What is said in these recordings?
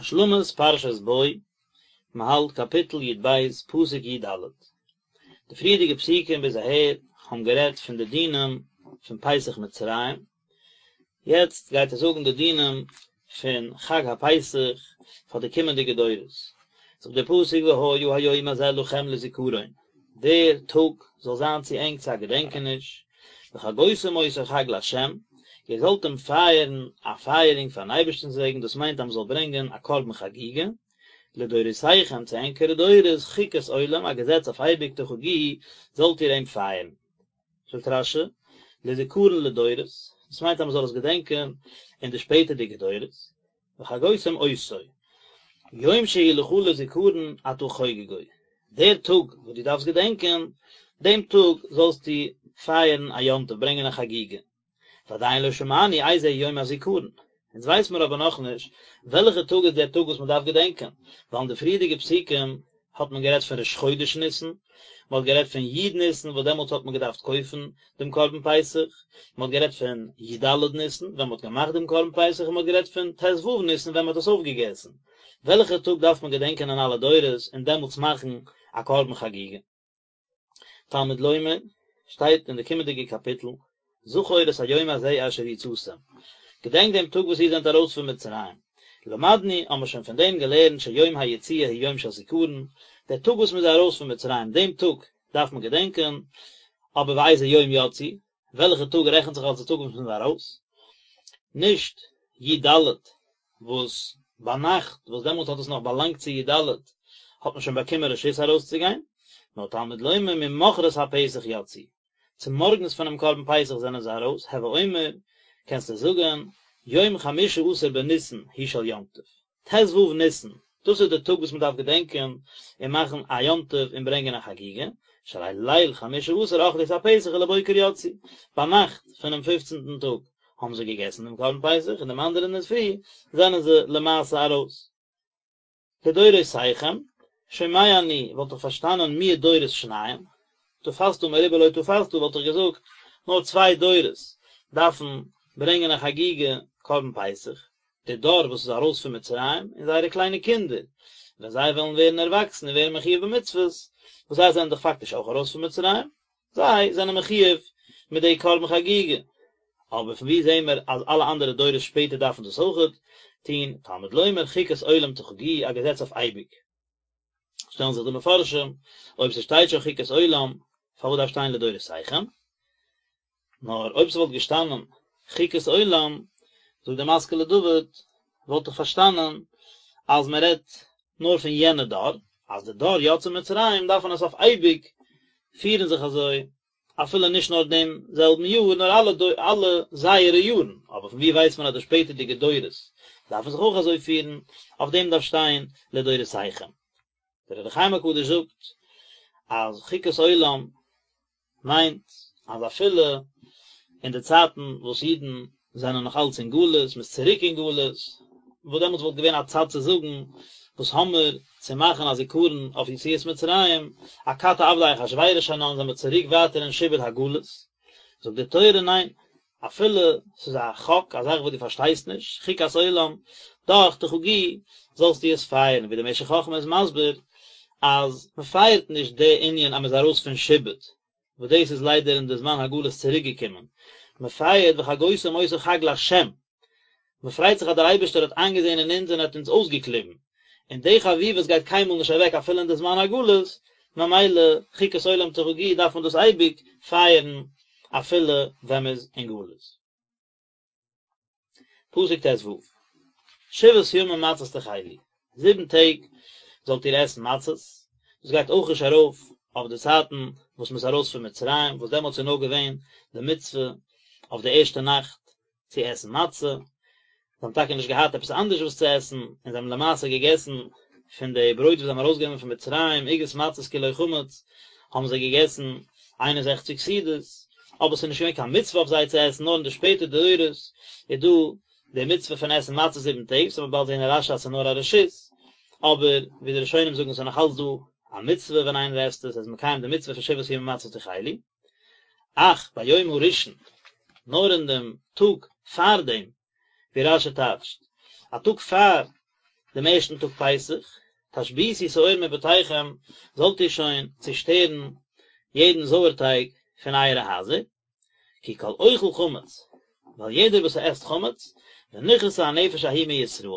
השלמת פרשת בא, מען האלט קאפיטל י ב פסוק י ד. די פריערדיגע פסוקים ביז אהער האבן גערעדט פון די דינים פון פסח מצרים, יעצט גייט ער זאגן די דינים פון חג הפסח פאר די קומענדיגע דורות. זאגט דער פסוק והיה היום הזה לכם לזכרון, דער טאג זאל זיין צו ענק צו א געדענקעניש, וחגותם אותו חג לה', איר זאלט אים פייערן א פייערונג פארן אייבערשטנ'ס וועגן, דאס מיינט אז מען זאל ברענגען א קרבן חגיגה, לדורותיכם צו ענקערע דורות, חוקת עולם, א געזעץ אויף אייביג תחגוהו, זאלט איר אים פייערן. זאגט רש י, לזכרון לדורות, דאס מיינט אז מען זאל עס געדענקען אין די שפעטערדיגע דורות, וחגותם אותו, יום שהוא לך לזכרון אתה חוגגו, דער טאג וואס דו דארפסט געדענקען, דעם טאג זאלסטו פייערן א יום טוב, ברענגען א חגיגה. ועדיין לא שמענו איזה יום הזכרון, אונז ווייס מיר אבער נאכנישט וועלכע טאג איז דער טאג וואס מען דארף געדענקען, ווייל אין די פריערדיגע פסוקים האט מען גערעדט פון ראש חודש ניסן, מען האט גערעדט פון י' ניסן וואס דעמאלטס האט מען געדארפט קויפן דעם קרבן פסח, מען האט גערעדט פון י ד ניסן ווען מען האט געמאכט דעם קרבן פסח און מען האט גערעדט פון ט ו ניסן ווען מען האט עס אויפגעגעסן. וועלכע טאג דארף מען געדענקען אין אלע דורות און דעמאלטס מאכן א קרבן חגיגה? תלמוד לומר, שטייט אין די קומענדיגע קאפיטל, זכור את היום הזה אשר יצאתם, געדענק דעם טאג וואס איר זענט ארויס פון מצרים, למדנו, האבן מיר שוין פון דעם געלערנט שיום היציאה הוא יום של זיכרון, דער טאג וואס מען איז ארויס פון מצרים, דעם טאג דארף מען געדענקען, אבער ואיזה יום יצאו, וועלכע טאג רעכנט זיך אלס די טאג וואס מען איז ארויס? נישט י ד וואס ביינאכט, וואס דעמאלט האט עס נאך באלאנגט צו י ד, האט מען שוין באקומען רשות ארויסצוגיין, נאר תלמוד לומר ממחרת הפסח יצאו, צומארגנס פונעם קרבן פסח זענען זיי ארויס, הוי אומר, קענסטו זאגן, יום חמשה עשר בניסן הוא של יום טוב, ט ו ניסן, דאס איז די טאג וואס מען דארף געדענקען און מאכן א יום טוב און ברענגען א חגיגה, שהרי ליל חמשה עשר אכלו את הפסח ולבוקר יצאו, ביינאכט פונעם פופצנטן טאג האבן זיי געגעסן דעם קרבן פסח און דעם אנדערן אינדערפרי זענען זיי למעשה ארויס. לדורותיכם, שומע אני וואלט איך פארשטאנען מיעוט דורות שניים, תפסת מרובה לא תפסת וואלט איך געזאגט נאר צוויי דורות דארפן ברענגען א חגיגה קרבן פסח, די דור וואס איז ארויס פון מצרים און זייערע קליינע קינדער ווען זיי וועלן ווערן ערוואקסן און ווערן מחויב במצוות, וואס זיי זענען דאך פאקטיש אויך ארויס פון מצרים, זיי זענען מחויב מיט די קרבן חגיגה. אבער פון וואו זעהן מיר אז אלע אנדערע דורות שפעטער דארפן דאס אויכעט טון, תלמוד לומר חוקת עולם תחגוהו, א געזעץ אויף אייביג. שטעלן זיך די מפרשים, אויב ס'שטייט שוין חוקת עולם, פארוואס דארף שטיין לדורותיכם? נאר אויב ס'וואלט געשטאנען חוקת עולם, זאגט דער משכיל לדוד, וואלט איך פארשטאנען אז מען רעדט נאר פון יענע דור, אז די דור יוצאי מצרים דארפן עס אויף אייביג פירן זיך אזוי, אפילו נישט נאר דעם זעלבן יאר, נאר אלע אלע זייערע יארן, אבער פון וואו ווייסט מען אז די שפעטערדיגע דורות דארפן זיך אויך אזוי פירן, אויף דעם דארף שטיין לדורותיכם. דער אור החיים הקדוש זאגט אז חוקת עולם מיינט אז אפילו אין די צייטן וואס אידן זענען נאך אלץ אין גלות, מ'איז צוריק אין גלות, וואס דעמאלטס וואלט געווען א צד צו זאגן, וואס האמיר צו מאכן א זיכרון אויף יציאת מצרים, אכתי עבדי אחשורוש אנן זעמיר צוריק ווייטער אין שעבוד הגלות, זאגט די תורה ניין, אפילו ס'איז א חק, א זאך וואס דו פארשטייסט נישט, חוקת עולם, דאך תחגוהו, זאלסטו עס פייערן, ווי דער משך חכמה איז מסביר, אז מ'פייערט נישט די ענין אז מ'איז ארויס פון שעבוד, וואס דאס איז ליידער אין די זמן הגלות צוריק געקומען, מ'פייערט וחגותם אותו חג לה', מ'פרייט זיך אז דער אייבערשטער האט איינגעזען אין אונז און האט אונז אויסגעקליבן, און די חביבות גייט קיינמאל נישט אוועק אפילו אין די זמן הגלות, ממילא חוקת עולם תחגוהו דארף מען דאס אייביג פייערן אפילו ווען מ'איז אין גלות. פסוק ט ו, שבעת ימים מצות תאכלו, זיבן טעג זאלט איר עסן מצות, דאס גייט אויך נישט ארויף אויף די צייטן וואס מ'איז ארויס פון מצרים, וואס דעמאלטס איז נאר געווען די מצוה אויף די ערשטע נאכט צו עסן מצה, זיי האבן טאקע נישט געהאט עפעס אנדערש וואס צו עסן, און זיי האבן למעשה געגעסן פון די ברויט וואס זיי האבן ארויסגענומען פון מצרים, עוגות מצות כי לא חמץ, האבן זיי געגעסן איין און זעכציק סעודות, אבער עס איז נישט געווען קיין מצוה אויף זיי צו עסן, נאר אין די שפעטער דורות איז דא די מצוה פון עסן מצות זיבן טעג, ס'וועט מען באלד זען אין רשי אז ס'איז נאר א רשות, אבער ווי די ראשונים זאגן ס'איז נאך אלץ דא א מצוה ווען איינער עסט עס, ער איז מקיים די מצוה פון שבעת ימים מצות תאכלו. אך ביום הראשון, נאר אין דעם טאג פאר דעם, ווי רשי טייטשט, א טאג פאר דעם ערשטן טאג פסח, תשביתו שאור מבתיכם, זאלט איר שוין צושטערן יעדן זויערטייג פון אייערע הייזער, כי כל אוכל חמץ, ווייל יעדער וואס עסט חמץ, ונכרתה הנפש ההיא מישראל,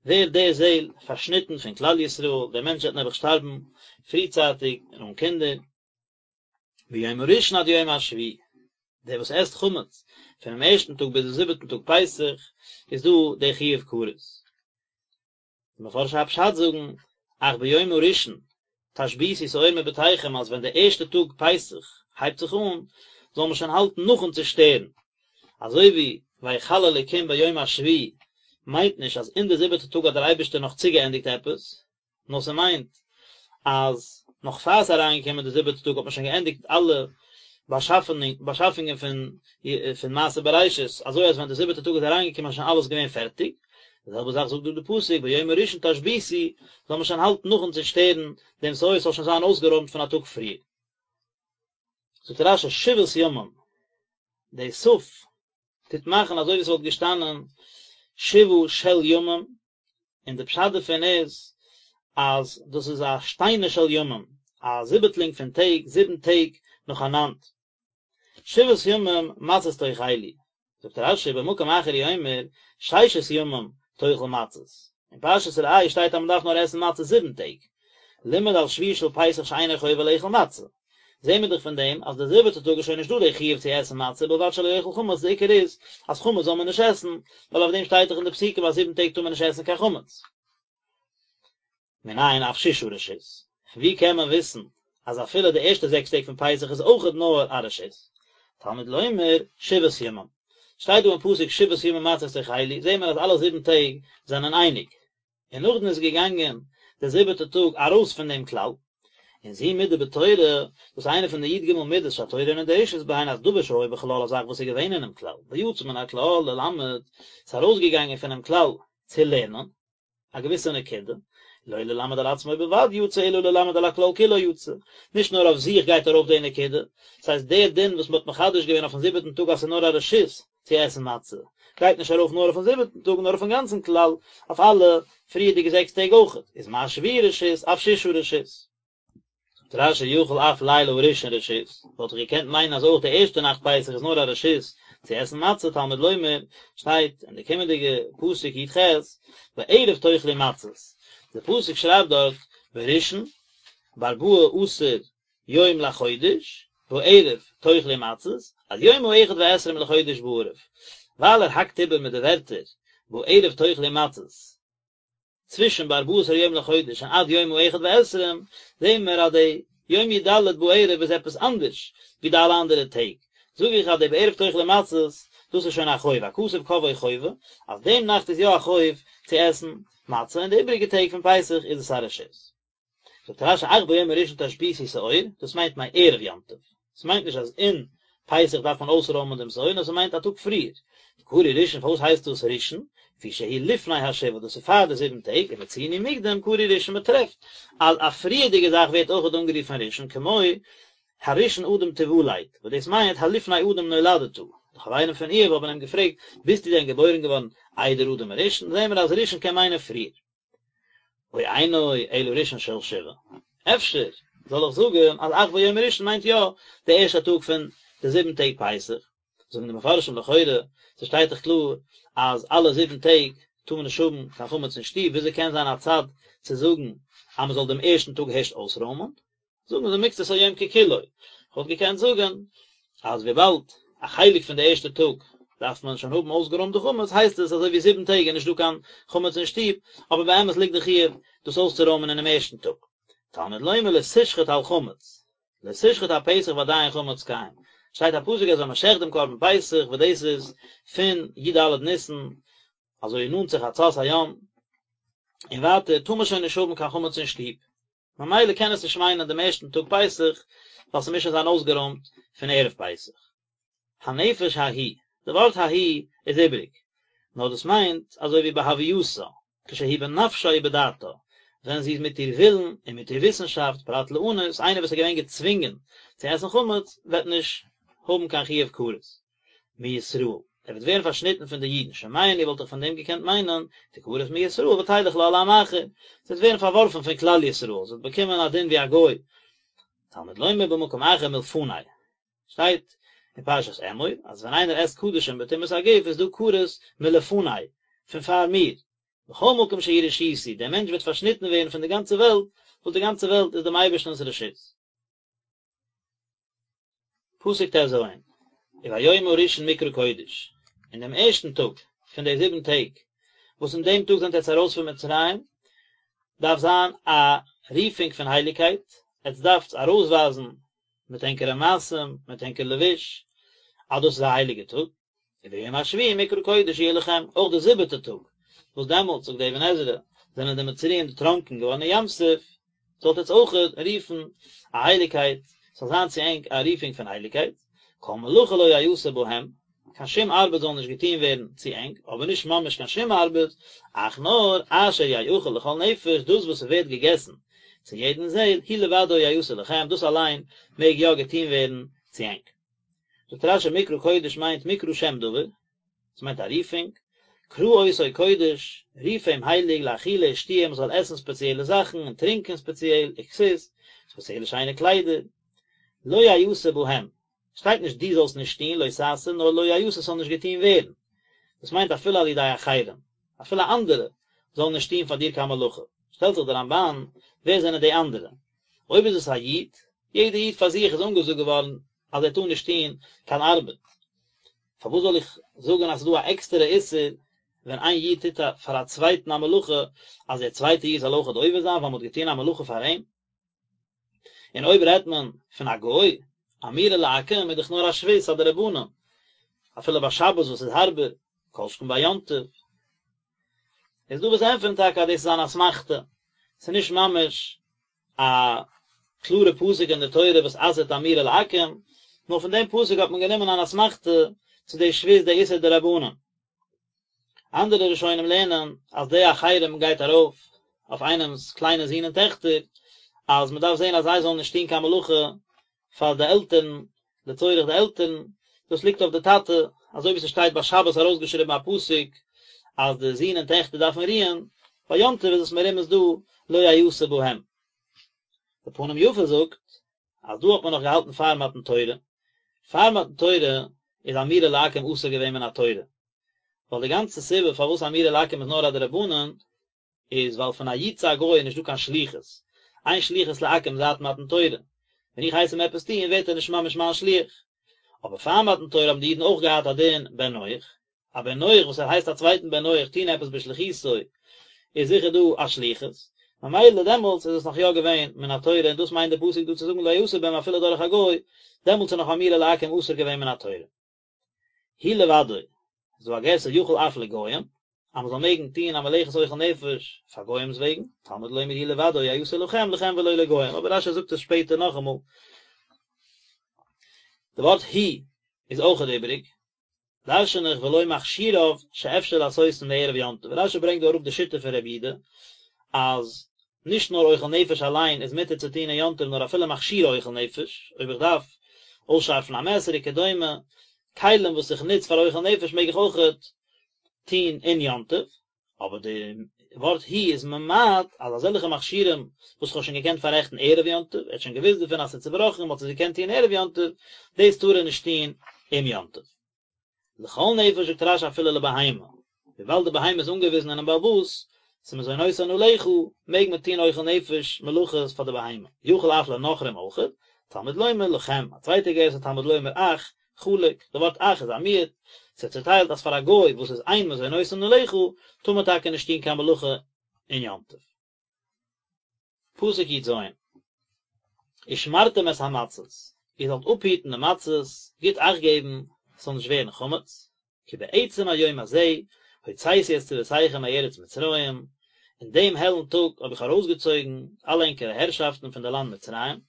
ווערט די זעל פארשניטן פון כלל ישראל, דער מענטש וועט נעבעך שטארבן פריצייטיג און אן קינדער. מיום הראשון עד יום השביעי, דער וואס עסט חמץ פונעם ערשטן טאג ביז דעם זיבעטן טאג פסח, איז דא דער חיוב כרת. די מפרשי הפשט זאגן, אך ביום הראשון תשביתו שאור מבתיכם אז ווען דער ערשטער טאג פסח הייבט זיך אן, זאל מען שוין האלטן נאכן צושטערן. אזוי ווי ויכל אלוקים ביום השביעי מיינט נישט אז אין די זיבעטע טאג האט דער אייבערשטער נאך צוגעענדיגט עפעס, נאר ס'מיינט אז נאך פאר ס'איז אריינגעקומען די זיבעטע טאג האט מען שוין געענדיגט אלע באשאפונגען פון פון מעשה בראשית, אזוי אז ווען די זיבעטע טאג איז אריינגעקומען איז שוין אלעס געווען פערטיג, די זעלבע זאך זאגט דא די פסוק ביום הראשון תשביתו, זאל מען שוין האלטן נאכן צושטערן דעם שאור ס'זאל שוין זיין אויסגערוימט פון א טאג פריער. זאגט רש"י שבעת ימים, די תי"ו טוט מאכן אזוי ווי ס'וואלט געשטאנען שבעה של ימים, און די פשט דערפון איז אז דאס איז א שטיינע של ימים, א זיבעטלינג פון טעג, זיבן טעג נאכאנאנד. שבעת ימים מצות תאכלו, זאגט רש"י במקום אחר הוא אומר ששת ימים תאכל מצות, אין פרשת ראה שטייט אז מען דארף נאר עסן מצות זיבן טעג, לימד על שביעי של פסח שאינו חובה לאכול מצה, זעהן מיר דאך פון דעם אז די זיבעטע טאג איז שוין נישט דא די חיוב צו עסן מצה ובלבד שלא יאכל חמץ, די עיקר איז אז חמץ זאל מען נישט עסן, ווייל אויף דעם שטייט דאך אין די פסוקים אז זיבן טעג טאר מען נישט עסן קיין חמץ. מנין אף ששה רשות? פון ווי קען מען וויסן אז אפילו די ערשטע זעקס טעג פון פסח איז אויכעט נאר א רשות? תלמוד לומר שבעת ימים. שטייט דא אין פסוק שבעת ימים מצות תאכלו, זעהן מיר אז אלע זיבן טעג זענען אייניג. און נאכדעם איז געגאנגען דער זיבעטער טאג ארויס פון דעם כלל, און זו מידה בתורה, דאס איז איינע פון די י"ג מידות שהתורה אינה דורשת בהן אז דבר שהיה בכלל א זאך וואס איז געווען אינעם כלל, ויצא מן הכלל ללמד, ס'איז ארויסגעגאנגען פונעם כלל צו לערנען א געוויסע נקודה, לא ללמד על עצמו בלבד יצא אלא ללמד על הכלל כולו יצא, נישט נאר אויף זיך גייט ארויף די נקודה, ס'הייסט דער דין וואס מ'האט מחדש געווען אויפן זיבעטן טאג אז ס'איז נאר א רשות, צו עסן מצה, גייט נישט ארויף נאר אויפן זיבעטן טאג נאר אויפן גאנצן כלל, אויף אלע פריערדיגע זעקס טעג אויכעט, איז מה שביעי רשות אף ששה רשות. זאגט רש"י יכול אף לילה הראשון רשות, וואלט איך געקענט מיינען אז אויך די ערשטע נאכט פסח איז נאר א רשות צו עסן מצה, תלמוד לומר, שטייט אין די קומענדיגע פסוק י"ח, בערב תאכלו מצות, די פסוק שרייבט דארט בראשון בארבעה עשר יום לחודש, בערב תאכלו מצות, עד יום האחד ועשרים לחודש בערב, ווייל ער האקט איבער מיט די ווערטער בערב תאכלו מצות, צווישן בארבעה עשר יום לחודש און עד יום האחד ועשרים, זעהן מיר אז די יום י"ד בערב איז עפעס אנדערש ווי די אלע אנדערע טעג, זאג איך אז די בערב תאכלו מצות, דאס איז שוין א חוב, הכתוב קבעו חובה, אז דעם נאכט איז יא א חוב צו עסן מצה און די איבעריגע טעג פון פסח איז עס א רשות. זאגט רש"י אך ביום הראשון תשביתו שאור, דאס מיינט מערב יום טוב, ס'מיינט נישט אז אין פסח דארף מען אויסרוימען דעם שאור, נאר ס'מיינט א טאג פריער, וקרוי ראשון פארוואס הייסט דאס ראשון, לפי שהוא לפני השבעה דאס איז פאר די זיבן טעג, ומצינו מוקדם קרוי ראשון מען טרעפט אז א פריערדיגע זאך ווערט אויכעט אנגערופן ראשון כמו הראשון אדם תולד, וואס דאס מיינט הלפני אדם נולדת, די חברים פון איוב האבן אים געפרעגט ביסטו דען געבוירן געווארן איידער אדם הראשון, זעהן מיר אז ראשון קען מיינען פריער. או אינו אלא ראשון של שבעה. אפשר זאל איך זאגן אז אך ביום הראשון מיינט יא די ערשטע טאג פון די זיבן טעג פסח. זאגן די מפרשים לכאורה, ס'שטייט דאך קלאר אז אלע זיבן טעג טאר מען נישט האבן קיין חמץ אין שטוב, וויאזוי קען זיין א צד צו זאגן אז מען זאל דעם ערשטן טאג הערשט אויסרוימען? זאגן זיי מקצת היום ככולו, כ'וואלט געקענט זאגן אז וויבאלד א חלק פון די ערשטע טאג דארף מען שוין האבן אויסגערוימט די חמץ הייסט עס אזוי ווי זיבן טעג איז נישט דא קיין חמץ אין שטוב, אבער באמת ליגט די חיוב דאס אויסצורוימען אינעם ערשטן טאג. תלמוד לומר לא תשחט על חמץ, לא תשחט הפסח ועדיין חמץ קיים, שטייט א פסוק אז ווען מען שעכט דעם קרבן פסח וואס דאס איז פון י"ד ניסן אזוי נאנט צו חצות היום און ווייטער טאר מען שוין נישט האבן קיין חמץ אין שטוב, ממילא קען עס נישט מיינען דעם ערשטן טאג פסח, ווייל ס'מוז שוין זיין אויסגערוימט פון ערב פסח. הנפש ההיא, די ווארט ההיא איז איבריג, נאר דאס מיינט אזוי ווי בהווייתה, כשהיא בנפשה ובדעתה, ווען זי איז מיט איר ווילן און מיט איר וויסנשאפט, פרט לאנוס, איינער וואס איז געווען געצווינגען צו עסן חמץ וועט נישט האבן קיין חיוב כרת. מישראל. ער וועט ווערן פארשניטן פון די אידן, שומע אני וואלט איך פון דעם געקענט מיינען, תכרת מישראל ותלך לה לעם אחר, זי וועט ווערן פארווארפן פון כלל ישראל, זי וועט באקומען א דין ווי א גוי, תלמוד לומר במקום אחר מלפני, שטייט אין פרשת אמור אז ווען איינער עסט קדשים בטומאת הגוף איז דא כרת מלפני, פון פאר מיר, בכל מקום שהוא רשותי, דער מענטש וועט פארשניטן ווערן פון די גאנצע וועלט, וואס די גאנצע וועלט איז דעם אייבערשטנ'ס רשות. פסוק טז, וביום הראשון מקרא קודש, אין דעם ערשטן טאג פון די זיבן טעג, וואס אין דעם טאג זענט עטס ארויס פון מצרים, דארף זיין א רופונג פון הייליגקייט, עטס דארפטס ארויסווייזן מיט ענקערע מעשים, מיט ענקער לבוש, אז דאס איז א הייליגע טאג. וביום השביעי מקרא קודש יהיה לכם, אויך די זיבעטע טאג, וואס דעמאלטס, זאגט די אבן עזרא, זענען די מצריים דערטראנקען געווארן אין ים סוף, זאלט עטס אויך רופן א הייליגקייט, ס'זאל זיין צו ענק א רופונג פון הייליגקייט, כל מלאכה לא יעשה בהם, קיין שום ארבעט זאל נישט געטון ווערן צו ענק, אבער נישט ממש קיין שום ארבעט, אך נאר אשר יאכל לכל נפש, דאס וואס ס'ווערט געגעסן צו יעדן זעל, הוא לבדו יעשה לכם, דאס אליין מעג יא געטון ווערן צו ענק. זאגט רשי מקרא קודש מיינט מקרא שם דבר, עס מיינט א רופונג, קרא אותו קודש, רוף אים הייליג לאכילה ושתיה מען זאל עסן ספעציעלע זאכן און טרינקען ספעציעל, וכסות, ספעציעלע שיינע קליידער, לא יעשה בהם, שטייט נישט דו זאלסט נישט טון, לא תעשה, נאר לא יעשה ס'זאל נישט געטון ווערן, דאס מיינט אפילו על ידי אחרים, אפילו אנדערע זאלן נישט טון פאר דיר קיין מלאכה, שטעלט זיך דער רמבן, ווער זענען די אנדערע? אויב איז עס א איד, יעדער איד פאר זיך איז אנגעזאגט געווארן אז ער טאר נישט טון קיין ארבעט, פארוואס זאל איך זאגן אז ס'איז דא א עקסטערע איסור ווען איין איד טוט פאר א צווייטן א מלאכה אז דער צווייטער איד זאל אויכעט עובר זיין ווייל מ'האט געטון א מלאכה פאר אים? און אויב רעדט מען פון א גוי, אמירה לעכו"ם איז דאך נאר א שבות א דרבנן, אפילו ביי שבת וואס איז הארבער, כל שכן ביי יום טוב. איז דא וואס ענטפערן טאקע אז דאס איז אן אסמכתא, ס'איז נישט ממש א קלארע פסוק אין די תורה וואס אסר'ט אמירה לעכו"ם, נאר פון דעם פסוק האט מען גענומען אן אסמכתא צו די שבות די איסור דרבנן. אנדערע ראשונים לערנען אז די אחרים גייט ארויף אויף איינעמ'ס קליינע זין און טעכטער, אז מען דארף זען אז זיי זאלן נישט טון קיין מלאכה פאר די עלטערן, לצורך די עלטערן, דאס ליגט אויף די טאטע, אזוי ווי ס'שטייט ביי שבת ארויסגעשריבן א פסוק אז די זין און טעכטער דארפן רוען, ביי יום טוב איז עס מרומז דא לא יעשה בהם. די פנים יפה זאגט אז דא האט מען נאך געהאלטן פאר מתן תורה, פאר מתן תורה איז אמירה לעכו"ם אסור געווען מן התורה, ווייל די גאנצע סיבה פארוואס אמירה לעכו"ם איז נאר א דרבנן איז ווייל פון א איד צו א גוי איז נישטא קיין שליחות, אין שליחות לעכו"ם זייט מתן תורה, ווען איך הייס אים עפעס טון ווערט ער נישט ממש מיין שליח. אבער פאר מתן תורה האבן די אידן אויך געהאט א דין בן נח, א בן נח וואס ער הייסט א צווייטן בן נח טון עפעס בשליחותו איז זיכער דא א שליחות, ממילא דעמאלטס איז עס נאך יא געווען מן התורה און דאס מיינט די פסוק דא צו זאגן לא יעשה בהם אפילו דורך א גוי, דעמאלטס איז נאך אמירה לעכו"ם אסור געווען מן התורה. הוא לבדו, איז דא א גירסא יכול אף לגויים, אז מען זאל מעגן טוהן א מלאכת אוכל נפש פאר גוים'ס וועגן, תלמוד לומר הוא לבדו יעשה לכם לכם ולא לגוים, אבער רש"י זאגט עס שפעטער נאכאמאל. די ווארט הוא איז אויכעט איבעריג, דרשן איך ולא מכשיריו שאפשר לעשותן מערב יום טוב, רש"י ברענגט דא אראפ די שיטה פון רבי יהודה אז נישט נאר אוכל נפש אליין איז מותר צו טון אין יום טוב נאר אפילו מכשירי אוכל נפש, אויב איך דארף אויסשארפן א מעסער וכדומה, כלים וואס איך נוץ פאר אוכל נפש מעג איך אויכעט טון אין יום טוב, אבער די ווארט הוא איז ממעט אז אזעלכע מכשירים וואס כ'האב שוין געקענט פאררעכטן ערב יום טוב, ער האט שוין געוואוסט דערפון אז ס'איז צובראכן און מ'האט עס געקענט טון ערב יום טוב, דאס טאר ער נישט טון אום יום טוב. לכל נפש זאגט רש"י אפילו לבהמה, וויבאלד די בהמה איז אנגעוויזן אינעם בעל הבית, ס'איז מזונותן עליך, מעג מען טון אוכל נפש מלאכות פאר די בהמה, יכול אף לנכרים אויכעט, תלמוד לומר לכם, א צווייטע גירסא תלמוד לומר אך, חלק, די ווארט אך איז א מיעוט, ס'איז צוטיילט אז פאר א גוי וואס איז אין מזונותן עליך, טאר מען טאקע נישט טון קיין מלאכה אין יום טוב. פסוק י"ז, ושמרתם את המצות, איר זאלט אפהיטן די מצות, גוט אכט געבן, ס'זאל נישט ווערן חמץ, כי בעצם היום הזה הוצאתי את צבאותיכם מארץ מצרים, אין דעם העלן טאג האב איך ארויסגעצויגן אלע ענקערע הערשאפטן פון די לאנד מצרים,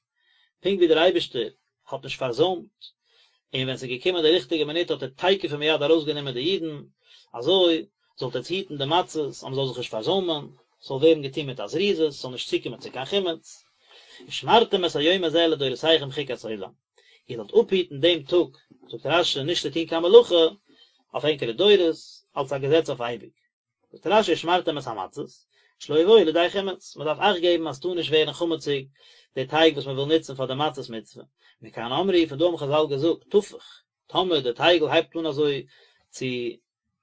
פונקט ווי דער אייבערשטער האט נישט פארזוימט, און ווען ס'איז געקומען די ריכטיגע מינוט האט ער תיכף ומיד ארויסגענומען די אידן, אזוי זאלט עטס היטן די מצות אז מ'זאל זיך נישט פארזוימען, ס'זאל ווערן געטון מיט א זריזות, ס'זאל נישט צוקומען צו קיין חימוץ. ושמרתם את היום הזה לדורותיכם חוקת עולם, איר זאלט אפהיטן דעם טאג, זאגט רש"י, נישט צו טון קיין מלאכה, אויף ענקערע דורות, אלס א געזעץ אויף אייביג. זאגט רש"י ושמרתם את המצות, שלא יבואו לידי חימוץ, מען דארף אכט געבן אז ס'טאר נישט ווערן חמציג די טייג וואס מען וויל נוצן פאר די מצות מצוה. מכאן אמרו, פון דא האבן חז"ל געזאגט, תפח, טאמער די טייגל הייבט אן אזוי צו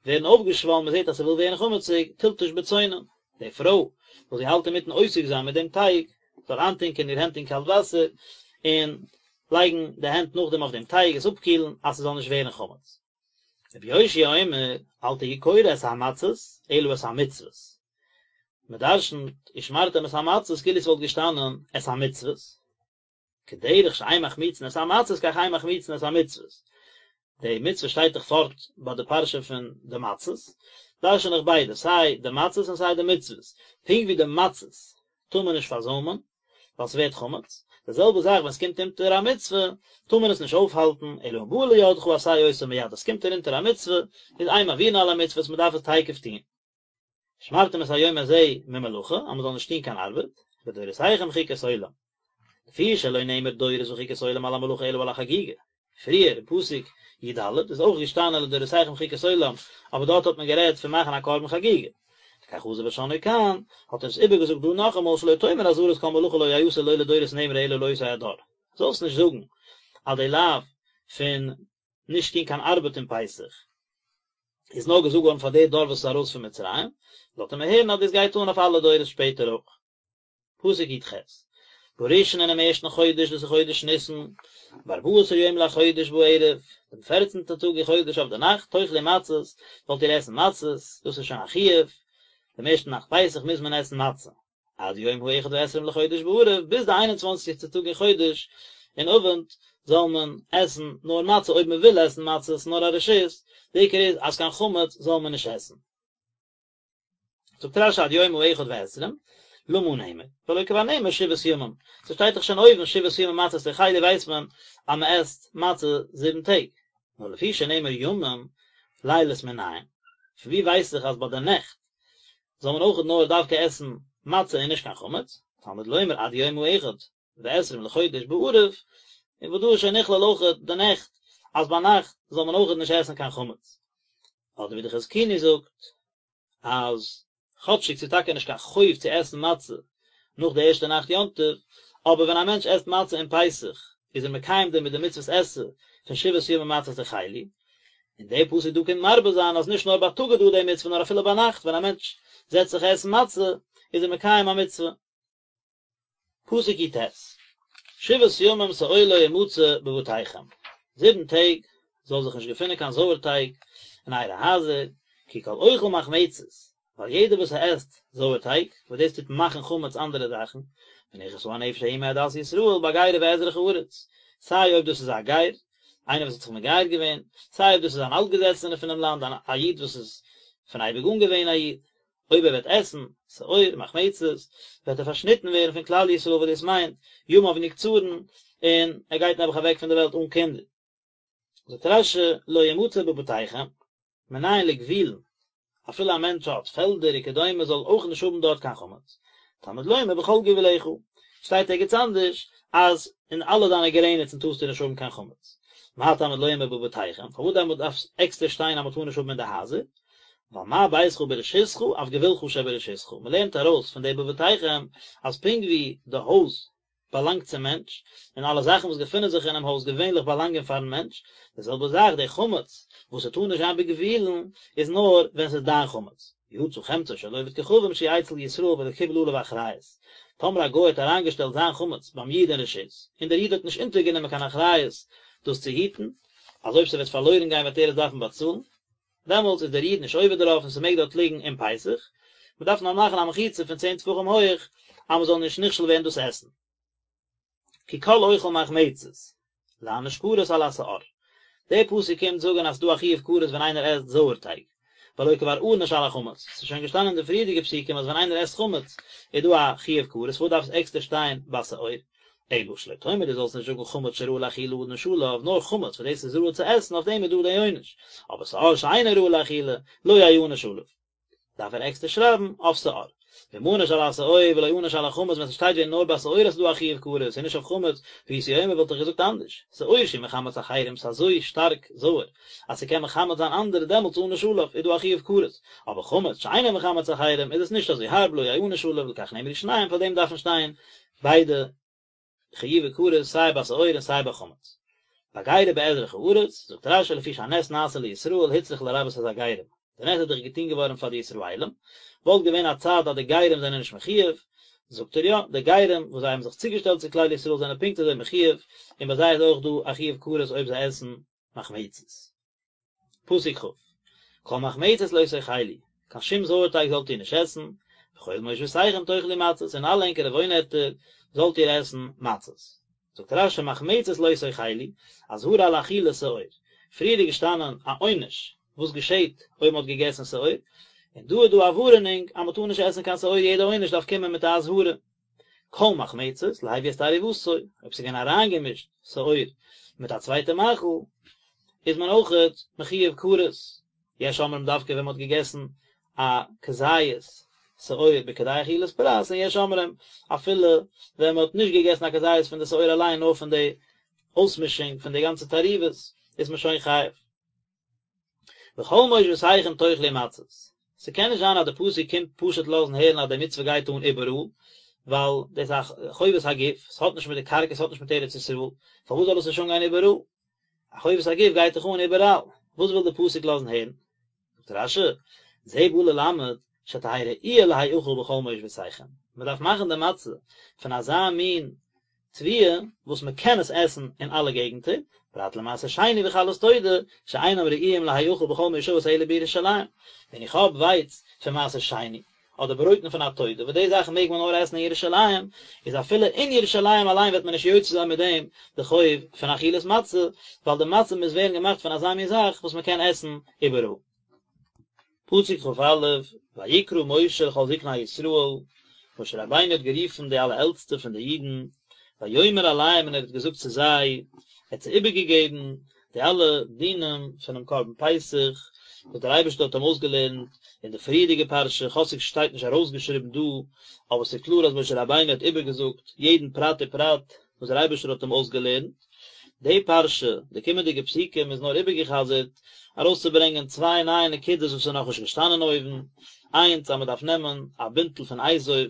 ווערן אויפגעשוואלן, מען זעט אז ס'וויל ווערן חמציג, תלטוש בצונן, די פרוי וואס זי האלט אינמיטן עוסק זיין מיט דעם טייג, זאל איינטונקען איר הענט אין קאלט וואסער, און לייגן די הענט נאכדעם אויף דעם טייג עס אפקילן אז ס'זאל נישט ווערן חמץ. רבי יאשיה אומר, אל תהי קורא את המצות, אלא את המצוות. מען דרשנ'ט ושמרתם את המצות כאילו ס'וואלט געשטאנען את המצוות. כדרך שאין מחמיצין את המצות כך אין מחמיצין את המצוות. די מצוה שטייט דאך פארט ביי די פרשה פון די מצות, דרשן איך ביידע, סיי די מצות און סיי די מצוות. פונקט ווי די מצות טאר מען נישט פארזוימען, ווייל ס'ווערט חמץ, די זעלבע זאך ווען ס'קומט אונטער א מצוה, טאר מען עס נישט אויפהאלטן, אלא אם באה לידך עשה אותה מיד, אז ס'קומט ארונטער א מצוה, איז אין מעבירין על המצוות, מ'דארף עס תיכף טון. ושמרתם את היום הזה ממלאכה, אז מ'זאל נישט טון קיין ארבעט, לדורותיכם חוקת עולם. לפי שלא נאמר דורות וחוקת עולם על המלאכה אלא על החגיגה. פריער אין פסוק י"ד איז אויך געשטאנען לדורותיכם חוקת עולם, אבער דארט האט מען גערעדט פון מאכן א קרבן חגיגה. לכך חזר ושנאו כאן, האט ער עס איבערגעזאגט דא נאכאמאל שלא תאמר אזהרת כל מלאכה לא יעשה לא לדורות נאמרה אלא לאותו הדור. זאלסט נישט זאגן אז די לאו פון נישט טון קיין ארבעט אין פסח איז נאר געזאגט געווארן פאר די דור וואס איז ארויס פון מצרים, לאזט ער מיר הערן אז דאס גייט אן אויף אלע דורות שפעטער אויך. פסוק י"ח, בראשון אינעם ערשטן חודש, דאס איז חודש ניסן, בארבעה עשר יום לחודש בערב, דעם פערצנטן טאג אין חודש אויף די נאכט, תאכלו מצות, זאלט איר עסן מצות, דאס איז שוין א חיוב, דעם ערשטן נאכט פסח מוז מען עסן מצה. עד יום האחד ועשרים לחודש בערב, ביז די איין און צוואנציגסטע טאג אין חודש, אין אווענט, זאל מען עסן נאר מצה, אויב מען וויל עסן מצות, נאר א רשות, די עיקר איז אז קיין חמץ זאל מען נישט עסן. זאגט רש"י עד יום האחד ועשרים, למה נאמר, והלא כבר נאמר שבעת ימים, ס'שטייט דאך שוין אויבן שבעת ימים מצות תאכלו ווייסט מען אז מ'עסט מצה זיבן טעג, נאר לפי שנאמר ימים לילות מנין, פון ווי ווייס איך אז ביי די נעכט זאל מען אויכעט נאר דווקא עסן מצה און נישט קיין חמץ, תלמוד לומר עד יום האחד ועשרים לחודש בערב, און וואס דא איז שוין נכלל אויכעט די נעכט, אז ביינאכט זאל מען אויכעט נישט עסן קיין חמץ. אדער ווי די חזקוני זאגט אז כאטשיג ס'איז טאקע נישט קיין חוב צו עסן מצה נאך די ערשטע נאכט יום טוב, אבער ווען א מענטש עסט מצה אום פסח איז ער מקיים דערמיט די מצוות עשה פון שבעת ימים מצות תאכלו, און דער פסוק דא קומט מרבה זיין אז נישט נאר בייטאג איז דא די מצוה נאר אפילו ביינאכט ווען א מענטש זעצט זיך עסן מצה איז ער מקיים א מצוה. פסוק י"ט, שבעת ימים שאור לא ימצא בבתיכם, זיבן טעג זאל זיך נישט געפינען קיין זויערטייג אין אייערע הייזער, כי כל אוכל מחמצת, ווייל יעדער וואס עסט זויערטייג, וואס דאס טוט מאכן חמץ אנדערע זאכן, ונכרתה הנפש ההיא מעדת ישראל בגר ובאזרח הארץ, סיי אויב דאס איז א גר, איינער וואס האט זיך מגייר געווען, סיי אויב דאס איז אן אלטגעזעצענער פונעם לאנד, א איד וואס איז פון אייביג אן געווען א איד. אויב ער וועט עסן שאור מחמצת, וועט ער פארשניטן ווערן פון כלל ישראל וואס דאס מיינט, ימיו נקצרין, און ער גייט נעבעך אוועק פון די וועלט אן קינדער. זאגט רש"י, לא ימצא בבתיכם, מנין לגבולין, אפילו א מענטש האט פעלדער וכדומה זאל אויך נישט האבן דארט קיין חמץ, תלמוד לומר בכל גבולך, שטייט ערגעץ אנדערש אז אין אלע דיינע גרעניצן טארסטו נישט האבן קיין חמץ. מה תלמוד לומר בבתיכם, פארוואס דעמאלט דארף עקסטער שטיין אז מען טאר נישט האבן אין די הייזער? ווייל מה ביתך ברשותך אף גבולך שברשותך, מען לערנט ארויס פון די בבתיכם אז פונקט ווי די הויז באלאנגט צום מענטש, און אלע זאכן וואס געפינען זיך אינעם הויז געווענליך באלאנגען פארן מענטש, די זעלבע זאך די חמץ וואס ס'טאר נישט זיין בגבולין איז נאר ווען ס'איז דיין חמץ. יצא חמצו של עובד כוכבים שהוא אצל ישראל ולא קיבל עליו אחריות, טאמער א גוי האט אריינגעשטעלט זיין חמץ ביים איד אין רשות, און דער איד האט נישט אונטערגענומען קיין אחריות דאס צו היטן, אז אויב ס'וועט פארלוירן גיין וועט ער עס דארפן באצאלן, דעמאלטס איז דער איד נישט עובר דערויף און ס'מעג דארט ליגן אום פסח, מ'דארף נאר מאכן א מחיצה פון צען טפחים הויעך אז מ'זאל נישט נכשל ווערן דאס עסן. כי כל אוכל מחמצת, להעניש כרת על השאור. דער פסוק קומט זאגן אז ס'דא א חיוב כרת ווען איינער עסט זויערטייג, והלא כבר ענש על החמץ, ס'איז שוין געשטאנען אין די פריערדיגע פסוקים אז ווען איינער עסט חמץ איז דא א חיוב כרת, פארוואס דארף עס עקסטער שטיין ביי שאור? אלא שלא תאמר דו זאלסט נישט זאגן חמץ שראוי לאכילה ענש עליו, נאר חמץ וואס דאס איז ראוי צו עסן אויף דעם איז דא די עונש, אבער שאור שאינו ראוי לאכילה לא יענש עליו. דארף ער עקסטער שרייבן אויף שאור. ואם ענש על השאור ולא ענש על החמץ ווען ס'שטייט ווען נאר ביי שאור אז ס'איז דא א חיוב כרת און נישט אויף חמץ, הייתי אומר וואלט איך געזאגט אנדערש, שאור שהוא מחמץ אחרים ס'איז אזוי שטארק זויער אז ס'קען מחמץ זיין אנדערע דעמאלטס ענש עליו איז דא א חיוב כרת, אבער חמץ שאינו מחמץ אחרים איז עס נישט אזוי הארב לא יענש עליו לכך נאמרו שניהם פאר דעם דארפן שטיין ביידע חיובי כרת סיי ביי שאור און סיי ביי חמץ. בגר ובאזרח הארץ, זאגט רש"י לפי שהנס נעשה לישראל הוצרך לרבות את הגרים, די נס איז דאך געטון געווארן פאר די ישראלים, וואלט געווען א צד אז די גרים זענען נישט מחויב, זאגט ער יא, די גרים וואס זיי האבן זיך צוגעשטעלט צו כלל ישראל זענען פונקט אזוי מחויב, און ביי זיי איז אויך דא א חיוב כרת אויב זיי עסן מחמצת. פסוק כ', כל מחמצת לא תאכלו, קיין שום זויערטייג זאלט איר נישט עסן, בכל מושבותיכם תאכלו מצות, אין אלע ענקערע וואוינערטער זאלט איר עסן מצות. זאגט רש"י מחמצת לא תאכלו, אזהרה על אכילת שאור, פריער איז געשטאנען א עונש וואס געשעט אויב מען האט געגעסן שאור, און דא איז דא א ווארענונג אז מען טאר נישט עסן קיין שאור, יעדע עונש דארף קומען מיט א אזהרה. כל מחמצת, להביא את תערובתו, אויב ס'איז געווען אריינגעמישט שאור מיט א צווייטע מאכל, איז מען אויכעט מחויב כרת. יש אומרים דווקא ווען מ'האט געגעסן א כזית שאור בכדי אכילת פרס, און יש אומרים אפילו ווען מ'האט נישט געגעסן א כזית פון די שאור אליין נאר פון די אויסמישונג פון די גאנצע תערובות איז מען שוין חייב. בכל מושבותיכם תאכלו מצות, ס'קען נישט זיין אז די פסוק קומט פשוט לאזן הערן אז די מצוה גייט אן איבעראל, ווייל דאס איז א חובת הגוף, ס'האט נישט מיט די קרקע, ס'האט נישט מיט ארץ ישראל, פארוואס זאל עס נישט אנגיין איבעראל? א חובת הגוף גייט דאך אן איבעראל, וואס וויל די פסוק לאזן הערן? זאגט רש"י, זה בא ללמד שתהא ראויה להאכל בכל מושבותיכם, מ'דארף מאכן די מצה פון אזא מין תבואה וואס מען קען עס עסן אין אלע געגנטער, פרט למעשר שני וחלות תודה, שאינם ראויים להאכל בכל מושבות אלא בירושלים, ווען איך האב ווייץ פון מעשר שני, אדער ברויטן פון א תודה, וואס די זאכן מעג מען נאר עסן אין ירושלים, איז אפילו אין ירושלים אליין וועט מען נישט יוצא זיין מיט דעם די חוב פון אכילת מצה, ווייל די מצה מוז ווערן געמאכט פון אזא מין זאך וואס מען קען עסן איבעראל. פסוק כ"א, ויקרא משה לכל זקני ישראל, משה רבינו האט גערופן די אלע עלטסטע פון די אידן, ויאמר אליהם און ער האט געזאגט צו זיי, ער האט זיי איבערגעגעבן די אלע דינים פונעם קרבן פסח, וואס דער אייבערשטער האט אים אויסגעלערנט אין די פריערדיגע פרשה, כאטשיג ס'שטייט נישט ארויסגעשריבן דא, אבער ס'איז קלאר אז משה רבינו האט איבערגעזאגט יעדן פרט ופרט וואס דער אייבערשטער האט אים אויסגעלערנט. די פרשה, די קומענדיגע פסוקים איז נאר איבערגעחזרט ארויסצוברענגען צוויי נייע נקודות וואס איז נאכנישט געשטאנען אויבן, איינס אז מען דארף נעמען א בינטל פון אזוב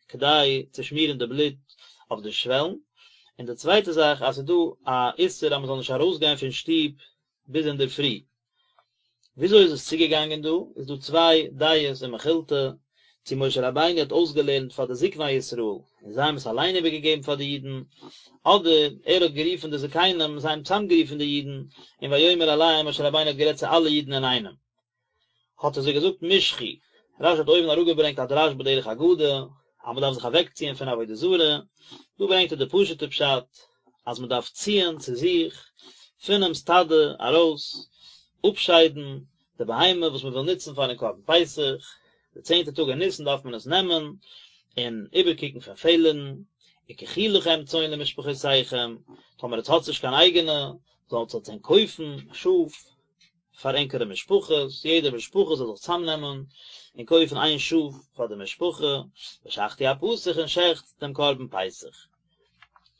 כדי צו שמירן די בלוט אויף די שוועלן, און די צווייטע זאך אז ס'איז דא א איסור אז מען זאל נישט ארויסגיין פון שטוב ביז אינדערפרי. וויאזוי איז עס צוגעגאנגען דא? איז דא צוויי דעות אין מכילתא, צו משה רבינו האט אויסגעלערנט פאר די זקני ישראל און זיי האבן עס אליין איבערגעגעבן פאר די אידן, אדער ער האט גערופן די זקנים און זיי האבן צוזאמגערופן די אידן, און ויאמר אליהם משה רבינו האט גערעדט צו אלע אידן אינאיינעם. האט ער זיי געזאגט משכו, רש"י האט אויבן אראפגעברענגט א דרש בדרך אגדה, אז מען דארף זיך אוועקציען פון עבודה זרה, דא ברענגט ער די פשוט'ע פשט, אז מען דארף ציען צו זיך פונעם סטאדע ארויס, אפשיידן די בהמה וואס מען וויל נוצן פארן קרבן פסח, די צענטע טאג אין ניסן דארף מען עס נעמען און איבערקוקן פון פעלערן, וקחו לכם צאן למשפחותיכם, טאמער עטס האטס נישט קיין אייגענע, זאלטס עטס ענק קויפן שאף, פאר ענקערע משפחות, יעדע משפחה זאל זיך צאמנעמען און קויפן איין שאף פאר די משפחה, ושחטו הפסח און שעכט דעם קרבן פסח.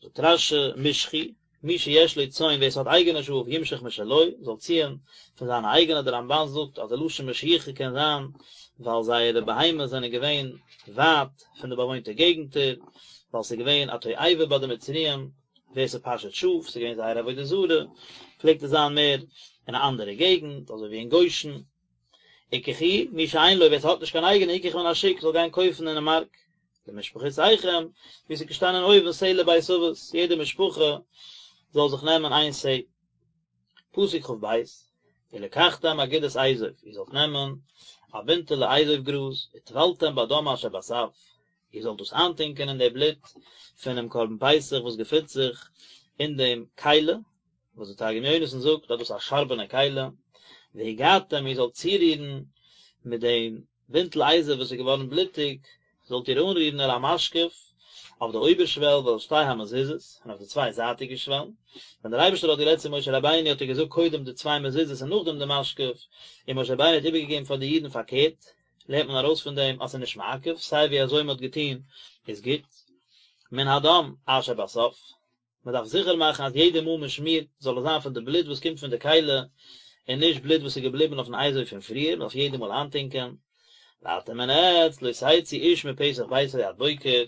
זאגט רש"י, משכו, מי שיש לו צאן ווער ס'האט אייגענע שאף ימשוך משלו, זאל ציען פון זיינע אייגענע, דער רמב"ן זאגט אז די לשון משיכה קען זיין ווייל זייערע בהמות זענען געווען ווייט פון די באוואוינטע געגנטער, ווייל ס'איז געווען א תועבה ביי די מצריים, ווער ס'פאשעט שאף, ס'איז געווען זייער עבודה זרה, פלעגט עס זיין מער אין א אנדערע געגנט, אזוי ווי אין גושן. וקחו, מי שאין לו, ווער ס'האט נישט קיין אייגענע, יקח מן השוק, זאל גיין קויפן אינעם מארק. למשפחותיכם, ווי ס'איז געשטאנען אויבן שה לבית אבות, יעדע משפחה זאל זיך נעמען איין שה. פסוק כ"ב, ולקחתם אגודת אזוב, איר זאלט נעמען א בינטעלע אזוב גראז, וטבלתם בדם אשר בסף, איר זאלט דאס איינטונקען אין די בלוט פונעם קרבן פסח וואס געפינט זיך אין דעם כלי, וואס דער תרגום יונתן זאגט אז דאס איז א שארבענע כלי, והגעתם איר זאלט צורירן מיט דעם בינטל אזוב וואס איז געווארן בלוטיג, זאלט איר אנרירן אל המשקוף, אויף די אויבערשוועל ואל שתי המזוזות, און אויף די צוויי זייטיגע שוועלן. ווען דער אייבערשטער האט גערעדט צו משה רבינו האט ער געזאגט קודם די צוויי מזוזות און נאכדעם די משקוף, און משה רבינו האט איבערגעגעבן פאר די אידן פארקערט. לערנט מען ארויס פון דעם אז ס'איז נישט מעכב, סיי ווי אזוי מ'האט געטון איז גוט. מן הדם אשר בסף, מ'דארף זיכער מאכן אז יעדע מאל מ'שמירט זאל עס זיין פון די בלוט וואס קומט פון די כלי, און נישט בלוט וואס איז געבליבן אויפן אזוב פון פריער, מ'דארף יעדע מאל איינטונקען. ואתם און עטץ לא תצאו איש מפתח ביתו עד בוקר,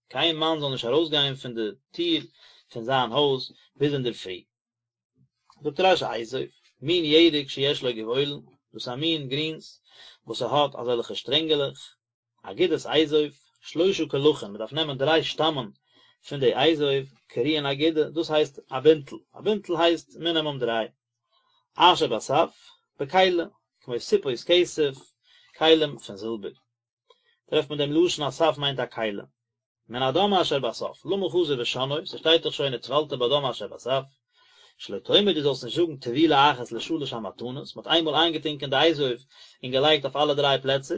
קיין מאן זאל נישט ארויסגיין פון די טיר פון זיין הויז ביז אינדערפרי. זאגט רש"י אזוב, מין ירק שיש לו גבעולין, דאס איז א מין גרינס וואס ס'האט אזעלכע שטרענגעלעך, אגודת אזוב, שלושה קלחין, מ'דארף נעמען דריי שטאמען פון די אזוב, קרויין אגודה, דאס הייסט א בינטל, א בינטל הייסט מינימום דריי. אשר בסף, בכלי, כמו סיפות כסף, כלים פון זילבער. טרעפט מען דעם לשון אז סף מיינט א כלי. מן הדם אשר בסף, למה חזר ושנאו, ס'שטייט דאך שוין וטבלת בדם אשר בסף, שלא תאמר דו זאלסט נישט זאגן טבילה אחת לשלש המתנות, מ'האט איינמאל איינגעטונקען די אזוב און געלייגט אויף אלע דריי פלעצער,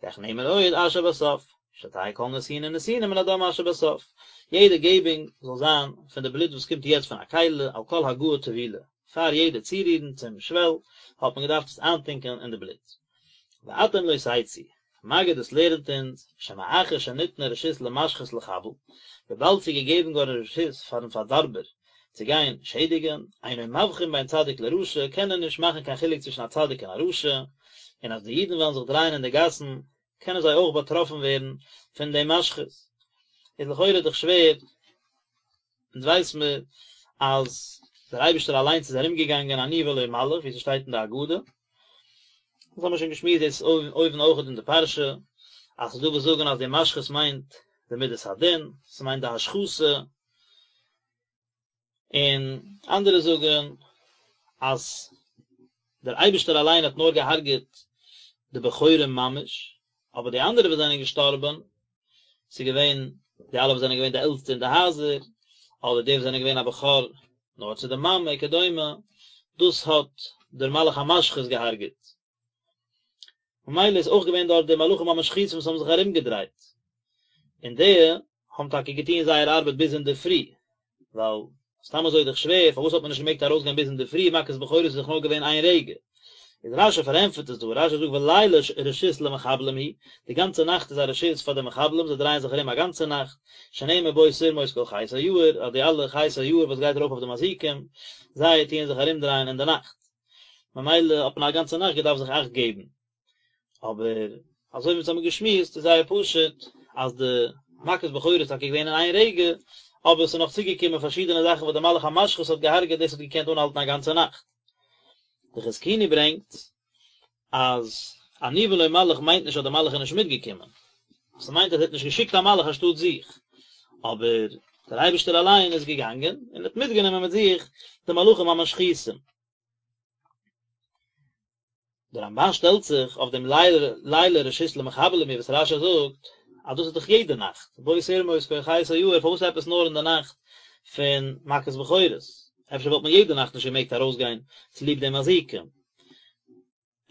לכך נאמר עוד אשר בסף, שתהא כל נתינה ונתינה מן הדם אשר בסף, יעדע געבונג זאל זיין פון די בלוט וואס קומט יעצט פון א כלי, על כל הגעה טבילה, פאר יעדע צורירן צום שוועל האט מען געדארפט עס איינטונקען אין די בלוט. ואתם לא תצאו, מגיד דאס לערנט אונז, שמאחר שניתנה רשות למשחית לחבל, וויבאלד ס'איז געגעבן געווארן רשות פארן פארדארבער צו גיין שעדיגן, אינו מבחין בין צדיק לרשע, קען ער נישט מאכן קיין חילוק צווישן א צדיק און א רשע, און אז די אידן וועלן זיך דרייען אין די גאסן, קענען זיי אויך באטראפן ווערן פון דעם משחית. איז לכאורה דאך שווער, אונז ווייס מיר אז דער אייבערשטער אליינס איז ארומגעגאנגען אני ולא מלאך, ווי ס'שטייט אין די הגדה, דאס האבן מיר שוין געשמועסט דאס אויבן אויכעט אין די פרשה, אז ס'איז דא וואס זאגן אז די משחית מיינט די מידת הדין, ס'מיינט די השחתה, און אנדערע זאגן אז דער אייבערשטער אליין האט נאר געהארגעט די בכורים ממש, אבער די אנדערע וואס זענען געשטארבן, ס'איז געווען די אלע וואס זענען געווען די עלטסטע אין די הייזער, אדער די וואס זענען געווען א בכור נאר צו די מאמע וכדומה, דאס האט דער מלאך המשחית געהארגעט. ממילא איז אויך געווען דארט די מלאכים המשחיתים וואס האבן זיך ארומגעדרייט, און די האבן טאקע געטון זייער ארבעט ביז אינדערפרי, ווייל סתם אזוי איז דאך שווער, פארוואס האט מען נישט געמעגט ארויסגיין ביז אינדערפרי, מכת בכורות איז דאך נאר געווען איין רגע. איז רש"י פארענטפערט עס דא, רש"י זאגט ולילה רשות למחבלים הוא, די גאנצע נאכט איז א רשות פאר די מחבלים, זיי דרייען זיך ארום א גאנצע נאכט, שנאמר בו תרמוש כל חית היער, אז די אלע חית היער וואס גייט ארויף אויף די מזיקים, זיי טוען זיך ארומדרייען אין די נאכט. ממילא האט מען א גאנצע נאכט געדארפט זיך אכט געבן. אבער אזוי ווי אונז האבן געשמועסט איז זייער פשוט אז די מכת בכורות איז טאקע געווען אין איין רגע, אבער עס איז נאך צוגעקומען פארשידענע זאכן וואס די מלאך המשחית האט געהארגעט דאס האט געקענט אנהאלטן א גאנצע נאכט. די חזקוני ברענגט אז אני ולא מלאך מיינט נישט אז די מלאך איז נישט מיטגעקומען, ס'מיינט אז ער האט נישט געשיקט א מלאך אנשטאט זיך, אבער דער אייבערשטער אליין איז געגאנגען און האט מיטגענומען מיט זיך די מלאכים המשחיתים. דער רמב"ן שטעלט זיך אויף דעם לילה רשות למחבלים הוא וואס רש"י זאגט אז דאס איז דאך יעדע נאכט, בו תרמוש כל חית היער, פארוואס עפעס נאר אין די נאכט פון מכת בכורות? אפשר וואלט מען יעדע נאכט נישט געמעגט ארויסגיין צוליב די מזיקים?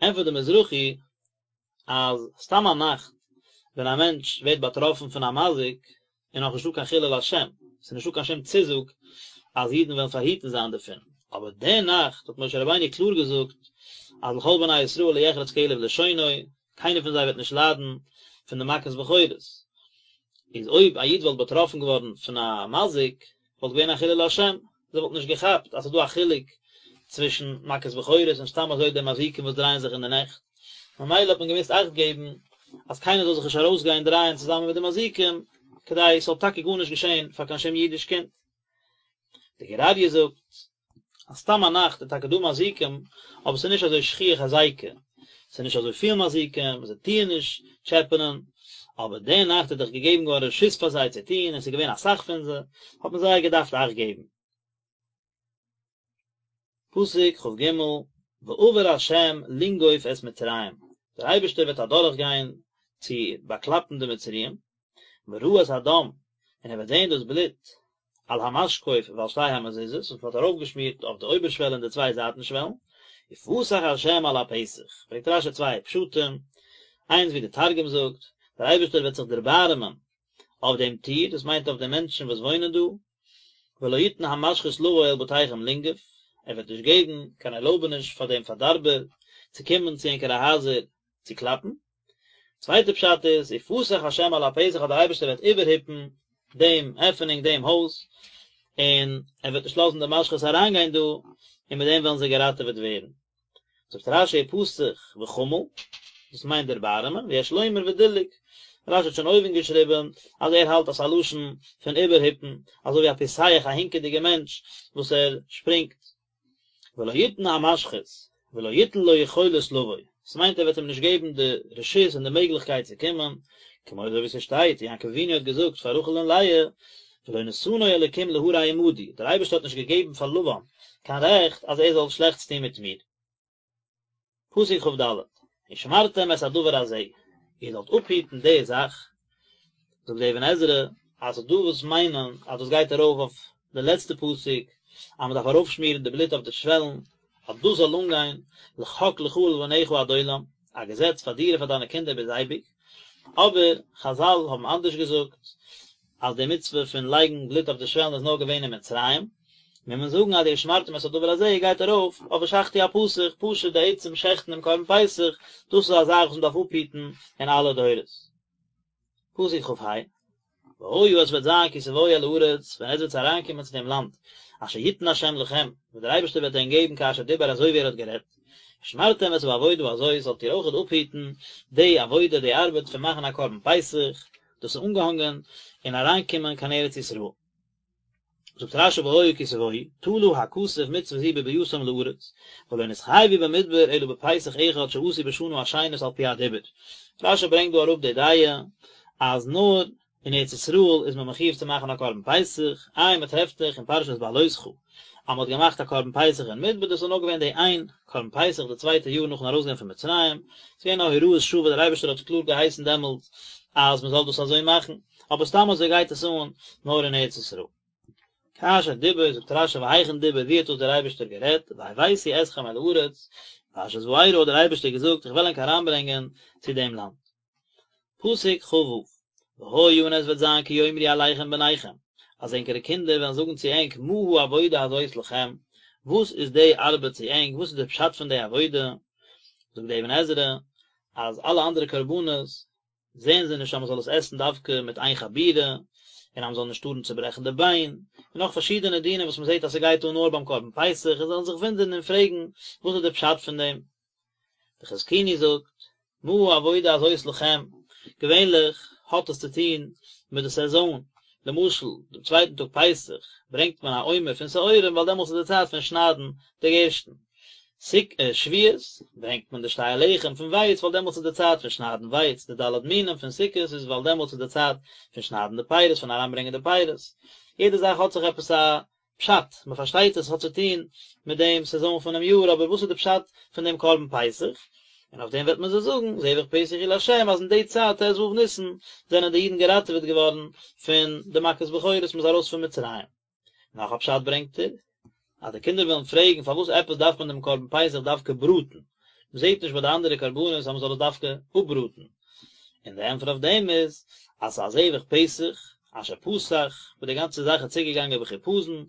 ענטפערט דער מזרחי אז סתם א נאכט ווען א מענטש ווערט באטראפן פון א מזיק איז נאך נישטא קיין חילול השם, ס'איז נישטא קיין שום צוזאג אז אידן וועלן פארהיטן זיין דערפון, אבער די נאכט האט משה רבינו קלאר געזאגט אז לכל בני ישראל לא יחרץ כלב לשונו, קיינער פון זיי וועט נישט ליידן פון די מכת בכורות, איז אויב א איד וואלט באטראפן געווארן פון א מזיק וואלט געווען א חילול השם, זיי וואלטן נישט געכאפט אז ס'איז דא א חילוק צווישן מכת בכורות און סתם אזוי די מזיקים וואס דרייען זיך אין די נעכט, ממילא האט מען געמוזט אכט געבן אז קיינער זאל זיך נישט ארויסגיין דרייען צוזאמען מיט די מזיקים, כדי ס'זאל טאקע גארנישט געשען פאר קיין שום אידיש קינד. די גור אריה זאגט אז סתם א נאכט איז טאקע דא מזיקים, אבער ס'איז נישט אזוי שכיח הזיקה, ס'איז נישט אזוי פיל מזיקים, זיי טוען נישט טשעפענען, אבער די נאכט איז דאך געגעבן געווארן רשות פאר זיי צו טון, און ס'איז געווען אסאך פון זיי, האט מען זייער געדארפט אכט געבן. פסוק כ"ג, ועבר ה' לנגוף את מצרים, דער אייבערשטער וועט אדורכגיין צו באקלאפן די מצריים, וראה את הדם, און ער וועט זען דאס בלוט, על המשקוף ועל שתי המזוזות, וואס מען האט ארויפגעשמירט אויף די אויבערשוועל און די צוויי זייטן שוועלן, ופסח ה' על הפתח, ברענגט רש"י צוויי פשטים, איינס ווי די תרגום זאגט, דער אייבערשטער וועט זיך דערבארעמען אויף דעם טיר, דאס מיינט אויף די מענטשן וואס וואוינען דא, ולא יתן המשחית לבוא אל בתיכם לנגף, ער וועט נישט געבן קיין ערלויבעניש פאר דעם פארדארבער צו קומען צו ענקערע הייזער צו קלאפן. צווייטע פשט איז, ופסח השם על הפתח אז דער אייבערשטער וועט איבערהיפן דעם עפענונג דעם הויז, און ער וועט נישט לאזן די משחית אריינגיין דא, און מיט דעם וועלן זיי געראטעוועט ווערן. זאגט רש"י ופסח וחמל, דאס מיינט דערבארעמען, ויש לומר ודילג, רש"י האט שוין אויבן געשריבן אז ער האלט אז ס'איז א לשון פון איבערהיפן, אזוי ווי א פוסח א הינקעדיגע מענטש וואס ער שפרינגט. ולא יתן המשחית, ולא יתן לו יכולת לבוא, ס'מיינט ער וועט אים נישט געבן די רשות און די מעגליכקייט צו קומען, כמו אזוי ווי ס'שטייט, יעקב אבינו האט געזאגט פאר רחל און לאה, ולא נתנו אלוקים להרע עמדי, דער אייבערשטער האט נישט געגעבן פאר לבן קיין רעכט אז ער זאל שלעכטס טון מיט מיר. פסוק כ"ד, ושמרתם את הדבר הזה, איר זאלט אפהיטן די זאך, זאגט דער אבן עזרא, אז ס'איז דא וואס מיינען אז דאס גייט ארויף אויף די לעצטע פסוק, אז מ'דארף ארויפשמירן די בלוט אויף די שוועלן, אז דאס זאל אנגיין, לחק לך ולבניך עד עולם, א געזעץ פאר דיר און פאר דיינע קינדער ביז אייביג, אבער חזל האבן אנדערש געזאגט, אז די מצוה פון לייגן בלוט אויף די שוועלן איז נאר געווען אין מצרים, מוז מען זאגן אז די ושמרתם את הדבר הזה גייט ארויף אויף ושחטו הפסח, פשוט די עצם שעכטן דעם קרבן פסח, דאס איז א זאך וואס מען דארף אפהיטן אין אלע דורות. פסוק כ"ה, והיה עס וועט זיין כי תבואו אל הארץ, ווען עטס וועטס אריינקומען צו דעם לאנד, אשר יתן ה' לכם, וואס דער אייבערשטער וועט ענק געבן כאשר דיבר אזוי ווי ער האט גערעדט, ושמרתם את העבודה הזאת, זאלט איר אויכעט אפהיטן די עבודה, די ארבעט פון מאכן א קרבן פסח, דאס איז אנגעהאנגען אין אריינקומען קיין ארץ ישראל. זאגט רש"י והיה כי תבואו, תלה הכתוב מצוה זו בביאתם לארץ, ולא נתחייבו במדבר אלא בפסח אחד שעשו בשנה השנית על פי הדיבור. רש"י ברענגט דא אראפ די דעה אז נאר אין ארץ ישראל איז מען מחויב צו מאכן א קרבן פסח, איי מען טרעפט דאך אין פרשת בהעלותך אז מען האט געמאכט א קרבן פסח אין מדבר, דאס איז נאר געווען די איין קרבן פסח די צווייטע יאר נאכן ארויסגיין פון מצרים, ס'איז געווען א הוראת שעה וואס דער אייבערשטער האט קלאר געהייסן דעמאלטס אז מען זאל דאס אזוי מאכן, אבער סתם אזוי גייט עס אן נאר אין ארץ ישראל. כאשר דיבר, זאגט רש"י והיכן דיבר, ווי האט דאס דער אייבערשטער גערעדט, והבאתי אתכם אל הארץ, פרשת וארא האט דער אייבערשטער געזאגט איך וועל ענק אריינברענגען צו דעם לאנד. פסוק כ"ו, והיה און עס וועט זיין כי יאמרו אליכם בניכם, אז ענקערע קינדער וועלן זאגן צו ענק מה העבודה הזאת לכם, וואס איז די ארבעט צו ענק, וואס איז די פשט פון די עבודה, זאגט די אבן עזרא, אז אלע אנדערע קרבנות זעען זיי נישט אז מען זאל עס עסן דווקא מיט איין חבורה, און אז מען זאל נישט טארן צוברעכן די ביין, און נאך פארשידענע דינים וואס מען זעט אז ס'גייט אן נאר ביים קרבן פסח, און זיי וועלן זיך וואונדערן און פרעגן וואס איז די פשט פון דעם. די חזקוני זאגט, מה העבודה הזאת לכם, געווענליך האט עס צו טון מיט די סעזאן, למשל דעם צווייטן טאג פסח ברענגט מען א עומר פון שעורים ווייל דעמאלטס איז די צייט פון שניידן די גערשטן, שבועות ברענגט מען די שתי הלחם פון ווייץ ווייל דעמאלטס איז די צייט פון שניידן ווייץ, די ד' מינים פון סוכות איז ווייל דעמאלטס איז די צייט פון שניידן די פירות פון אריינברענגען די פירות, יעדע זאך האט זיך עפעס א פשט, מען פארשטייט עס האט צו טון מיט דעם סעזאן פונעם יאר, אבער וואס איז די פשט פון דעם קרבן פסח? און אויף דעם וועט מען זיי זאגן, זבח פסח הוא לה', אז אין די צייט ט"ו ניסן זענען די אידן געראטעוועט געווארן פון די מכת בכורות, מען איז ארויס פון מצרים. נאך א פשט ברענגט ער, אז די קינדער וועלן פרעגן פארוואס עפעס דארף מען דעם קרבן פסח דווקא בראטן, מען זעט נישט ביי די אנדערע קרבנות אז מען זאל עס דווקא אפבראטן, און די ענטפער אויף דעם איז, אז ס'איז א זבח פסח, אשר פסח, וואס די גאנצע זאך איז צוגעגאנגען בחיפזון,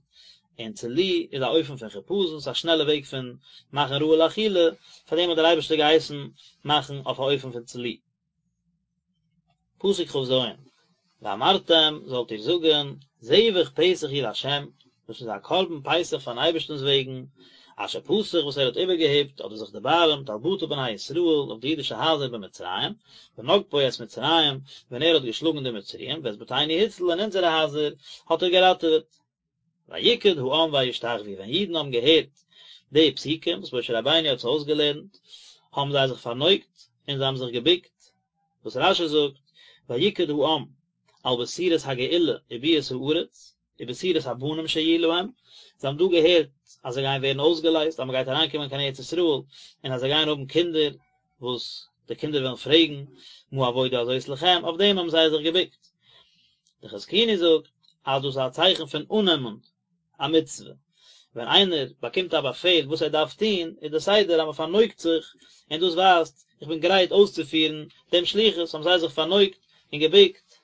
און צלי איז א אופן פון חיפזון, ס'איז א שנעלע וועג פון מאכן ראוי לאכילה, פאר דעם האט דער אייבערשטער געהייסן מאכן אויף א אופן פון צלי. פסוק כ"ז, ואמרתם, זאלט איר זאגן, זבח פסח הוא לה', דאס איז א קרבן פסח פארן אייבערשטנ'ס וועגן, אשר פסח וואס ער האט איבערגעהיפט אדער זיך דערבארעמט על בתי בני ישראל אויף די אידישע הייזער במצרים, בנגפו את מצרים, ווען ער האט געשלאגן די מצריים, ואת בתינו הציל און אונזערע הייזער האט ער געראטעוועט. ויקד העם וישתחוו, ווען אידן האבן געהערט די פסוקים וואס משה רבינו האט זיי אויסגעלערנט, האבן זיי זיך פארנויגט און זיי האבן זיך געבוקט, וואס רש"י זאגט, ויקד העם על בשורת הגאולה וביאת הארץ, ובשורת הבנים שיהיו להם, זיי האבן דא געהערט אז זיי גייען ווערן אויסגעלייזט, אז מען גייט אריינקומען קיין ארץ ישראל, און אז זיי גייען האבן קינדער, וואס די קינדער וועלן פרעגן, מה העבודה הזאת לכם, אויף דעם האבן זיי זיך געבוקט. דער חזקוני זאגט אז דאס איז א צייכן פון אננעמען א מצוה, ווען איינער באקומט א באפעל וואס ער דארף טון, איז דער סדר אז מען פארנויגט זיך, און דאס ווייזט איך בין גרייט אויסצופירן דעם שליחות, האבן זיי זיך פארנויגט און געבוקט,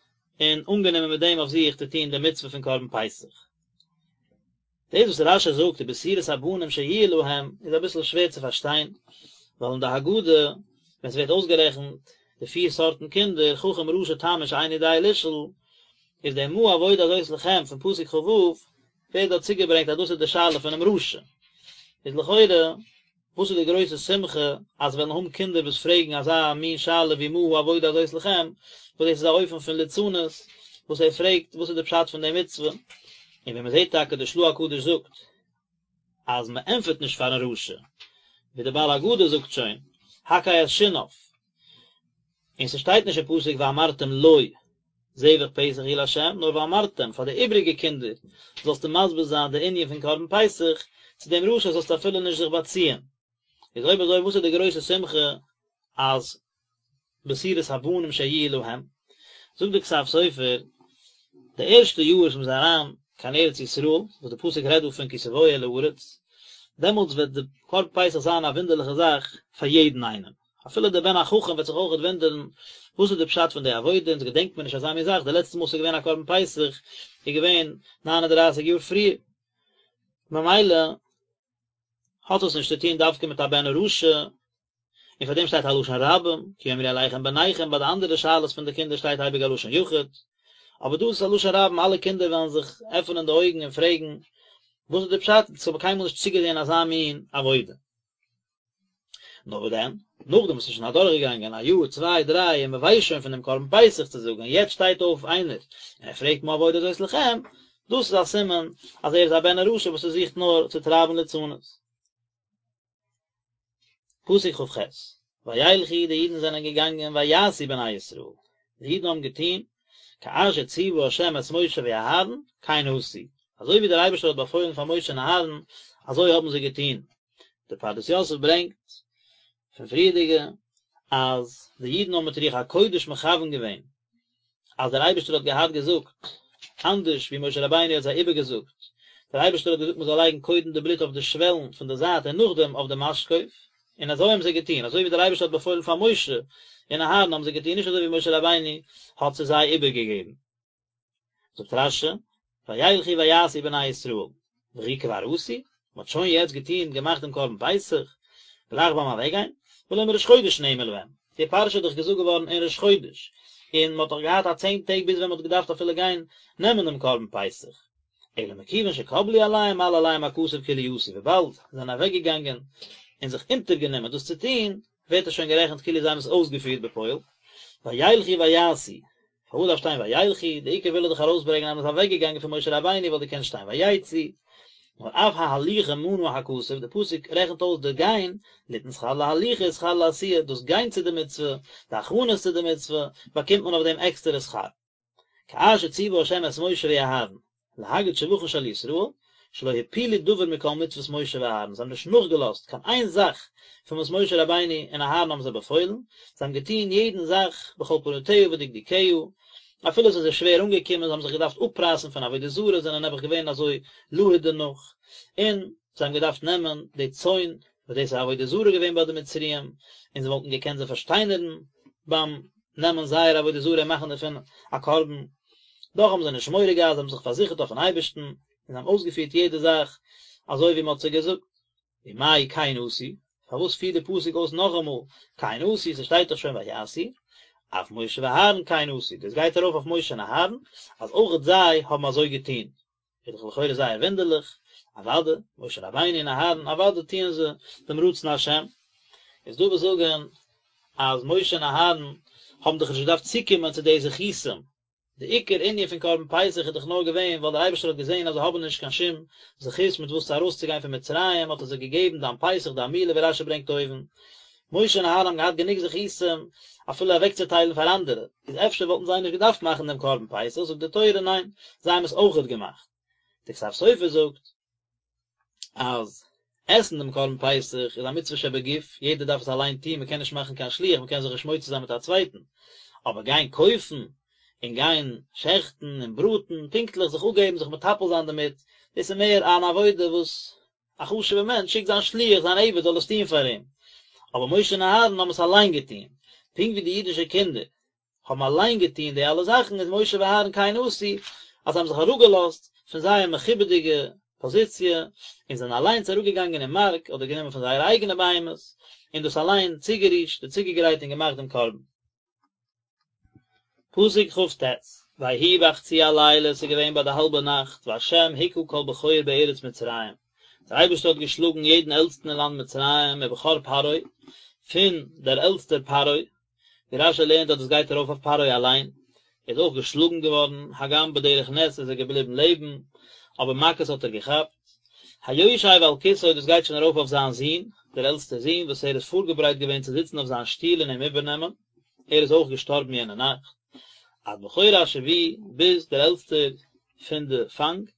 און אנגענומען מיט דעם אויף זיך צו טון די מצוה פון קרבן פסח. דאס וואס רש"י זאגט ובשורת הבנים שיהיו להם איז אביסל שווער צו פארשטיין, ווייל אין די הגדה ווען ס'ווערט אויסגערעכנט די פיר סארטן קינדער, חכם רשע תם ושאינו יודע לשאול, איז די מה העבודה הזאת לכם פון פסוק כ"ו ווערט דארט צוגעברענגט אז דאס איז די שאלה פונעם רשע, איז לכאורה וואס איז די גרויסע שמחה אז וועלן האבן קינדער וואס פרעגן אזא מין שאלה ווי מה העבודה הזאת לכם, וואס דאס איז א אופן פון ליצנות וואס ער פרעגט וואס איז די פשט פון די מצוה, און ווי מען זעט טאקע די של"ה הקדוש זאגט אז מען ענטפערט נישט פארן רשע, ווי די בעל הגדה זאגט שוין, הקהה את שיניו, און ס'שטייט נישט אין פסוק ואמרתם לו זבח פסח הוא לה', נאר ואמרתם, פאר די איבריגע קינדער זאלסטו מסביר זיין די ענין פון קרבן פסח, צו דעם רשע זאלסטו אפילו נישט זיך באציען. איז אויב אזוי וואס איז די גרויסע שמחה אז בשורת הבנים שיהיו להם? זאגט די כתב סופר, די ערשטע יאר וואס מ'איז אריין קיין ארץ ישראל, וואס די פסוק רעדט דא פון כי תבואו אל הארץ, דעמאלטס וועט די קרבן פסח זיין א וואונדערליכע זאך פאר יעדן איינעם, אפילו דער בן החכם וועט זיך אויכעט וואונדערן וואס איז די פשט פון די עבודה, אונז געדענקט מיר נישט אזא מין זאך, די לעצטע מאל ס'איז געווען א קרבן פסח איז געווען ניין און דרייסיג יאר פריער, ממילא האט עס נישט צו טון דווקא מיט א בן הרשע, און פאר דעם שטייט א לשון רבים, כי יאמרו אליכם בניכם, ביי די אנדערע שאלות פון די קינדער שטייט אייביג א לשון יחיד, אבער דא איז עס א לשון רבים, אלע קינדער וועלן זיך עפענען די אויגן און פרעגן וואס איז די פשט, אונז האבן קיינמאל נישט צוגעזען אזא מין עבודה. נאר וואס דען, נאכדעם וואס ס'איז שוין אדורכגעגאנגען א יאר, צוויי, דריי, און מ'ווייסט שוין פון דעם קרבן פסח צו זאגן, און יעצט שטייט אויף איינער און ער פרעגט מה העבודה הזאת לכם, דאס איז א סימן אז ער איז א בן הרשע וואס ער זוכט נאר צו טרייבן ליצנות. פסוק כ"ח, וילכו די אידן זענען געגאנגען ויעשו בני ישראל, די אידן האבן געטון, כאשר ציוה ה' את משה ואהרן, כן עשו, אזוי ווי דער אייבערשטער האט באפוילן פאר משה און אהרן, אזוי האבן זיי געטון. דער פרדס יוסף ברענגט פון פריערדיגע אז די אידן האבן מיט רוח הקודש מכוון געווען אז דער אייבערשטער האט געהאט געזאגט אנדערש ווי משה רבינו האט זיי איבערגעזאגט, דער אייבערשטער האט געזאגט מען זאל לייגן קודם די בלוט אויף די שוועלן פון די זייט און נאכדעם אויף די משקוף, און אזוי האבן זיי געטון, אזוי ווי דער אייבערשטער האט באפוילן פאר משה און אהרן האבן זיי געטון, נישט אזוי ווי משה רבינו האט צו זיי איבערגעגעבן. זאגט רש"י, וילכו ויעשו בני ישראל, וכי כבר עשו, מען האט שוין יעצט געטון, געמאכט דעם קרבן פסח, גלייך ביים אוועקגיין, והלא מראש חודש נאמר להם, די פרשה איז דאך געזאגט געווארן אין ראש חודש, און מען האט דאך געהאט א צען טעג ביז ווען מען האט געדארפט אפילו גיין נעמען דעם קרבן פסח, אלא מכיוון שקבלו עליהם מעלה עליהם הכתוב כאילו עשו, וויבאלד זיי זענען אוועקגעגאנגען און זיך אונטערגענומען דאס צו טון, ווערט עס שוין גערעכנט כאילו זיי האבן עס אויסגעפירט בפועל, וילכו ויעשו, פארוואס דארף שטיין וילכו, די עיקר וויל ער דאך ארויסברענגען אז מען איז אוועק געגאנגען פון משה רבינו וואלט געקענט שטיין ויצאו, נאר אף ההליכה מנה הכתוב, די פסוק רעכנט אויס די גיין, ליתן שכר להליכה ושכר לעשיה, דאס גיין צו די מצוה, די הכנות צו די מצוה, באקומט מען אויף דעם עקסטערע שכר. כאשר ציוה ה' את משה ואהרן, להגיד שבחן של ישראל, שלא הפילו דבר מכל מצוות משה ואהרן, זיי האבן נישט נאכגעלאזט קיין איין זאך פון וואס משה רבינו און אהרן האבן זיי באפוילן, זיי האבן געטון יעדן זאך בכל פרטיה ודקדוקיה, אפילו עס איז זיי שווער אנגעקומען, זיי האבן זיך געדארפט אפרייסן פון עבודה זרה, זענען נעבעך געווען אזוי להוט דערנאך, און זיי האבן געדארפט נעמען די צאן, וואס דאס איז עבודה זרה געווען ביי די מצריים, און זיי וואלטן געקענט זיי פארשטיינערן ביים נעמען זייער עבודה זרה און מאכן דערפון א קרבן, דאך האבן זיי נישט מורא געהאט, זיי האבן זיך פארזיכערט אויפן אייבערשטן, און זיי האבן אויסגעפירט יעדע זאך אזוי ווי מען האט זיי געזאגט. ומאי כן עשו, פארוואס פירט די פסוק אויס נאכאמאל כן עשו, ס'שטייט דאך שוין ויעשו, אף משה ואהרן כן עשו, דאס גייט ארויף אויף משה און אהרן, אז אויכעט זיי האבן אזוי געטון, איז דאך לכאורה זייער וואונדערליך, אוודאי, משה רבינו און אהרן, אוודאי טוען זיי דעם רצון השם. איז דא וואס זאגן אז משה און אהרן האבן דאך נישט געדארפט צוקומען צו די זכותים, די עיקר ענין פון קרבן פסח איז דאך נאר געווען ווייל דער אייבערשטער האט געזען אז זיי האבן נישט קיין שום זכות מיט וואס צו ארויסצוגיין פון מצרים האט ער זיי געגעבן דם פסח דם מילה ווי רש"י ברענגט אויבן, משה און אהרן האבן געהאט גענוג זכותים אפילו אוועקצוטיילן פאר אנדערע, איז אפשר וואלטן זיי נישט געדארפט מאכן דעם קרבן פסח, זאגט די תורה ניין, זיי האבן עס אויכעט געמאכט. די כתב סופר זאגט אז עסן דעם קרבן פסח איז א מצוה שבגוף, יעדער דארף עס אליין טון, מען קען נישט מאכן קיין שליח, מען קען זיך נישט מוציא זיין מיט א צווייטן, אבער גיין קויפן און גיין שעכטן און בראטן, פונקטליך זיך אפגעבן, זיך מטפל זיין דערמיט, דאס איז מער אן עבודה וואס א חשוב'ער מענטש שיקט זיין שליח, זיין עבד זאל עס טון פאר אים. אבער משה און אהרן האבן עס אליין געטון. פונקט ווי די אידישע קינדער האבן אליין געטון די אלע זאכן, איז משה ואהרן כן עשו, אז זיי האבן זיך אראפגעלאזט פון זייער מכובד'יגע פאזיציע, און זענען אליינס אראפגעגאנגען אין מארק אדער גענומען פון זייערע אייגענע בהמות, און דאס אליין צוגערישט און צוגעגרייט און געמאכט דעם קרבן. פסוק כט, ויהי בחצי הלילה, עס איז געווען ביי די האלבע נאכט, וה' הכה כל בכור בארץ מצרים, דער אייבערשטער האט געשלאגן יעדן עלטסטן אין לאנד מצרים, מבכור פרעה, פון דער עלטסטער פרעה, ווי רשי לערנט אז דאס גייט ארויף אויף פרעה אליין, ער איז אויך געשלאגן געווארן, הגם בדרך נס איז ער געבליבן לעבן, אבער מכות האט ער געכאפט. היושב על כסאו דאס גייט שוין ארויף אויף זיין זון, דער עלטסטער זון, וואס ער איז פארגעברייט געווען צו זיצן אויף זיין שטול און אים איבערנעמען, ער איז אויך געשטארבן יענע נאכט. עד בכור השבי, ביז דער עלטסטער פון די פאנג,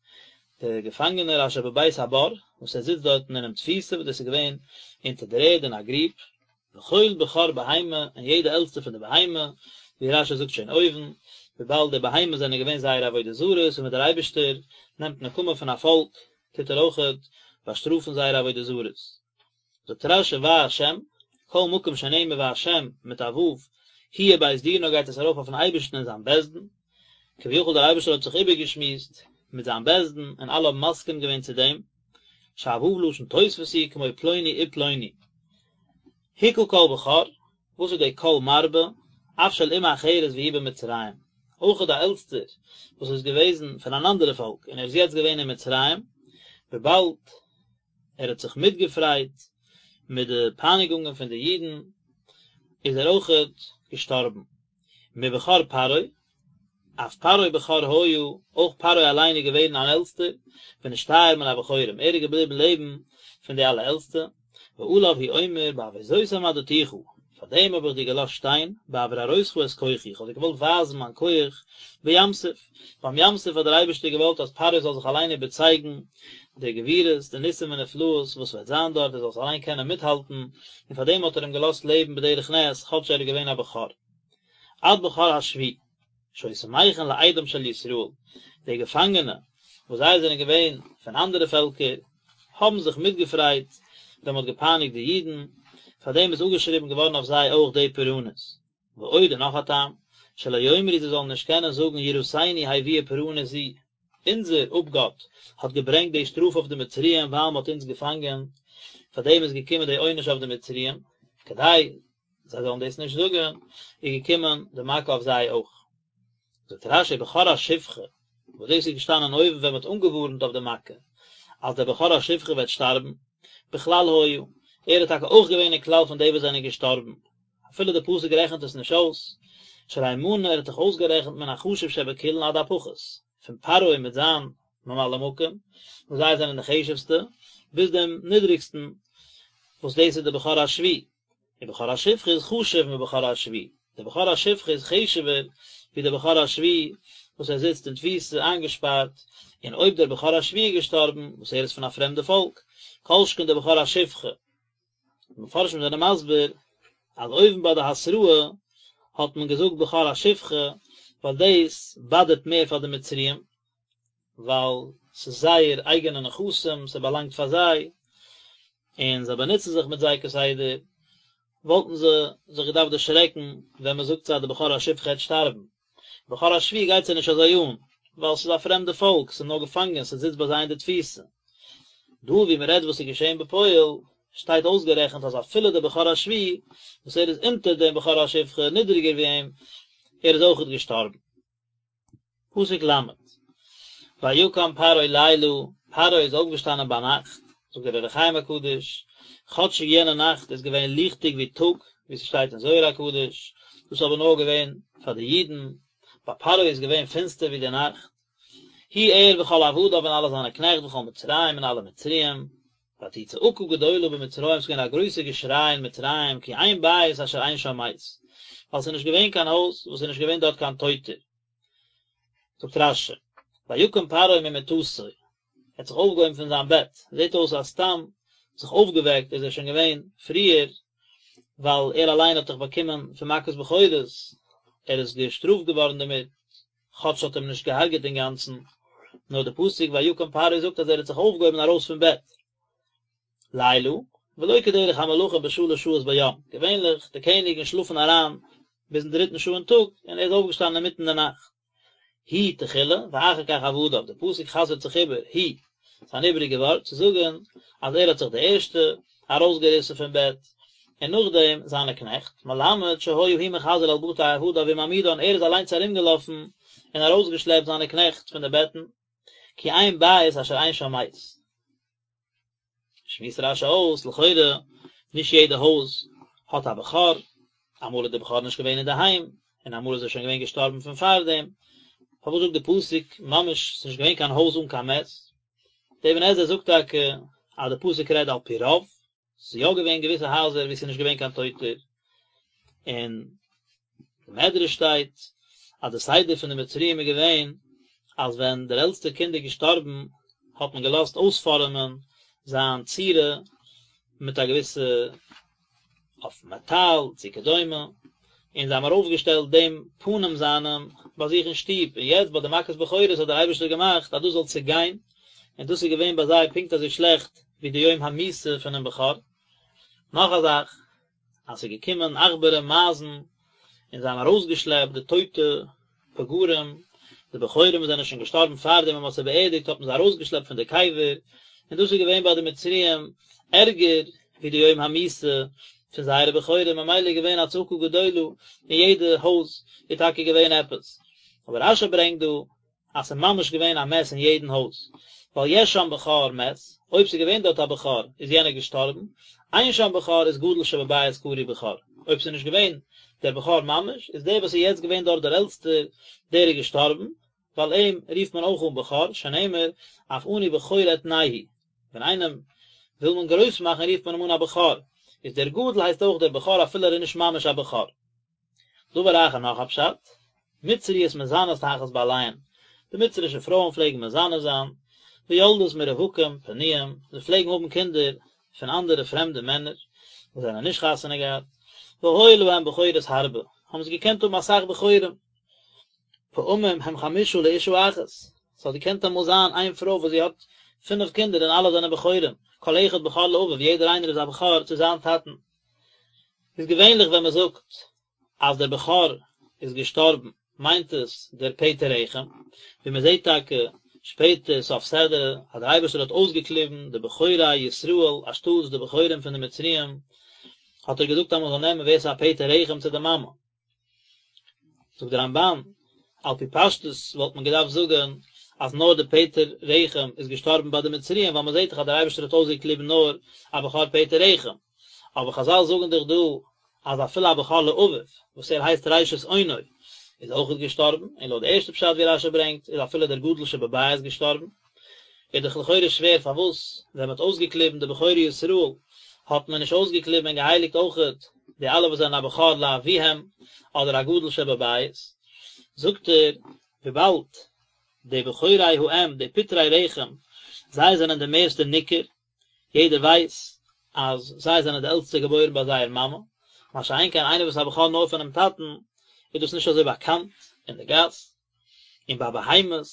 דער געפאנגענער אשר בבית הבור, וואס ער זיצט דארטן אינעם תפיסה, וואס דאס איז געווען אונטער דער ערד אין א גריב, וכל בכור בהמה, און יעדע עלטסטע פון די בהמה, ווי רשי זאגט שוין אויבן, וויבאלד די בהמות זענען געווען זייערע עבודה זרות, און ווען דער אייבערשטער נעמט נקמה פון א פאלק, טוט ער אויכעט באשטראפן זייערע עבודה זרות. זאגט רשי וה', כל מקום שנאמר וה' מיט א ו', הוא ובית דינו גייט עס ארויף אויפן אייבערשטן און זיין בית דין, כביכול דער אייבערשטער האט זיך איבערגעשמועסט מיט זיין בית דין און אלע האבן מסכים געווען צו דעם, שהו' לשון תוספת הוא כמו פלוני ופלוני. הכה כל בכור, וואס איז די כל מרבה, אף של אומה אחרת והוא במצרים, אויך די עלטסטער וואס איז געוועזן פון אן אנדערע פאלק און ער איז יעצט געווען אין מצרים, וויבאלד ער האט זיך מיטגעפרייט מיט די פייניגונגען פון די אידן, איז ער אויכעט געשטארבן. מבכור פרעה, אף פרעה בכור היה, אויך פרעה אליין איז געווען אן עלטסטער, ונשתייר מן הבכורים, ער איז געבליבן לעבן פון די אלע עלטסטע, ועליו הוא אומר בעבור זאת העמדתיך, פאר דעם האב איך דיר געלאזט שטיין, בעבור הראותך את כוחי, איך האב דיר געוואלט ווייזן מיין כח, בים סוף, ביים ים סוף האט דער אייבערשטער געוואלט אז פרעה זאל זיך אליין איבערצייגן די גבורות, די ניסים ונפלאות וואס וועט זיין דארט, ער זאל עס אליין קענען מיטהאלטן, און פאר דעם האט ער אים געלאזט לעבן בדרך נס, כאטש ער איז געווען א בכור. עד בכור השבי, שהיו שמחין לאידם של ישראל, די געפאנגענע, וואס זיי זענען געווען פון אנדערע פעלקער, האבן זיך מיטגעפרייט ווען מען האט געפייניגט די אידן, פאר דעם איז אפגעשריבן געווארן אויף זיי אויך די פורענות. ועוד און נאך א טעם, שלא יאמרו זיי זאלן נישט קענען זאגן יראתנו הביאה פורענות זו, אונזער אפגאט האט געברענגט די שטראף אויף די מצריים ווייל מען האט אונז געפאנגען, פאר דעם איז געקומען די עונש אויף די מצריים, כדי זיי זאלן דאס נישט זאגן, איז געקומען די מכה אויף זיי אויך. זאגט רשי בכור השפחה, וואס דאס איז געשטאנען אויבן ווען מען האט אנגעווארנט אויף די מכה, אז דער בכור השפחה וועט שטארבן, בכלל היה, ער איז טאקע אויך געווען אין כלל פון די וואס זענען געשטארבן, אפילו די פסוק רעכנט עס נישט אויס, שהרי מנה ער האט דאך אויסגערעכנט מן החשוב שבכולן עד הפחות, פון פרעה מיט זיין ממלא מקום, וואס זיי זענען די חשוב'סטע, ביז דעם נידריגסטן, וואס דאס איז די בכור השבי. ובכור השפחה איז חשוב מבכור השבי, דער בכור השפחה איז חשוב'ער ווי דער בכור השבי וואס ער זיצט אין תפיסה איינגעשפארט, און אויב דער בכור השבי איז געשטארבן, וואס ער איז פון א פרעמדע פאלק, כל שכן דער בכור השפחה. די מפרשים זענען מסביר אז אויבן ביי די התראה האט מען געזאגט בכור השפחה ווייל דאס באדערט מער פאר די מצריים, ווייל ס'איז זייער אייגענע נכסים, ס'באלאנגט פאר זיי, און זיי באנוצן זיך מיט זיי כסדר, וואלטן זיי זיך געדארפט דערשרעקן ווען מען זאגט זיי אז די בכור השפחה העט שטארבן. בכור השבי גייט זיי נישט אזוי אן, ווייל ס'איז א פרעמדע פאלק, ס'איז נאר געפאנגען, ס'זיצט ביי זיי אין די תפיסה. דא ווי מען רעדט וואס איז געשען בפועל, שטייט אויסגערעכנט אז אפילו דער בכור השבי, וואס ער איז אונטער דעם בכור השפחה, נידריגער ווי אים, ער איז אויכעט געשטארבן. פסוק ל', ויקם פרעה לילה, פרעה איז אויפגעשטאנען ביינאכט, זאגט דער אור החיים הקדוש, כאטשיג יענע נאכט איז געווען ליכטיג ווי טאג, ווי ס'שטייט אין זוהר הקדוש, דאס איז אבער נאר געווען פאר די אידן, ביי פרעה איז געווען פינסטער ווי די נאכט, הוא ער וכל עבדיו און אלע זיינע קנעכט וכל מצרים און אלע מצריים, ותהי צעקה גדולה במצרים, ס'איז געווען א גרויסע געשריי אין מצרים, כי אין בית אשר אין שם מת, ווייל ס'איז נישט געווען קיין הויז וואס איז נישט געווען דארט קיין טויטער. זאגט רש"י, ויקם פרעה ממיטתו, ער האט זיך אויפגעהויבן פון זיין בעט, זעט אויס אז סתם זיך אויפגעוועקט איז ער שוין געווען פריער, ווייל ער אליין האט דאך באקומען פון מכת בכורות, ער איז געשטראפט געווארן דערמיט, כאטש ס'האט אים נישט געהארגעט אינגאנצן, נאר די פסוק ויקם פרעה זאגט אז ער האט זיך אויפגעהויבן ארויס פון בעט. לילה, ולא כדרך המלכים בשלש שעות ביום, געווענליך די קעניגן שלאפן אריין ביזן דריטן שעה אין טאג, און ער איז אויפגעשטאנען אינמיטן די נאכט. הוא תחילה, ואחר כך עבדיו, די פסוק חזר'ט זיך איבער, הוא, ס'איז אן איבעריגע ווארט צו זאגן אז ער האט זיך די ערשטע ארויסגעריסן פון בעט, און נאכדעם זיינע קנעכט, מלמד שהיה הוא מחזר על בתי עבדיו ומעמידן, ער איז אליינס ארומגעלאפן און ארויסגעשלעפט זיינע קנעכט פון די בעטן, כי אין בית אשר אין שם מת. שמועסט רש"י אויס, לכאורה נישט יעדע הויז האט א בכור, אמאל איז דער בכור נישט געווען אינדערהיים, און אמאל איז ער שוין געווען געשטארבן פון פארדעם, פארוואס זאגט די פסוק ממש ס'איז נישט געווען קיין הויז אן קיין מת? דער אבן עזרא זאגט טאקע אז די פסוק רעדט על פי רוב, ס'איז יא געווען געוויסע הייזער וואו ס'איז נישט געווען קיין טויטער, אין די מדרש שטייט אז די סדר פון די מצריים איז געווען אז ווען דער עלטסטער קינד איז געשטארבן האט מען געלאזט אויספארעמען זיין צורה מיט א געוויסע אויף מעטאל צו כדומה, און זיי האבן ארויפגעשטעלט דעם פנים זיינעם ביי זיך אין שטוב, און יעצט ביי די מכת בכורות האט דער אייבערשטער געמאכט אז דאס זאל צעגיין, און דאס איז געווען ביי זיי פונקט אזוי שלעכט ווי די יום המיתה פונעם בכור. נאך א זאך, אז ס'איז געקומען עכברים מייזן און זיי האבן ארויסגעשלעפט די טויטע פגרים, די בכורים וואס זענען שוין געשטארבן פאר דעם ווען מ'האט זיי באערדיגט האט מען זיי ארויסגעשלעפט פון די קבר, און דאס איז געווען ביי די מצריים ערגער ווי די יום המיתה פון זייערע בכורים, ממילא איז געווען א צעקה גדולה אין יעדע הויז איז טאקע געווען עפעס, אבער רש"י ברענגט דא אז ס'איז ממש געווען א מת אין יעדן הויז, ווייל יש שם בכור מת, אויב ס'איז געווען דארט א בכור איז יענער געשטארבן, אין שם בכור איז גדול שבבית קרוי בכור, אויב ס'איז נישט געווען דער בכור ממש, איז דער וואס איז יעצט געווען דארט דער עלטסטער, דער איז געשטארבן, ווייל אים רופט מען אויך אן בכור, שנאמר, אף אני בכור אתנהו, ווען איינעם וויל מען גרויס מאכן רופט מען אים אן א בכור, איז דער גדול הייסט אויך דער בכור אפילו ער איז נישט ממש א בכור. דבר אחר נאך א פשט, מצריות מזנות תחת בעליהן, די מצרישע פרויען פלעגן מזנה זיין, ויולדות מרווקים פנויים, זיי פלעגן האבן קינדער פון אנדערע פרעמדע מענער וואס זענען נישט חתונה געהאט, והיו להם בכורות הרבה, האבן זיי געקענט האבן אסאך בכורים, פעמים הם חמשה לאשה אחת, ס'האט געקענט אמאל זיין איין פרוי וואס זי האט פינף קינדער און אלע זענען בכורים, כל אחד בכור לאביו, יעדער איינער איז א בכור צו זיין טאטן. איז געווענליך ווען מען זאגט אז דער בכור איז געשטארבן מיינט עס דער פטר רחם, ווי מען זעט טאקע שפעטער סוף סדרה אז דער אייבערשטער האט אויסגעקליבן די בכורי ישראל אנשטאטס די בכורים פון די מצריים, האט ער געזאגט אז מען זאל נעמען ווער ס'איז א פטר רחם צו די מאמע. זאגט דער רמב"ן, על פי פשטות וואלט מען געדארפט זאגן אז נאר די פטר רחם איז געשטארבן ביי די מצריים ווייל מען זעט דאך אז דער אייבערשטער האט אויסגעקליבן נאר א בכור פטר רחם, אבער חז"ל זאגן דאך דא אז אפילו א בכור לאביו וואס ער הייסט ראשית אונו איז אויכעט געשטארבן, און לויט די ערשטע פשט ווי רש"י ברענגט איז אפילו דער גדול שבבית געשטארבן. איז דאך לכאורה שווער פארוואס ווען מען האט אויסגעקליבן די בכורי ישראל האט מען נישט אויסגעקליבן און געהייליגט אויכעט די אלע וואס זענען א בכור לאביהם אדער א גדול שבבית, זאגט ער וויבאלד די בכורי האם די פטרי רחם זיי זענען די מערסטע ניכר, יעדער ווייס אז זיי זענען די עלטסטע געבוירן ביי זייער מאמע, מה שאין כן איינער וואס איז א בכור נאר פונעם טאטן איז דאס נישט אזוי באקאנט אין די גאס. און ביי בהמות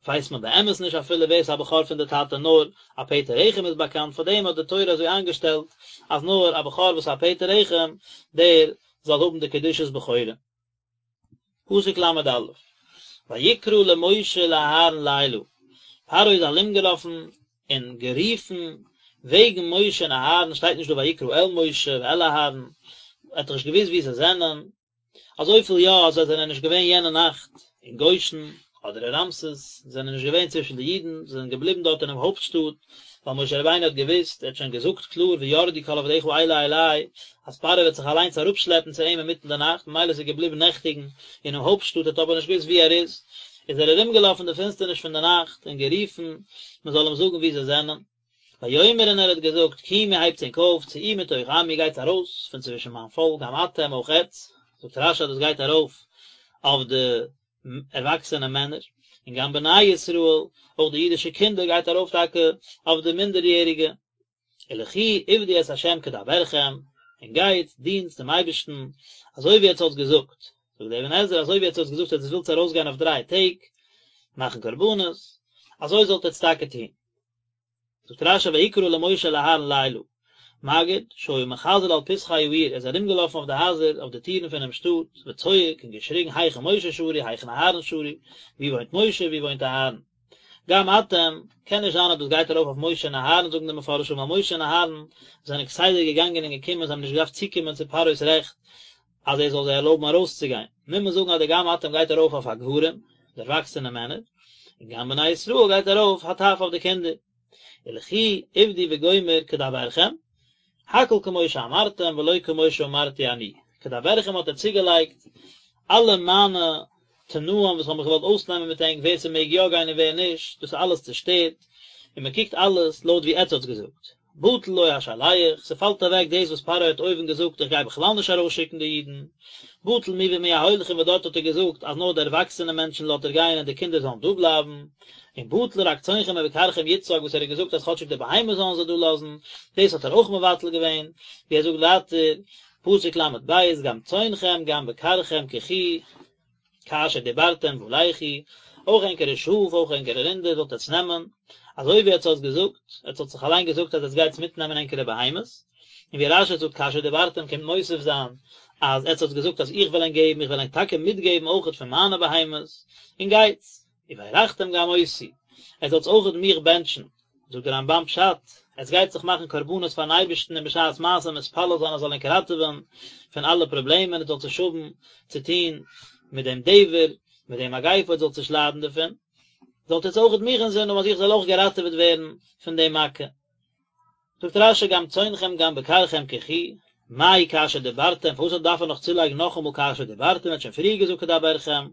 ווייסט מען באמת נישט אפילו ווער ס'איז א בכור פון די טאטע נאר א פטר רחם איז באקאנט פאר דעם האט די תורה אזוי איינגעשטעלט אז נאר א בכור וואס איז א פטר רחם דער זאל האבן די קדושת בכורה. פסוק ל"א, ויקרא למשה ולאהרן לילה, פרעה איז ארומגעלאפן און גערופן וועגן משה און אהרן, שטייט נישט דא ויקרא אל משה ואל אהרן, ער האט דאך נישט געוואוסט וואו זיי זענען, אזויפיל יא אז זיי זענען נישט געווען יענע נאכט אין גושן אדער אין רעמסס, זיי זענען נישט געווען צווישן די אידן, זיי זענען געבליבן דארט אינעם הויפט שטאט, ווייל משה רבינו האט געוואוסט, ער האט שוין געזאגט קלאר וירדו כל עבדיך אלה אלי, אז פרעה וועט זיך אליינס אראפשלעפן צו אים אינמיטן די נאכט, ממילא איז ער געבליבן נעכטיגן אינעם הויפט שטאט, ער האט אבער נישט געוואוסט וואו ער איז, איז ער ארומגעלאפן אין די פינסטערניש פון די נאכט און גערופן מען זאל אים זאגן וואו זיי זענען. ויאמר און ער האט געזאגט, קומו הייבטס ענק אויף, צאו מתוך עמי גייטס ארויס פון צווישן מיין פאלק, גם אתם אויך עטץ, זאגט רש"י אז דאס גייט ארויף אויף די ערוואקסענע מענער, און גם בני ישראל, אויך די אידישע קינדער גייט ארויף טאקע אויף די מינדעריעריגע, ולכו עבדו את ה' כדברכם, און גייטס דינטס דעם אייבערשטן אזוי ווי עטץ האטס געזאגט, זאגט דער אבן עזרא אזוי ווי עטץ האטס געזאגט עטץ ווילטס ארויסגיין אויף דריי טעג מאכן קרבנות, אזוי זאלט עטץ טאקע טון. זאגט רש"י ויקרא למשה ולאהרן לילה, מגיד שהיה מחזר על פתחי העיר, ער איז ארומגעלאפן אויף די הייזער אויף די טירן פונעם שטאט, וצועק און געשריגן היכן משה שרוי היכן אהרן שרוי, ווי וואוינט משה ווי וואוינט אהרן. גם אתם, קען נישט זיין אז דאס גייט ארויף אויף משה און אהרן זאגן די מפרשים ווייל משה און אהרן זענען כסדר געגאנגען און געקומען זיי האבן נישט געדארפט צוקומען צו פרעה'ס רעכט אז ער זאל זיי ערלויבן ארויסצוגיין, מוז מען זאגן אז די גם אתם גייט ארויף אויף הגברים, די ערוואקסענע מענער, און גם בני ישראל גייט ארויף הטף אויף די קינדער. ולכו עבדו וגומר כדברכם, הכל כמו שאמרתם ולא כמו שאמרתי אני, כדברכם האט ער צוגעלייגט אלע מיינע תנאים וואס כ'האב מיך געוואלט אויסנעמען מיט ענק ווער ס'מעג יא גיין און ווער נישט, דאס איז אלעס צושטערט, און מ'קוקט אלעס לויט ווי עטץ האטס געזאגט. בטל לו השלח, ס'פאלט אוועק דאס וואס פרעה האט אויבן געזאגט איך גיי בכלל נישט ארויסשיקן די אידן, בטל מי ומי ההולכים וואס דארט האט ער געזאגט אז נאר די ערוואקסענע מענטשן לאזט ער גיין און די קינדער זאלן דא בלייבן, און בטל רק צאנכם ובקרכם יצג וואס ער האט געזאגט אז כאטשיג די בהמות זאלן זיי דא לאזן, דאס האט ער אויך מבטל געווען, ווי ער זאגט ווייטער, פסוק ל"ב, גם צאנכם גם בקרכם קחו, כאשר דיברתם ולכו, אויך ענקערע שאף אויך ענקערע רינדער זאלט עטס נעמען, אזוי ווי עטס האטס געזאגט, עטס האטס זיך אליין געזאגט אז עטס גייטס מיטנעמען ענקערע בהמות, און ווי רש"י זאגט כאשר דיברתם קומט מוסיף זיין אז עטס האטס געזאגט אז איך וועל ענק געבן, איך וועל ענק טאקע מיטגעבן אויכעט פון מיינע בהמות, און גייטס. וברכתם גם אותי, עטס זאלטס אויכעט מיך בענטשן, זאגט דער רמב"ן פשט, עטס גייט זיך מאכן קרבנות פארן אייבערשטן און בשעת מעשה מתפלל זיין ער זאל ענק ראטעווען פון אלע פראבלעמען, עטס זאלטס נישט האבן צו טון מיט דעם דבר, מיט דעם מגיפה, עטס זאלטס נישט ליידן דערפון, זאלט עטס אויכעט מיך אינזין האבן אז איך זאל אויך געראטעוועט ווערן פון דעם מכה. זאגט רש"י גם צאנכם גם בקרכם קחו, מאי כאשר דיברתם, פארוואס דארף ער נאך צולייגן נאכאמאל כאשר דיברתם, ער האט שוין פריער געזאגט כדברכם,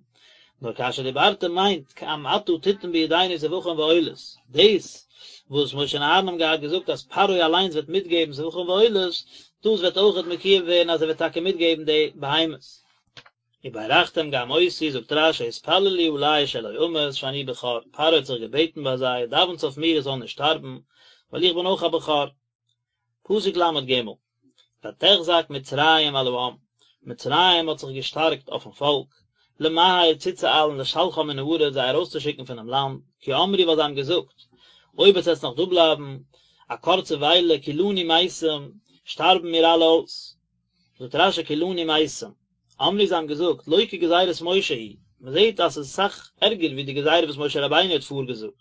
נאר כאשר דיברתם מיינט גם אתה תתן בידינו זבחים ועולות, דאס וואס משה און אהרן האבן געהאט געזאגט אז פרעה אליינס וועט מיטגעבן זבחים ועולות, דאס וועט אויכעט מקוים ווערן אז ער וועט טאקע מיטגעבן די בהמות. וברכתם גם אותי, זאגט רש"י התפללו עלי שלא אמות שאני בכור, פרעה האט זיך געבעטן ביי זיי, דאווענטס אויף מיר איך זאל נישט שטארבן, ווייל איך בין אויך א בכור. פסוק ל"ג, ותחזק מצרים על העם, מצרים האט זיך געשטארקט אויפן פאלק, למהר צוצואיילן לשלחם מן הארץ זיי ארויסצושיקן פונעם לאנד, כי אמרו ווייל זיי האבן געזאגט, אויב עטס וועטס נאך דא בלייבן א קורצע וויילע כולנו מתים, שטארבן מיר אלע אויס. זאגט רש"י כולנו מתים, אמרו זיי האבן געזאגט, לא כגזירת משה היא, מען זעט אז עס איז אסאך ערגער ווי די גזירה וואס משה רבינו האט פארגעזאגט,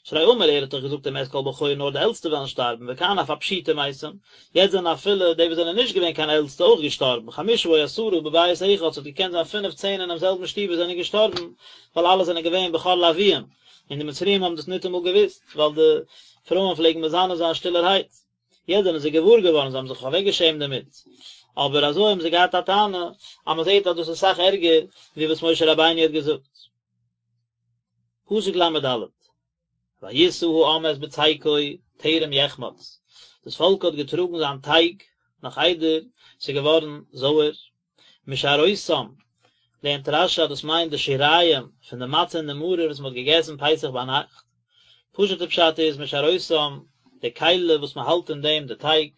שהרי אמר ער האט דאך געזאגט ומת כל בכור נאר די עלטסטע וועלן שטארבן וכאן אף הפשוטים מתים, יעצט זענען אפילו די וואס זענען נישט געווען קיין עלטסטע אויך געשטארבן, חמשה או עשרה בבית אחד, ס'האט געקענט זיין פינף צען אינעם זעלבן שטוב וואס זענען געשטארבן, ווייל אלע זענען געווען בכור לאביהם, און די מצריים האבן דאס ניטאמאל געוואוסט, ווייל די פרויען פלעגן מזנה זיין שטילערהייט. יעצט זענען זיי געוואר געווארן, זיי האבן זיך אוועקגעשעמט דערמיט, אבער אזוי האבן זיי געהאט א טענה אז מען זעט אז דאס איז אסאך ערגער ווי וואס משה רבינו האט געזאגט. פסוק ל"ד, וישא העם את בצקו טרם יחמץ, דאס פאלק האט געטראגן זיין טייג נאך איידער ס'איז געווארן זויער, משארותם, לערנט רש"י אז דאס מיינט די שיריים פון די מצה און די מרור וואס מען האט געגעסן פסח ביינאכט, פשוט'ע פשט איז משארותם, די כלי וואס מען האלט אין דעם די טייג,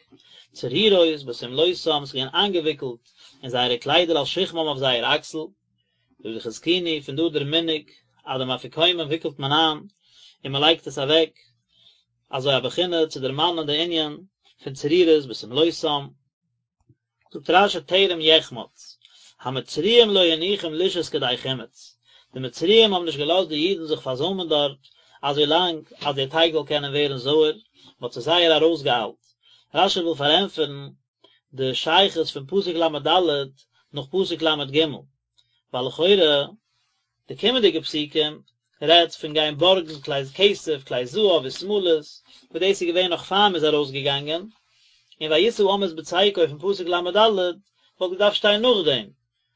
צרורות בשמלותם, ס'איז געווען איינגעוויקלט אין זייערע קליידער על שכמם אויף זייער אקסל, זאגט די חזקוני, פון דא דער מנהג אז דעם אפיקומן וויקלט מען איין און מען לייגט עס אוועק, אזוי א בחינה צו דערמאנען די ענין פון צרורות בשמלותם. זאגט רש"י טרם יחמץ, המצריים לא הניחום לשהות כדי חימוץ, די מצריים האבן נישט געלאזט די אידן זיך פארזוימען דארט אזוי לאנג אז דער טייג זאל קענען ווערן זויער, מען האט זיך זייער ארויסגעאיילט. רש"י וויל פארענטפערן די שייכות פון פסוק ל"ד נאך פסוק ל"ג, ווייל לכאורה די קומענדיגע פסוקים רעדט פון גיין בארגן כלי כסף, כלי זהב ושמלות, וואס דאס איז געווען נאך פאר מ'איז ארויסגעגאנגען, און וישא העם את בצקו פון פסוק ל"ד וואלט געדארפט שטיין נאכדעם,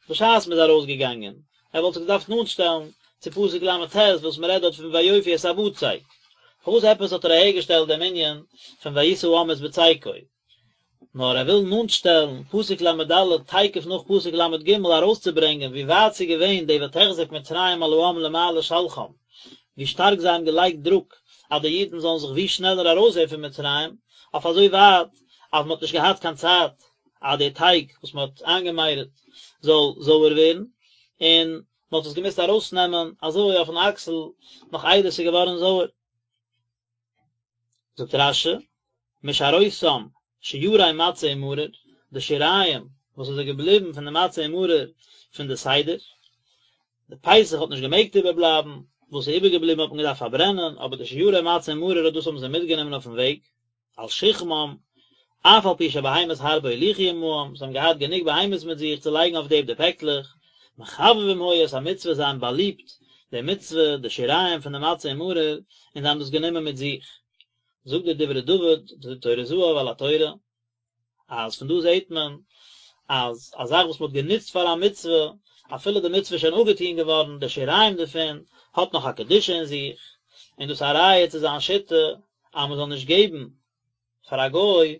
בשעת מ'איז ארויסגעגאנגען, ער וואלט זיך געדארפט נאנטשטעלן צו פסוק ל"ט וואס מ'רעדט דארט פון ויאפו את הבצק. פארוואס עפעס האט ער אהערגעשטעלט דעם ענין פון וישא העם את בצקו? נאר ער וויל נאנטשטעלן פסוק ל"ד תיכף נאך פסוק ל"ג ארויסצוברענגען ווי ווייט ס'איז געווען די ותחזק מצרים על העם למהר לשלחם, ווי שטארק זיי האבן געלייגט דרוק אז די אידן זאלן זיך ווי שנעלער ארויסזען פון מצרים, אויף אזוי ווייט אז מ'האט נישט געהאט קיין צייט אז די טייג וואס מ'האט איינגעמיירעט זאל זויער ווערן, און מ'האט עס געמוזט ארויסנעמען אזוי אויפן אקסל נאך איידער ס'איז געווארן זויער. זאגט רש"י, משארותם, שירי מצה ומרור, די שיריים וואס איז געבליבן פון די מצה און מרור פון די סדר, די פסח האט נישט געמעגט איבערבלייבן, וואס איז איבערגעבליבן האט מען געדארפט פארברענען, אבער די שיורי מצה און מרור אט דאס האבן זיי מיטגענומען אויפן וועג, על שכמם, אף על פי שבהמות הרבה הוליכו עמהם, זיי האבן געהאט גענוג בהמות מיט זיך צו לייגן אויף דעם די פעקלעך, מחבבים היו את המצוה זיי האבן באליבט די מצוה, די שיריים פון די מצה און מרור, און זיי האבן דאס גענומען מיט זיך. זאגט דער דברי דוד, די טורי זהב על התורה, אז פון דא זעט מען אז א זאך וואס מען האט גענוצט פאר א מצוה, אפילו די מצוה איז שוין אפגעטון געווארן, די שיריים דערפון האט נאך א קדושה אין זיך, און דאס איז א ראיה צו זיין שיטה אז מען זאל נישט געבן פאר א גוי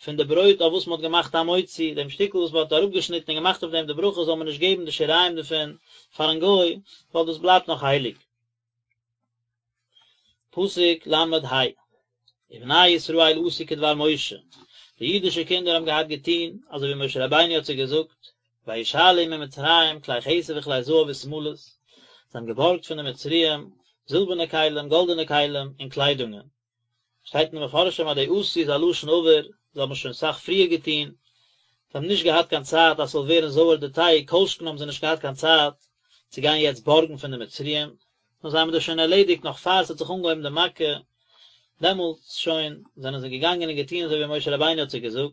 פון די ברויט אויף וואס מען האט געמאכט המוציא, דעם שטיקל וואס מען האט אראפגעשניטן און געמאכט אויף דעם די ברכה זאל מען נישט געבן די שיריים דערפון פארן גוי, ווייל דאס בלייבט נאך הייליג. פסוק ל ה, ובני ישראל עשו כדבר משה, די אידישע קינדער האבן געהאט געטון אזוי ווי משה רבינו האט זיי געזאגט, וישאלו ממצרים כלי כסף וכלי זהב ושמלות, זיי האבן געבארגט פון די מצריים זילבערנע כלים, גאלדענע כלים, און קליידונגען. שטייט אין די מפרשים אז די עשו איז א לשון עבר, זיי האבן שוין סאך פריער געטון, זיי האבן נישט געהאט קיין צייט אז ס'זאל ווערן זויער די טייג, כל שכן האבן זיי נישט געהאט קיין צייט צו גיין יעצט בארגן פון די מצריים, נאר זיי האבן דאס שוין ערלעדיגט נאך פאר ס'האט זיך אנגעהויבן די מכה, דעמאלטס שוין זענען זיי געגאנגען און געטון אזוי ווי משה רבינו האט זיי געזאגט.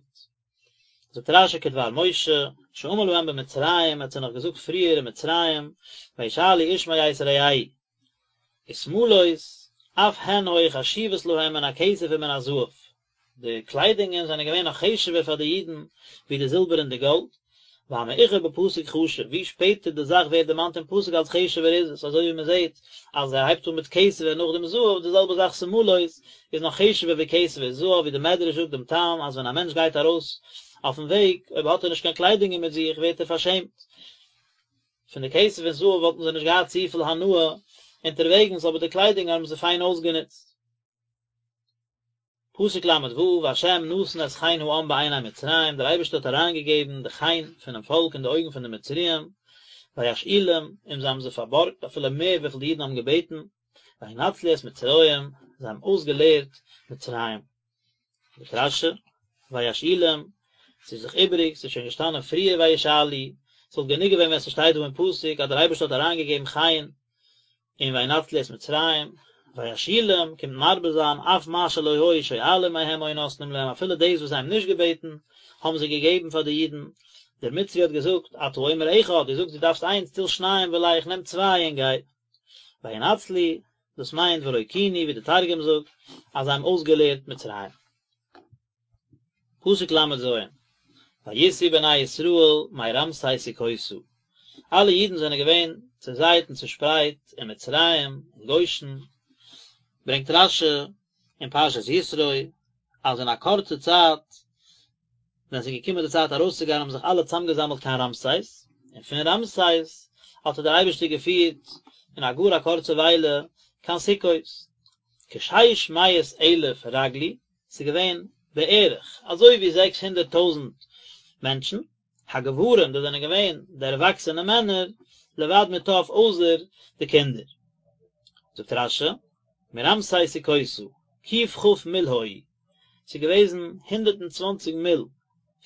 זאגט רשי כדבר משה, שאמר להם במצרים, ער האט זיי נאך געזאגט פריער אין מצרים, וישאלו איש מאת רעהו. ושמלות, אף הן היו חשובות להם מן הכסף ומן הזהב, די קליידונגען זענען געווען נאך חשוב'ער פאר די אידן ווי די זילבער און די גאלד, והמאוחר בפסוק חשוב, ווי שפעטער די זאך ווערט דערמאנט אין פסוק אלס חשוב'ער איז עס, אזוי ווי מען זעט אז ער הייבט אן מיט כסף און נאכדעם זהב, די זעלבע זאך שמלות איז נאך חשוב'ער ווי כסף און זהב, ווי די מדרש זאגט דעם טעם אז ווען א מענטש גייט ארויס אויפן וועג, אויב האט ער נישט קיין קליידונגען מיט זיך ווערט ער פארשעמט. פון די כסף און זהב וואלטן זיי נישט געהאט צופיל הנאה אונטערוועגנס אבער די קליידונג האבן זיי פיין אויסגענוצט. פסוק ל ו, והשם נתן את חן העם בעיני מצרים, דער אייבערשטער האט אריינגעגעבן די חן פונעם פאלק אין די אויגן פון די מצריים, וישאילום, און זיי האבן זיי פארבארגט אפילו מער וויפיל די אידן האבן געבעטן, וינצלו את מצרים, זיי האבן אויסגעלערט מצרים. זאגט רשי, וישאילום, ס'איז דאך איבעריג, ס'איז שוין געשטאנען פריער וישאלו, ס'וואלט גענוג געווען ווען ס'שטייט דא אין פסוק אז דער אייבערשטער האט אריינגעגעבן חן און וינצלו את מצרים, וישאילום קומט מרבה זיין אף מה שלא היו שואלים מהם היו נותנים להם אפילו דאס וואס זיי האבן נישט געבעטן האבן זיי געגעבן פאר די אידן, דער מצרי האט געזאגט אתה אומר אחד, דו זאגסט דו דארפסט איינס, טול שניים ולך, נעם צוויי און גיי. וינצלו, דאס מיינט ורקינו ווי די תרגום זאגט אז זיי האבן אויסגעלערט מצרים. פסוק ל ז, ויסעו בני ישראל מרעמסס סוכותה, אלע אידן זענען געווען צעזייט און צעשפרייט אין מצרים, אין גושן, ברענגט רשי אין פרשת יתרו אז אין א קורצע צייט ווען עס איז געקומען די צייט ארויסצוגיין האבן זיך אלע צאמגעזאמלט קיין רעמסס, און פון רעמסס האט דער אייבערשטער געפירט אין א גאר א קורצע וויילע קיין סוכות. כשש מאות אלף רגלו, ס'איז געווען בערך אזוי ווי 600 טויזנט מענטשן, הגברים, דאס זענען געווען די ערוואקסענע מענער, לבד מטף אויסער די קינדער. זאגט רשי, מרעמסס סוכותה, ק"כ מיל היו, ס'איז געוועזן 120 מיל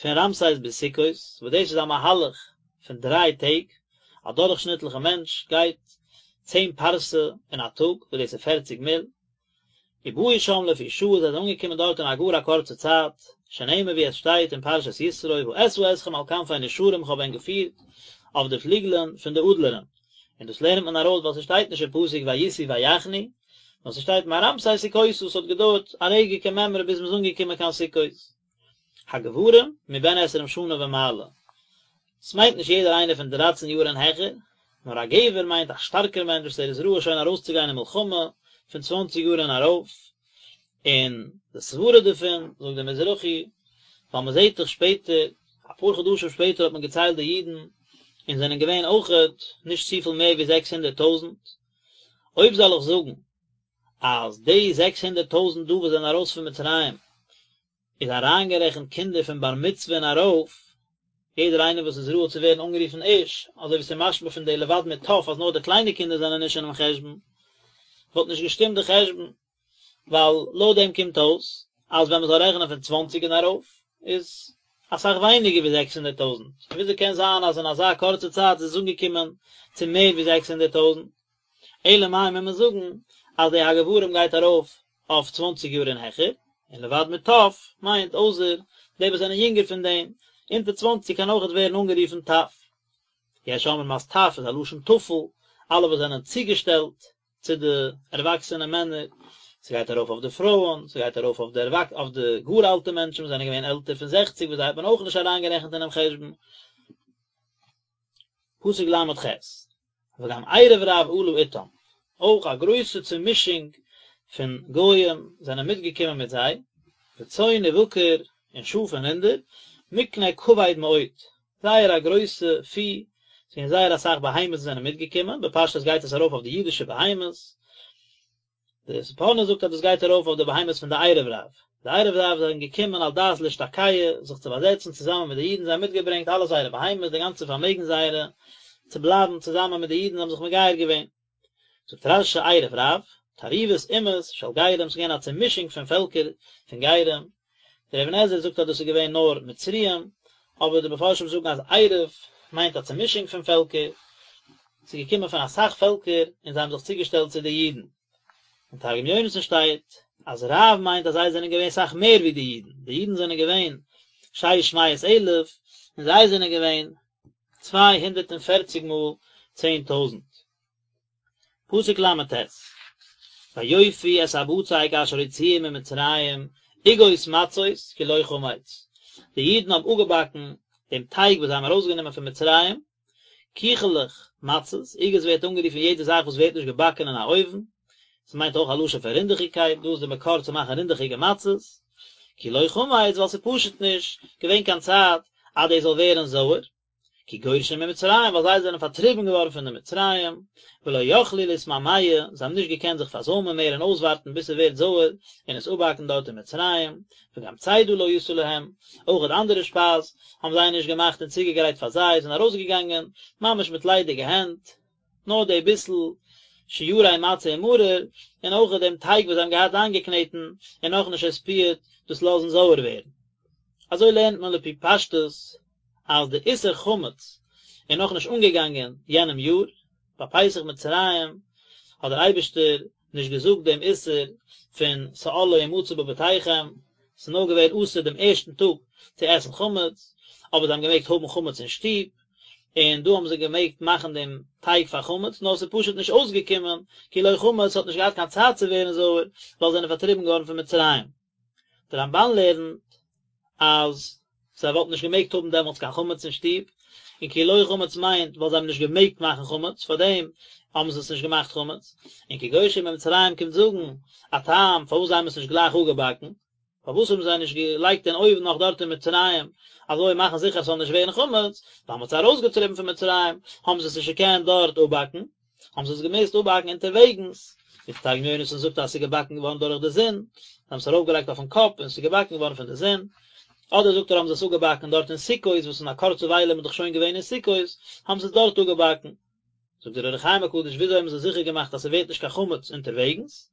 פון רעמסס ביז סוכות, וואס דאס איז א מהלך פון דריי טעג, א דורכשניטליכע מענטש גייט צען פרסה אין א טאג, וואס דאס איז פערציג מיל, ובאו שם לפי שעה זיי זענען אנגעקומען דארט אין א גאר א קורצע צייט, שנאמר ווי עס שטייט אין פרשת יתרו ואשא אתכם על כנפי נשרים איך האב ענק געפירט אויף די פליגלען פון די אדלערן, און דאס לערנט מען ארויס ווייל ס'שטייט נישט אין פסוק ויסעו ויחנו, נאר ס'שטייט מרעמסס סוכותה ס'האט געדויערט א רגע כמימרא ביז מ'איז אנגעקומען קיין סוכות. הגברים מבן עשרים שנה ומעלה, ס'מיינט נישט יעדער איינער פון דרייצן יאר און העכער, נאר א גבר מיינט א שטארקער מענטש וואס ער איז ראוי שוין ארויסצוגיין אין מלחמה פון צוואנציג יאר און ארויף, און די סברה דערפון, זאגט דער מזרחי, ווייל מען זעט דאך שפעטער, אפאר חדשים שפעטער האט מען געציילט די אידן, און זענען געווען אויכעט נישט צופיל מער ווי 600 טויזנט, אויב זאל איך זאגן אז די 600 טויזנט דא וואס זענען ארויס פון מצרים איז אריינגערעכנט קינדער פון בר מצוה און ארויף, יעדער איינער וואס איז ראוי צו ווערן אנגערופן איש, אזוי ווי ס'איז משמע פון די לבד מטף אז נאר די קליינע קינדער זענען נישט אינעם חשבון, וואלט נישט געשטימט די חשבון, ווייל לויט דעם קומט אויס אז ווען מ'זאל רעכענען פון צוואנציג און ארויף איז אסאך ווייניגער ווי 600 טויזנט, און וויאזוי קען זיין אז אין אזא קורצע צייט איז עס אנגעקומען צו מער ווי 600 טויזנט? אלא מאי מוז מען זאגן אז די הגברים גייט ארויף אויף צוואנציג יאר און העכער, און לבד מטף מיינט אויסער די וואס זענען יונגער פון דעם, אונטער צוואנציג קען אויכעט ווערן אנגערופן טף. יש אומרים אז טף איז א לשון טפל, אלע וואס זענען צוגעשטעלט צו די ערוואקסענע מענער, ס'גייט ארויף אויף די פרויען, ס'גייט ארויף אויף די אויף די גאר אלטע מענטשן וואס זענען געווען עלטער פון זעכציג וואס זיי האט מען אויך נישט אריינגערעכנט אינעם חשבון. פסוק ל"ח, וגם ערב רב עלה אתם, אויך א גרויסע צומישונג פון גוים זענען מיטגעקומען מיט זיי, וצאן ובקר, און שאף און רינדער, מקנה כבד מאוד, זייער א גרויסע פי, ס'געווען זייער אסאך בהמות וואס זענען מיטגעקומען, בפשטות גייט עס ארויף אויף די אידישע בהמות, די ספורנו זאגט אז דאס גייט ארויף אויף די בהמות פון די ערב רב, די ערב רב זענען געקומען על דעת להשתקע, זיך צו באזעצן צוזאמען מיט די אידן, זיי האבן מיטגעברענגט אלע זייערע בהמות, די גאנצע פארמעגן זייערע, צו בלייבן צוזאמען מיט די אידן, זיי האבן זיך מגייר געווען. זאגט רש"י ערב רב, תערובות אומות של גרים, ס'איז געווען א צומישונג פון פעלקער פון גרים, דער אבן עזרא זאגט אז דאס איז געווען נאר מצריים, אבער די מפרשים זאגן אז ערב מיינט א צומישונג פון פעלקער, ס'איז געקומען פון אסאך פעלקער און זיי האבן זיך צוגעשטעלט צו די אידן. אין תרגום יונתן שטייט אז רב מיינט אז זיי זענען געווען סאך מער ווי די אידן, די אידן זענען געווען שש מאות אלף און זיי זענען געווען 240 מאל 10,000. פסוק ל"ט, ויאפו את הבצק אשר הוציאו ממצרים עוגות מצות כי לא חמץ, די אידן האבן אפגעבאקן דעם טייג וואס זיי האבן ארויסגענומען פון מצרים, קיכעלעך מצות, עוגות ווערט אנגערופן יעדע זאך וואס ווערט נישט געבאקן אין א אויוון, ס'מיינט אויך א לשון פון רינדעכיגקייט, דא איז די מקור צו מאכן רינדעכיגע מצות, כי לא חמץ ווייל ס'איז פשוט נישט געווען קיין צייט אז דאס זאל ווערן זויער. כי גורשו ממצרים, ווייל זיי זענען פארטריבן געווארן פון די מצריים, ולא יכלו להתמהמה, זיי האבן נישט געקענט זיך פארזוימען מער און אויסווארטן ביז ס'ווערט זויער און עס אפבאקן דארט אין מצרים, וגם צידה לא עשו להם, אויך אנדערע שפייז האבן זיי נישט געמאכט און צוגעגרייט פאר זיי, זענען ארויסגעגאנגען ממש מיט ליידיגע הענט, נאר די ביסל שיירי מצה ומרור, און אויך דעם טייג וואס זיי האבן געהאט איינגעקנעטן און נאכנישט עספיעט דאס לאזן זויער ווערן. אזוי לערנט מען לפי פשטות אז די איסור חמץ איז נאכנישט אנגעגאנגען יענעם יאר, ביי פסח מצרים האט דער אייבערשטער נישט געזאגט דעם איסור פון שאור לא ימצא בבתיכם, ס'איז נאר געווען אסור דעם ערשטן טאג צו עסן חמץ, אבער זיי האבן געמעגט האבן חמץ אין שטוב, און דא האבן זיי געמעגט מאכן דעם טייג פאר חמץ, נאר ס'איז פשוט נישט אויסגעקומען, כי לא חמץ האט נישט געהאט קיין צייט צו ווערן זויער, ווייל זיי זענען פארטריבן געווארן פון מצרים. דער רמב"ן לערנט אז זיי וואלטן נישט געמעגט האבן דעמאלטס קיין חמץ אין שטוב, און כי לא חמץ מיינט ווייל זיי האבן נישט געמעגט מאכן חמץ, פארדעם האבן זיי עס נישט געמאכט חמץ, און כי גורשו ממצרים קומט זאגן א טעם פארוואס זיי האבן עס נישט גלייך אפגעבאקן, פארוואס האבן זיי נישט געלייגט אין אויוון נאך דארט אין מצרים, אזוי מאכן זיכער עס זאל נישט ווערן חמץ, ווייל מ'האט זיי ארויסגעטריבן פון מצרים, האבן זיי עס נישט געקענט דארט אפבאקן. האבן זיי עס געמוזט אפבאקן אונטערוועגנס, ווי דער תרגום יונתן זאגט אז עס איז געבאקן געווארן דורך די זון, זיי האבן עס ארויפגעלייגט אויפן קאפ און עס איז געבאקן געווארן פון די זון, אדער זאגט ער האבן זיי עס אפגעבאקן דארט אין סוכות, וואס אין א קורצע וויילע איז מען דאך שוין געווען אין סוכות, האבן זיי עס דארט אפגעבאקן. זאגט דער אור החיים הקדוש וויאזוי האבן זיי זיכער געמאכט אז ס'ווערט נישט קיין חמץ אונטערוועגנס,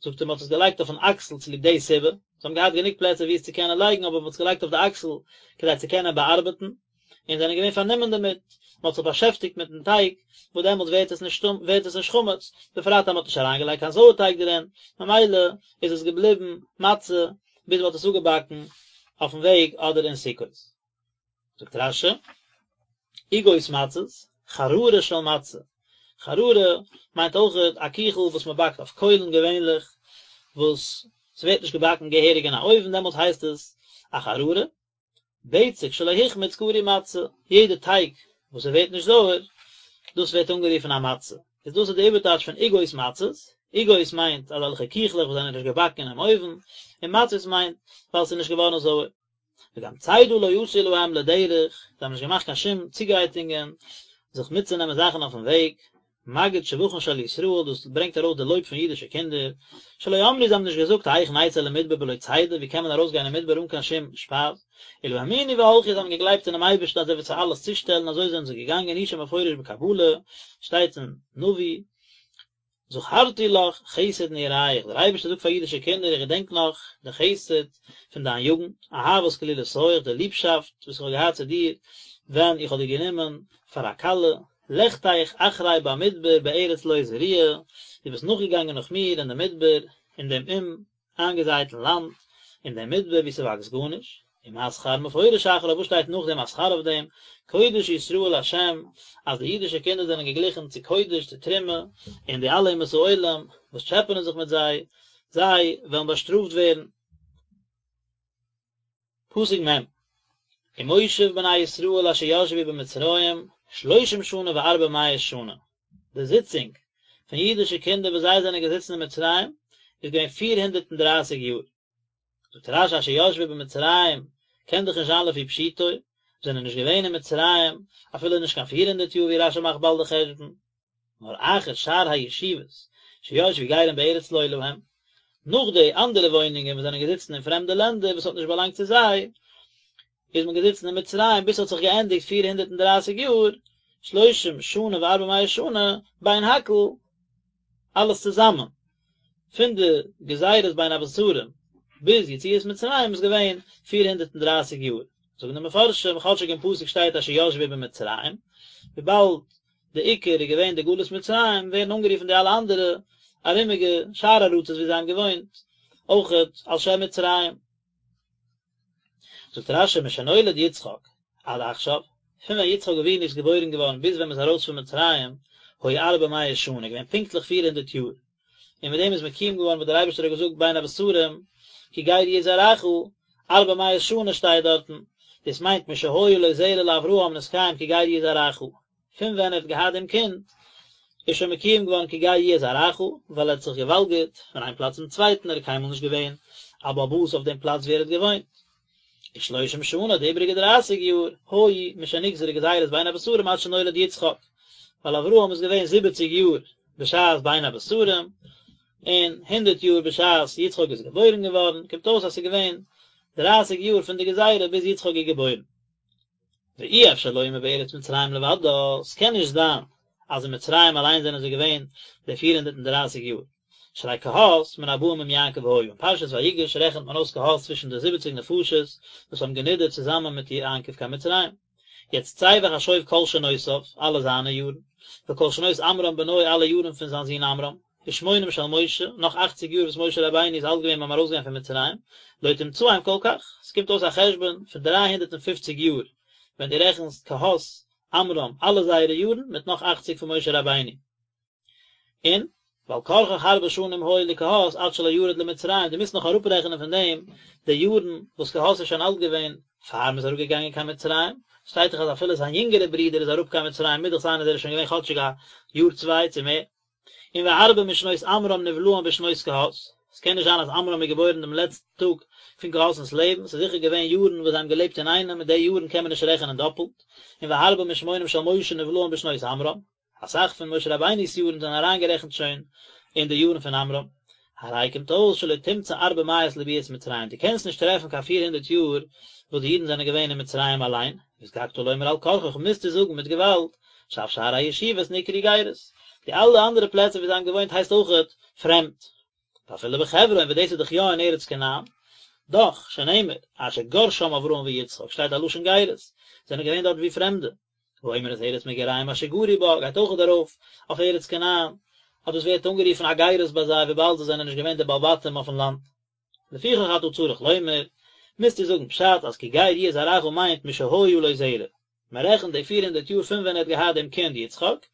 זאגט ער מען האט עס געלייגט אויפן אקסל צוליב די סיבה, זיי האבן געהאט גענוג פלעצער וואו עס צו קענען לייגן אבער מען האט עס געלייגט אויף די אקסל כדי צו קענען באארבעטן, און זענען געווען פארנומען דערמיט, מען האט זיך באשעפטיגט מיטן טייג, וואס דעמאלטס ווערט עס נישט ווערט עס נישט חמץ, בפרט אז מען האט נישט אריינגעלייגט קיין זויערטייג דערין, ממילא איז עס געבליבן מצה ביז מען האט עס אפגעבאקן אויפן וועג אדער אין סוכות. זאגט רש"י, עוגות מצות, חררה של מצה, חררה מיינט אויכעט א קיכל וואס מען באקט אויף קוילן געווענליך, וואס ס'ווערט נישט געבאקן געהעריג אין א אויוון דעמאלטס הייסט עס א חררה, בצק שלא החמיץ קרוי מצה, יעדע טייג וואס עס ווערט נישט זויער, דאס ווערט אנגערופן א מצה. איז דאס איז די איבערטייטש פון עוגות מצות, עוגות מיינט אזעלכע קיכלעך וואס זענען נישט געבאקן אינעם אויוון, און מצות מיינט ווייל עס איז נישט געווארן זויער. וגם צידה לא עשו להם לדרך, זיי האבן נישט געמאכט קיין שום צוגרייטונגען זיך מיטצונעמען זאכן אויפן וועג, מגיד שבחן של ישראל, דאס ברענגט ארויס די לויב פון אידישע קינדער, שלא אמרו זיי האבן נישט געזאגט האיך נצא למדבר בלא צידה, ווי קען מען ארויסגיין אין מדבר אן קיין שום שפייז, אלא האמינו והלכו זיי האבן געגלייבט אינעם אייבערשטן אז ער וועט זיי אלעס צושטעלן, אזוי זענען זיי געגאנגען, הוא שמפורש בקבלה, שטייט אין נביא, זכרתי לך חסד נעוריך, דער אייבערשטער זאגט פאר אידישע קינדער איך געדענק נאך די חסד פון דיין יוגנט, אהבת כלולותיך, די ליבשאפט וואס איך האב געהאט צו דיר ווען איך האב דיר גענומען פאר א כלה. לכתך אחרי במדבר בארץ לא זרועה, דו ביסט נאכגעגאנגען נאך מיר אין די מדבר, אין דעם אומאיינגעזייטן לאנד, אין דעם מדבר וואו ס'וואקסט גארנישט, ומה שכר מפורש אחריו, וואס שטייט נאכדעם א שכר אויף דעם, קודש ישראל לה', אז די אידישע קינדער זענען געגליכן צו קודש, צו תרומה, און די אלע אומות העולם וואס טשעפענען זיך מיט זיי, זיי וועלן באשטראפט ווערן. פסוק מ', ומושב בני ישראל אשר ישבו במצרים שלושים שנה וארבע מאות שנה, די זיצונג פון אידישע קינדער וואס זיי זענען געזיצן אין מצרים איז געווען פיר הונדערט און דרייסיג יאר. זאגט רש"י אשר ישבו במצרים קען דאך נישט זיין לפי פשוטו, זענען נישט געווען אין מצרים אפילו נישט קיין פיר הונדערט יאר ווי רש"י מאכט באלד די חשבון, נאר אחר שאר הישיבות שישבו גרים בארץ לא להם, נאך די אנדערע וואוינונגען וואס זענען געזיצן אין פרעמדע לענדער וואס האט נישט באלאנגט צו זיי, איז מען געזיצן אין מצרים ביז ס'האט זיך געענדיגט פיר הונדערט און דרייסיג יאר, שלושים שנה וארבע מאות שנה, בין הכל, אלעס צוזאמען, פון די גזירות בין הבתרים ביז יציאת מצרים איז געווען פיר הונדערט און דרייסיג יאר, זאגן די מפרשים, כאטשיג אין פסוק שטייט אשר ישבו במצרים, וויבאלד די עיקר איז געווען די גלות מצרים, ווערן אנגערופן די אלע אנדערע ארומיגע שאר ארצות ווי זיי האבן געוואוינט, אויכעט על שם מצרים. זאגט רש"י משנולד יצחק עד עכשיו, פון ווען יצחק אבינו איז געבוירן געווארן ביז ווען מען איז ארויס פון מצרים, היו ארבע מאות שנה, געווען פונקטליך פיר הונדערט יאר, און מיט דעם איז מקוים געווארן וואס דער אייבערשטער האט געזאגט בין הבתרים, כי גר יהיה זרעך, ארבע מאות שנה שטייט דארטן, דאס מיינט משהיה לו זרע לאברהם נתקיים כי גר יהיה זרעך, פון ווען ער האט געהאט דעם קינד איז שוין מקוים געווארן כי גר יהיה זרעך, ווייל ער האט זיך געוואלגערט פון איין פלאץ צום צווייטן, ער איז קיינמאל נישט געווען א בעל הבית אויף דעם פלאץ וואו ער האט געוואוינט. ושלושים שנה, די איבעריגע דרייסיג יאר, היו משנגזרה גזירת בין הבתרים עד שנולד יצחק, ווייל אברהם איז געווען זיבעציג יאר בשעת בין הבתרים, און הונדערט יאר בשעת יצחק איז געבוירן געווארן, קומט אויס אז ס'איז געווען דרייסיג יאר פון די גזירה ביז יצחק איז געבוירן. ואי אפשר לומר בארץ מצרים לבדה, ס'קען נישט זיין אז אין מצרים אליין זענען זיי געווען די פיר הונדערט און דרייסיג יאר, שהרי קהת מן הבאים עם יעקב היה, אין פרשת ויגש רעכנט מען אויס קהת צווישן די זיבעציג נפשות וואס האבן גענידערט צוזאמען מיט יעקב קיין מצרים. יעצט צא וחשוב כל שנותיו, אלע זיינע יארן, וכל שנות עמרם בנו אלע יארן פון זיין זון עמרם, ושמונים של משה, נאך אכציג יאר וואס משה רבינו איז אלט געווען ביים ארויסגיין פון מצרים, לא תמצאם כל כך, עס קומט אויס א חשבון פון דריי הונדערט און פופציג יאר, ווען דו רעכנסט קהת, עמרם, אלע זייערע יארן, מיט נאך אכציג פון משה רבינו. און, ועל כרחך הרבה שנים היו לקהת עד שלא ירד למצרים, דו מוזט נאך אראפרעכענען פון דעם די יארן וואס קהת איז שוין אלט געווען פאר מ'איז אראפגעגאנגען קיין מצרים, שטייט דאך אז אפילו זיין יונגערע ברודער איז אראפ קיין מצרים מוז דאך זיין אז ער איז שוין געווען כאטשיג א יאר צוויי צו מער. און והרבה משנות עמרם נבלעין בשנות קהת, עס קען נישט זיין אז עמרם איז געבוירן דעם לעצטן טאג פון קהת'נס לעבן, ס'איז זיכער געווען יארן וואס זיי האבן געלעבט אינאיינעם און די יארן קען מען נישט רעכענען דאפלט, און והרבה משמונים של משה נבלעין בשנות עמרם, אסאך פון משה רבינו'ס יארן זענען אריינגערעכנט שוין אין די יארן פון עמרם. הרי קומט אויס שלא תמצא ארבע מאות לביאת מצרים, דו קענסט נישט טרעפן קיין פיר הונדערט יאר וואס די אידן זענען געווען אין מצרים אליין, נזקקת לומר על כרחך מוזטו זאגן מיט געוואלד, שאף שאר הישיבות נקראו גירות, די אלע אנדערע פלעצער ווי זיי האבן געוואוינט הייסט אויכעט פרעמד. ואפילו בחברון וואס דאס איז דאך יא אין ארץ כנען, דאך, שנאמר, אשר גר שם אברהם ויצחק, שטייט א לשון גירות, זענען געווען דארט ווי פרעמדע. האומר את ארץ מגוריהם אשר גרו בה, גייט אויכעט ארויף אויף ארץ כנען, אז דאס ווערט אנגערופן א גירות ביי זיי וויבאלד זיי זענען נישט געווען די בעלי בתים אויפן לאנד. לפיכך אתה צריך לומר, מוזטו זאגן פשט אז כי גר יהיה זרעך מיינט משהיה לו זרע, מען רעכנט די פיר הונדערט יאר פון ווען ער האט געהאט דעם קינד יצחק,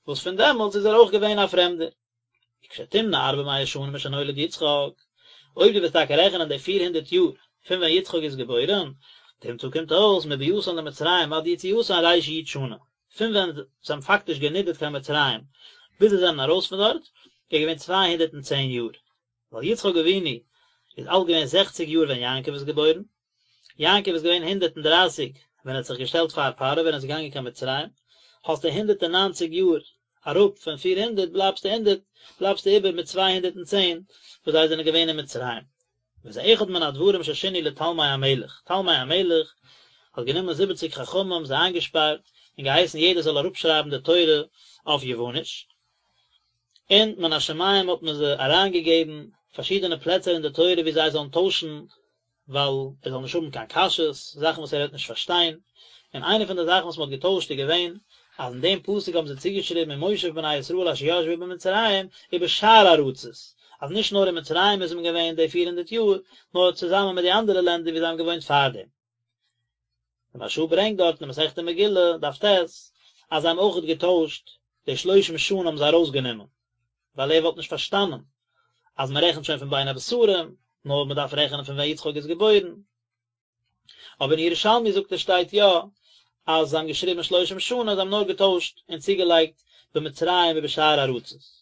וואס פון דעמאלטס איז ער אויך געווען א פרעמדער. וכשתמנה ארבע מאות שנה משנולד יצחק, אויב דו וועסט טאקע רעכענען די פיר הונדערט יאר פון ווען יצחק איז געבוירען, תמצא קומט אויס מביאתן למצרים עד יציאתן רי"ש שנה, פון ווען זיי האבן פאקטיש גענידערט קיין מצרים ביז זיי זענען ארויס פון דארט, איז געווען 210 יאר, ווייל יצחק אבינו איז אלט געווען זעכציג יאר ווען יעקב איז געבוירן, יעקב איז געווען הונדערט און דרייסיג ווען ער האט זיך געשטעלט פאר פרעה ווען ער איז געגאנגען קיין מצרים, האסטו הונדערט און ניינציג יאר אראפ פון פיר הונדערט בלייבסטו הונדערט בלייבסטו איבער מיט צוויי הונדערט און צען וואס זיי זענען געווען אין מצרים. וזה אחד מן הדברים ששינו לתלמי המלך, תלמי המלך האט גענומען זיבעציג חכמים זיי איינגעשפארט און געהייסן יעדער זאל אראפשרייבן די תורה אויף יווניש, און מן השמים האט מען זיי אריינגעגעבן פארשידענע פלעצער אין די תורה וואו זיי זאלן טוישן ווייל ער זאל נישט האבן קיין קשיות, זאכן וואס ער וועט נישט פארשטיין, און איינע פון די זאכן וואס מען האט געטוישט איז געווען. אז אין דעם פסוק האבן זיי צוגעשריבן ומושב בני ישראל אשר ישבו במצרים ובשאר ארצות, אז נישט נאר אין מצרים איז מען געווען די פיר הונדערט יאר, נאר צוזאמען מיט די אנדערע לענדער ווי זיי האבן געוואוינט פארדעם. די מהרש"א ברענגט דארט אין מסכת מגילה, דף ט', אז זיי האבן אויכעט געטוישט, די שלושים שנה האבן זיי ארויסגענומען, ווייל ער וואלט נישט פארשטאנען אז מען רעכנט שוין פון בין הבתרים, נאר מען דארף רעכענען פון ווען יצחק איז געבוירן. אבער אין ירושלמי זאגט ער שטייט יא אז זיי האבן געשריבן שלושים שנה, זיי האבן נאר געטוישט און צוגעלייגט במצרים ובשאר ארצות.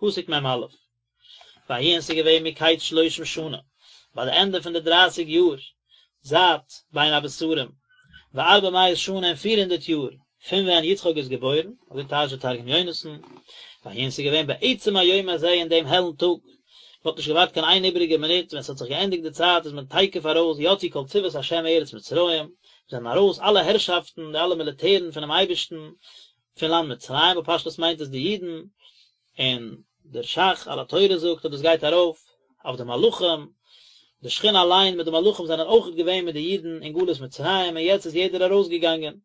פסוק מ"א, ויהי און ס'איז געווען מקץ שלושים שנה, ביי די ענדע פון די דרייסיג יאר זייט בין הבתרים, וארבע מאות שנה און פיר הונדערט יאר פון ווען יצחק איז געבוירן, אזוי טייטשט דער תרגום יונתן, ויהי און ס'איז געווען בעצם היום הזה אין דעם העלן טאג, מ'האט נישט געווארט קיין איין איבעריגע מינוט, ווען ס'האט זיך געענדיגט די צייט איז מען תיכף ארויס, יצאו כל צבאות השם מארץ מצרים, זענען ארויס אלע הערשאפטן, די אלע מיליטערן פונעם אייבערשטן, פון לאנד מצרים, בפשטות מיינט עס די אידן, און דער ש"ך על התורה זאגט אז דאס גייט ארויף אויף די מלאכים, די שכינה אליין מיט די מלאכים זענען אויכעט געווען מיט די אידן אין גלות מצרים און יעצט איז יעדער ארויסגעגאנגען.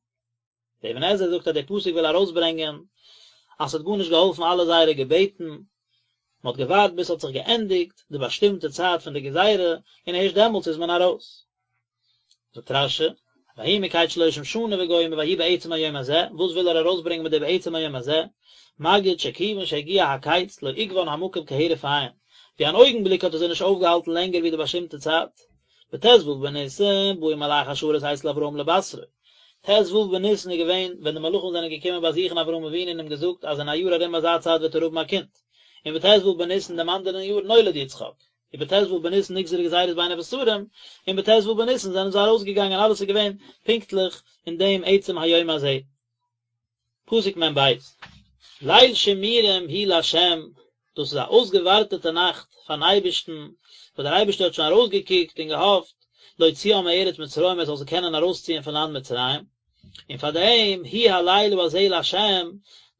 דער אבן עזרא זאגט אז דער פסוק וויל ארויסברענגען אז ס'האט גארנישט געהאלפן אלע זייערע געבעטן, מען האט געווארט ביז ס'האט זיך געענדיגט די באשטימטע צייט פון די גזירה און הערשט דעמאלטס איז מען ארויס. זאגט רש"י, ויהי מקץ שלושים שנה וגומר ויהי בעצם היום הזה, וואס וויל ער ארויסברענגען מיט די בעצם היום הזה, מגיד שכיוון שהגיע הקץ לא עיכבן המקום כהרף עין, ווי אן אויגן בליק האט ער זיי נישט אויפגעהאלטן לענגער ווי די באשטימטע צייט. בט"ו בניסן באו מלאכי השרת אצל אברהם לבשרו, ט"ו בניסן איז געווען ווען די מלאכים זענען געקומען באזוכן אברהם אבינו און אים געזאגט אז אין א יאר ארום אזא צייט וועט ער האבן א קינד, און בט"ו בניסן דעם אנדערן יאר נולד יצחק. ובט"ו בניסן נגזרה גזירת בין הבתרים, און בט"ו בניסן זענען זיי ארויסגעגאנגען אלעס איז געווען פונקטליך אין דעם עצם היום הזה. פסוק מ"ב, ליל שימורים הוא לה', דאס איז א אויסגעווארטעטע נאכט פארן אייבערשטן, וואס דער אייבערשטער האט שוין ארויסגעקוקט און געהאפט, להוציאם מארץ מצרים ער זאל זיי קענען ארויסציען פון לאנד מצרים, און פאר דעם הוא הלילה הזה לה',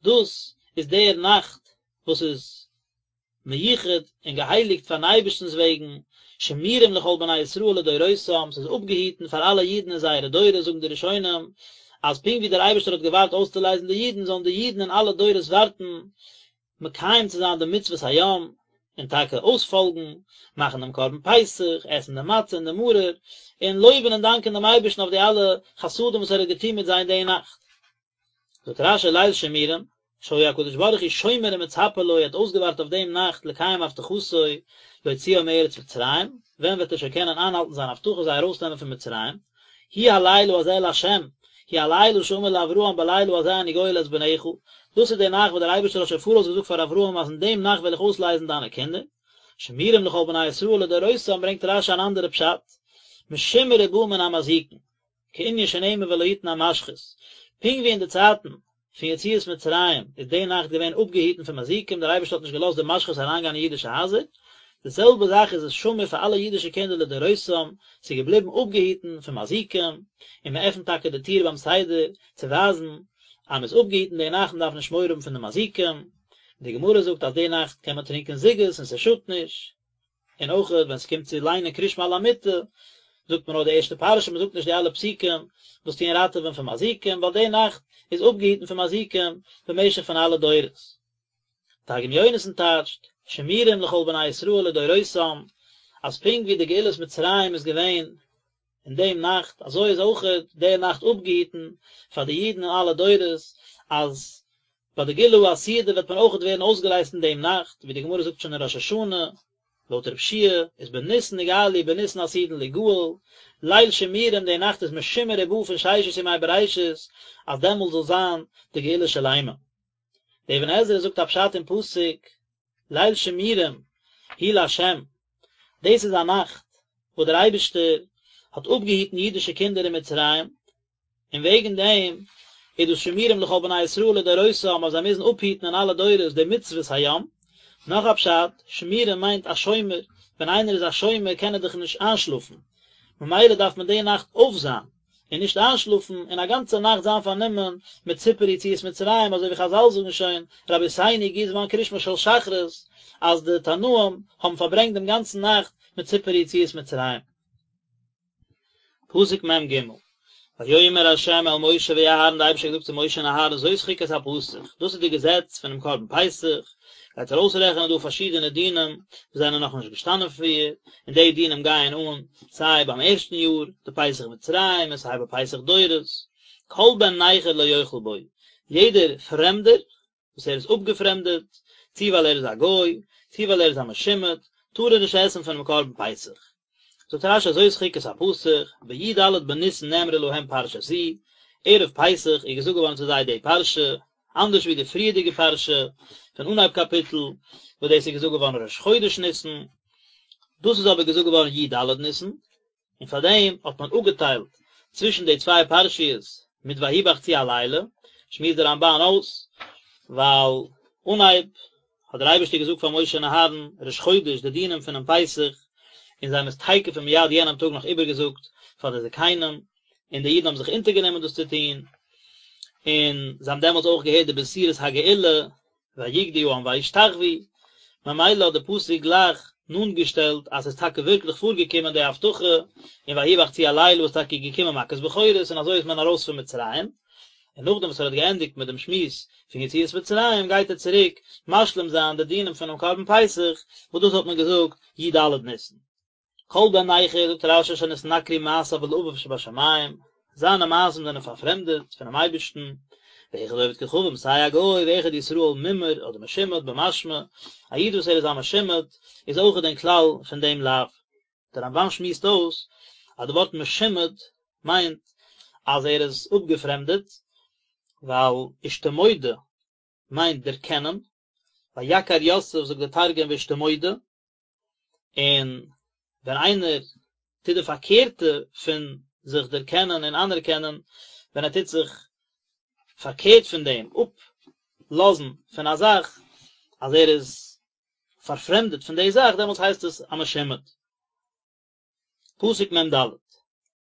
דאס איז דער נאכט וואס איז מיוחד און געהייליגט פארן אייבערשטנ'ס וועגן, שמורים לכל בני ישראל לדורותם, ס'איז אפגעהיטן פאר אלע אידן אין זייערע דורות, זאגן די ראשונים, אז פונקט ווי דער אייבערשטער האט געווארט אויסצולייזן די אידן, זאלן די אידן אין אלע דורות ווארטן מקיים צו זיין די מצוות היום, און טאקע אויספאלגן, מאכן דעם קרבן פסח, עסן די מצה און די מרור, און לויבן און דאנקען דעם אייבערשטן אויף די אלע חסדים וואס ער האט געטון מיט זיי אין די נאכט. זאגט רש"י ליל שימורים, שהיה הקדוש ברוך הוא שומר ומצפה לו, ער האט אויסגעווארט אויף דעם נאכט לקיים הבטחתו להוציאם מארץ מצרים, ווען וועט ער שוין קענען איינהאלטן זיין הבטחה זיי ארויסנעמען פון מצרים, הוא הלילה הזה לה', הוא הלילה שאמר לאברהם בלילה הזה אני גואל את בניך, דאס איז די נאכט וואס דער אייבערשטער האט שוין פאראויס געזאגט פאר אברהם אז אין דעם נאכט וועל איך אויסלייזן דיינע קינדער, שמורים לכל בני ישראל לדורותם ברענגט רש"י אן אנדערע פשט, משומר ובא מן המזיקין. כענין שנאמר ולא יתן המשחית, פונקט ווי אין די צייטן פון יציאת מצרים איז די נאכט געווען אפגעהיטן פון מזיקים, דער אייבערשטער האט נישט געלאזט די משחית אריינגיין אין אידישע הייזער, די זעלבע זאך איז עס שמור פאר אלע אידישע קינדער לדורותם, ס'איז געבליבן אפגעהיטן פון מזיקים, און מען עפנט טאקע די טיר ביים סדר צו ווייזן אז מען איז אפגעהיטן די נאכט מען דארף נישט מורא האבן פון די מזיקים, די גמרא זאגט אז די נאכט קען מען טרינקען זוגות און ס'שאדט נישט. און אויך ווען ס'קומט צו ליינען קריאת שמע על המיטה, זאגט מען נאר די ערשטע פרשה, מ'זאגט נישט די אלע פסוקים וואס טוען ראטעווען פון מזיקים, ווייל די נאכט איז אפגעהיטן פון מזיקים במשך פון אלע דורות. תרגום יונתן טייטשט, שמורים לכל בני ישראל לדורותם, אז פונקט ווי די גאולת מצרים איז געווען אין דעם נאכט, אזוי איז אויכעט די נאכט אפגעהיטן פאר די אידן אין אלע דורות, אז ביי די גאולה העתידה וועט מען אויכעט ווערן אויסגעלייזט אין דעם נאכט, ווי די גמרא זאגט שוין אין ראש השנה, לויט רב שיע איז בניסן נגאלו בניסן עתידין ליגאל, ליל שימורים די נאכט איז משומר ובא פון ששת ימי בראשית, אז דעמאלט זאל זיין די גאולה שלימה. דער אבן עזרא זאגט א פשט אין פסוק, ליל שימורים הוא לה', דאס איז א נאכט וואס דער אייבערשטער האט אפגעהיטן אידישע קינדער אין מצרים, און וועגן דעם איז דאס שמורים לכל בני ישראל לדורותם אז זיי מוזן אפהיטן אין אלע דורות די מצוות היום. נאך א פשט, שימורים מיינט א שומר, ווען איינער איז א שומר קען ער דאך נישט איינשלאפן, ממילא דארף מען די נאכט אויפזיין, און נישט איינשלאפן, און א גאנצע נאכט זיין פארנומען מיט סיפור יציאת מצרים, אזוי ווי חזל זאגן שוין, רבותינו הגיע זמן קריאת שמע של שחרית, אז די תנאים האבן פארברענגט דעם גאנצן נאכט מיט סיפור יציאת מצרים. פסוק מ ג, ויאמר ה' אל משה ואהרן, די אייבערשטער האט געזאגט צו משה און אהרן זאת חוקת הפסח, דאס איז די געזעץ פונעם קרבן פסח, גייט ער אויסרעכענען דא פארשידענע דינים וואס זענען נאכנישט געשטאנען פריער, און די דינים גייען אן סיי ביים ערשטן יאר, די פסח מצרים, און סיי ביי פסח דורות, כל בן נכר לא יאכל בו, יעדער פרעמדער וואס ער איז אפגעפרעמדעט, צי ווייל ער איז א גוי, צי ווייל ער איז א משומד, טאר ער נישט עסן פונעם קרבן פסח. זאגט רש"י זאת חוקת הפסח, בי"ד בניסן נאמרה להם פרשה זו, ערב פסח איז געזאגט געווארן צו זיי די פרשה, אנדערש ווי די פריערדיגע פרשה פון אנהייב קאפיטל, וואס דאס איז געזאגט געווארן ראש חודש ניסן, דאס איז אבער געזאגט געווארן י"ד ניסן, און פאר דעם האט מען אפגעטיילט צווישן די צוויי פרשיות מיט ויהי בחצי הלילה, שמועסט דער רמב"ן אויס, ווייל אנהייב האט דער אייבערשטער געזאגט פאר משה און אהרן ראש חודש די דינים פונעם פסח, און זיי האבן עס תיכף ומיד יענעם טאג נאך איבערגעזאגט פאר די זקנים, און די אידן האבן זיך אונטערגענומען דאס צו טון, און זיי האבן דעמאלטס אויך געהערט די בשורת הגאולה, ויקדו העם וישתחוו, ממילא האט די פסוק גלייך נאנט געשטעלט אז ס'איז טאקע ווירקליך פארגעקומען די הבטחה, און ויהי בחצי הלילה איז טאקע געקומען מכת בכורות און אזוי איז מען ארויס פון מצרים, און נאכדעם וואס ער האט געענדיגט מיט דעם שמועס פון יציאת מצרים גייט ער צוריק משלים זיין די דינים פונעם קרבן פסח וואס דאס האט מען געזאגט י"ד ניסן. כל בן נכר, זאגט רש"י שנתנכרו מעשיו לאביו שבשמים, זיינע מעשים זענען פארפרעמדעט פונעם אייבערשטן, ואחד עובד כוכבים סיי א גוי ואחד ישראל מומר אדער משומד במשמע, א איד וואס ער איז א משומד איז אויכעט אין כלל פון דעם לאו. דער רמב"ן שמועסט אויס אז די ווארט משומד מיינט אז ער איז אפגעפרעמדעט, ווייל אשתמודע מיינט דערקענען, ויכר יוסף זאגט דער תרגום ואשתמודע, און ווען איינער טוט די פארקערטע פון זיך דערקענען און אנערקענען, ווען ער טוט זיך פארקערט פון דעם, אפלאזן פון א זאך, אז ער איז פארפרעמדעט פון די זאך, דעמאלטס הייסט עס א משומד. פסוק מ"ד,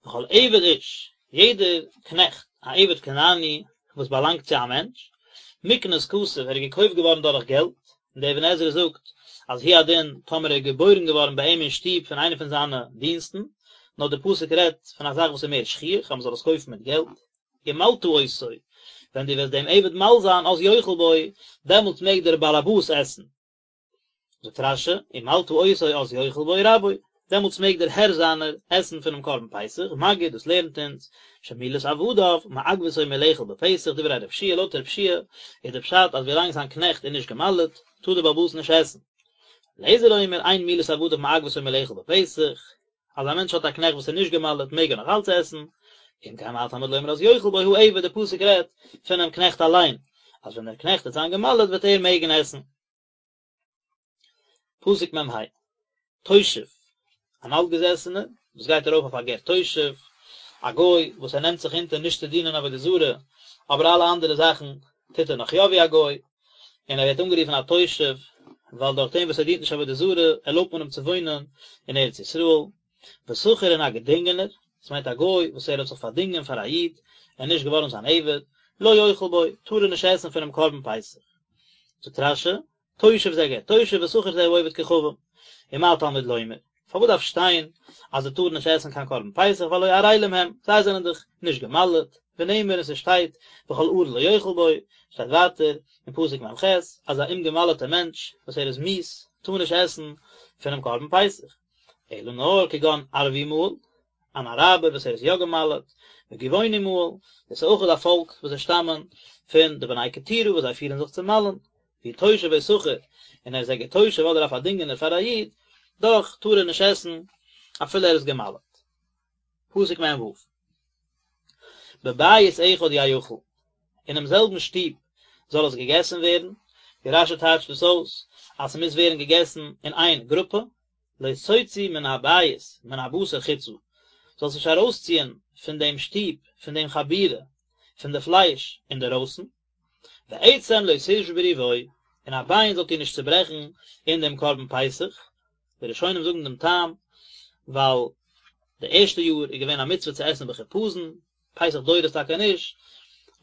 וכל עבד איש, יעדער קנעכט, א עבד כנעני וואס באלאנגט צו א מענטש, מקנת כסף, ער איז געקויפט געווארן דורך געלט, און דער אבן עזרא זאגט אז הוא הדין טאמער ער איז געבוירן געווארן ביי אים אין שטוב פון איינע פון זיינע דינסטן, נאר דער פסוק רעדט פון א זאך וואס איז מער שכיח אז מען זאל עס קויפן מיט געלט, ומלתה אותו, ווען דו וועסט דעם עבד מל זיין, אז יאכל בו, דעמאלטס מעג דער באלעבאס עסן. זאגט רש"י, ומלתה אותו אז יאכל בו רבו, דעמאלטס מעג דער הער זיינער עסן פונעם קרבן פסח, מגיד, דאס לערנט אונז, שמילת עבדיו, מעכבתו מלאכול בפסח, דברי רב שיע, לויט רב שיע איז די פשט אז ווילאנג זיין קנעכט איז נישט גע'מל'ט, טאר דער בעל הבית נישט עסן. ר' אליעזר אומר, אין מילת עבדיו מעכבתו מלאכול בפסח, אז א מענטש האט א קנעכט וואס איז נישט גע'מל'ט מעג ער נאך אלץ עסן, אם כן מה תלמוד לומר אז יאכל בו העבד, די פסוק רעדט פונעם קנעכט אליין, אז ווען דער קנעכט וועט זיין גע'מל'ט וועט ער מעגן עסן. פסוק מ"ה, תושב, אן אלטגעזעסענער וואס גייט ארויף אויף א גר תושב, א גוי וואס ער נעמט זיך אונטער נישט צו דינען עבודה זרה, אבער אלע אנדערע זאכן טוט ער נאך יא ווי א גוי, און ער ווערט אנגערופן א תושב, ווייל דורך דעם וואס ער דינט נישט עבודה זרה, ערלויבט מען אים צו וואוינען אין ארץ ישראל. ושכיר און א געדינגענער, דאס מיינט א גוי וואס ער האט זיך פארדינגען פאר א איד, ער איז נישט געווארן זיין עבד, לא יאכל בו, טאר ער נישט עסן פונעם קרבן פסח. זאגט רש"י, תושב זה גר תושב ושכיר זה העובד כוכבים, ומה תלמוד לומר, פארוואס דארף שטיין אז זיי טארן נישט עסן קיין קרבן פסח והלא ערלים הם, זיי זענען דאך נישט גע'מל'ט, ונאמר און ס'שטייט וכל ערל לא יאכל בו, שטייט ווייטער אין פסוק מ"ח אז א אומגע'מל'טע מענטש וואס ער איז מיאוס טאר נישט עסן פונעם קרבן פסח, אלא נאר כגון ערבי מהול, אן אראבער וואס ער איז יא גע'מל'ט, וגבעוני מהול, דאס איז אויך א פאלק וואס זיי שטאמען פון די בני קטורה וואס זיי פירן זיך צו מל'ן, והוא תושב או שכיר, און ער איז א גר תושב אדער א פארדינגענער פאר א איד, דאך טאר ער נישט עסן אפילו ער איז גע'מל'ט. פסוק מ"ו. בבית אחד יאכל, אינעם זעלבן שטוב זאל עס געגעסן ווערן, ווי רש"י טייטשט דאס אויס אז ס'מוז ווערן געגעסן אין איין גרופע, לא תוציא מן הבית מן הבשר חוצה, זאלסט נישט ארויסציען פון דעם שטוב, פון דעם חבורה, פון די פלייש אינדערויסן, ועצם לא תשברו בו, און א ביין זאלט איר נישט צוברעכן אין דעם קרבן פסח, די ראשונים זאגן דעם טעם, ווייל די ערשטע יאר איז געווען א מצוה צו עסן בחיפזון, פסח דורות טאקע נישט,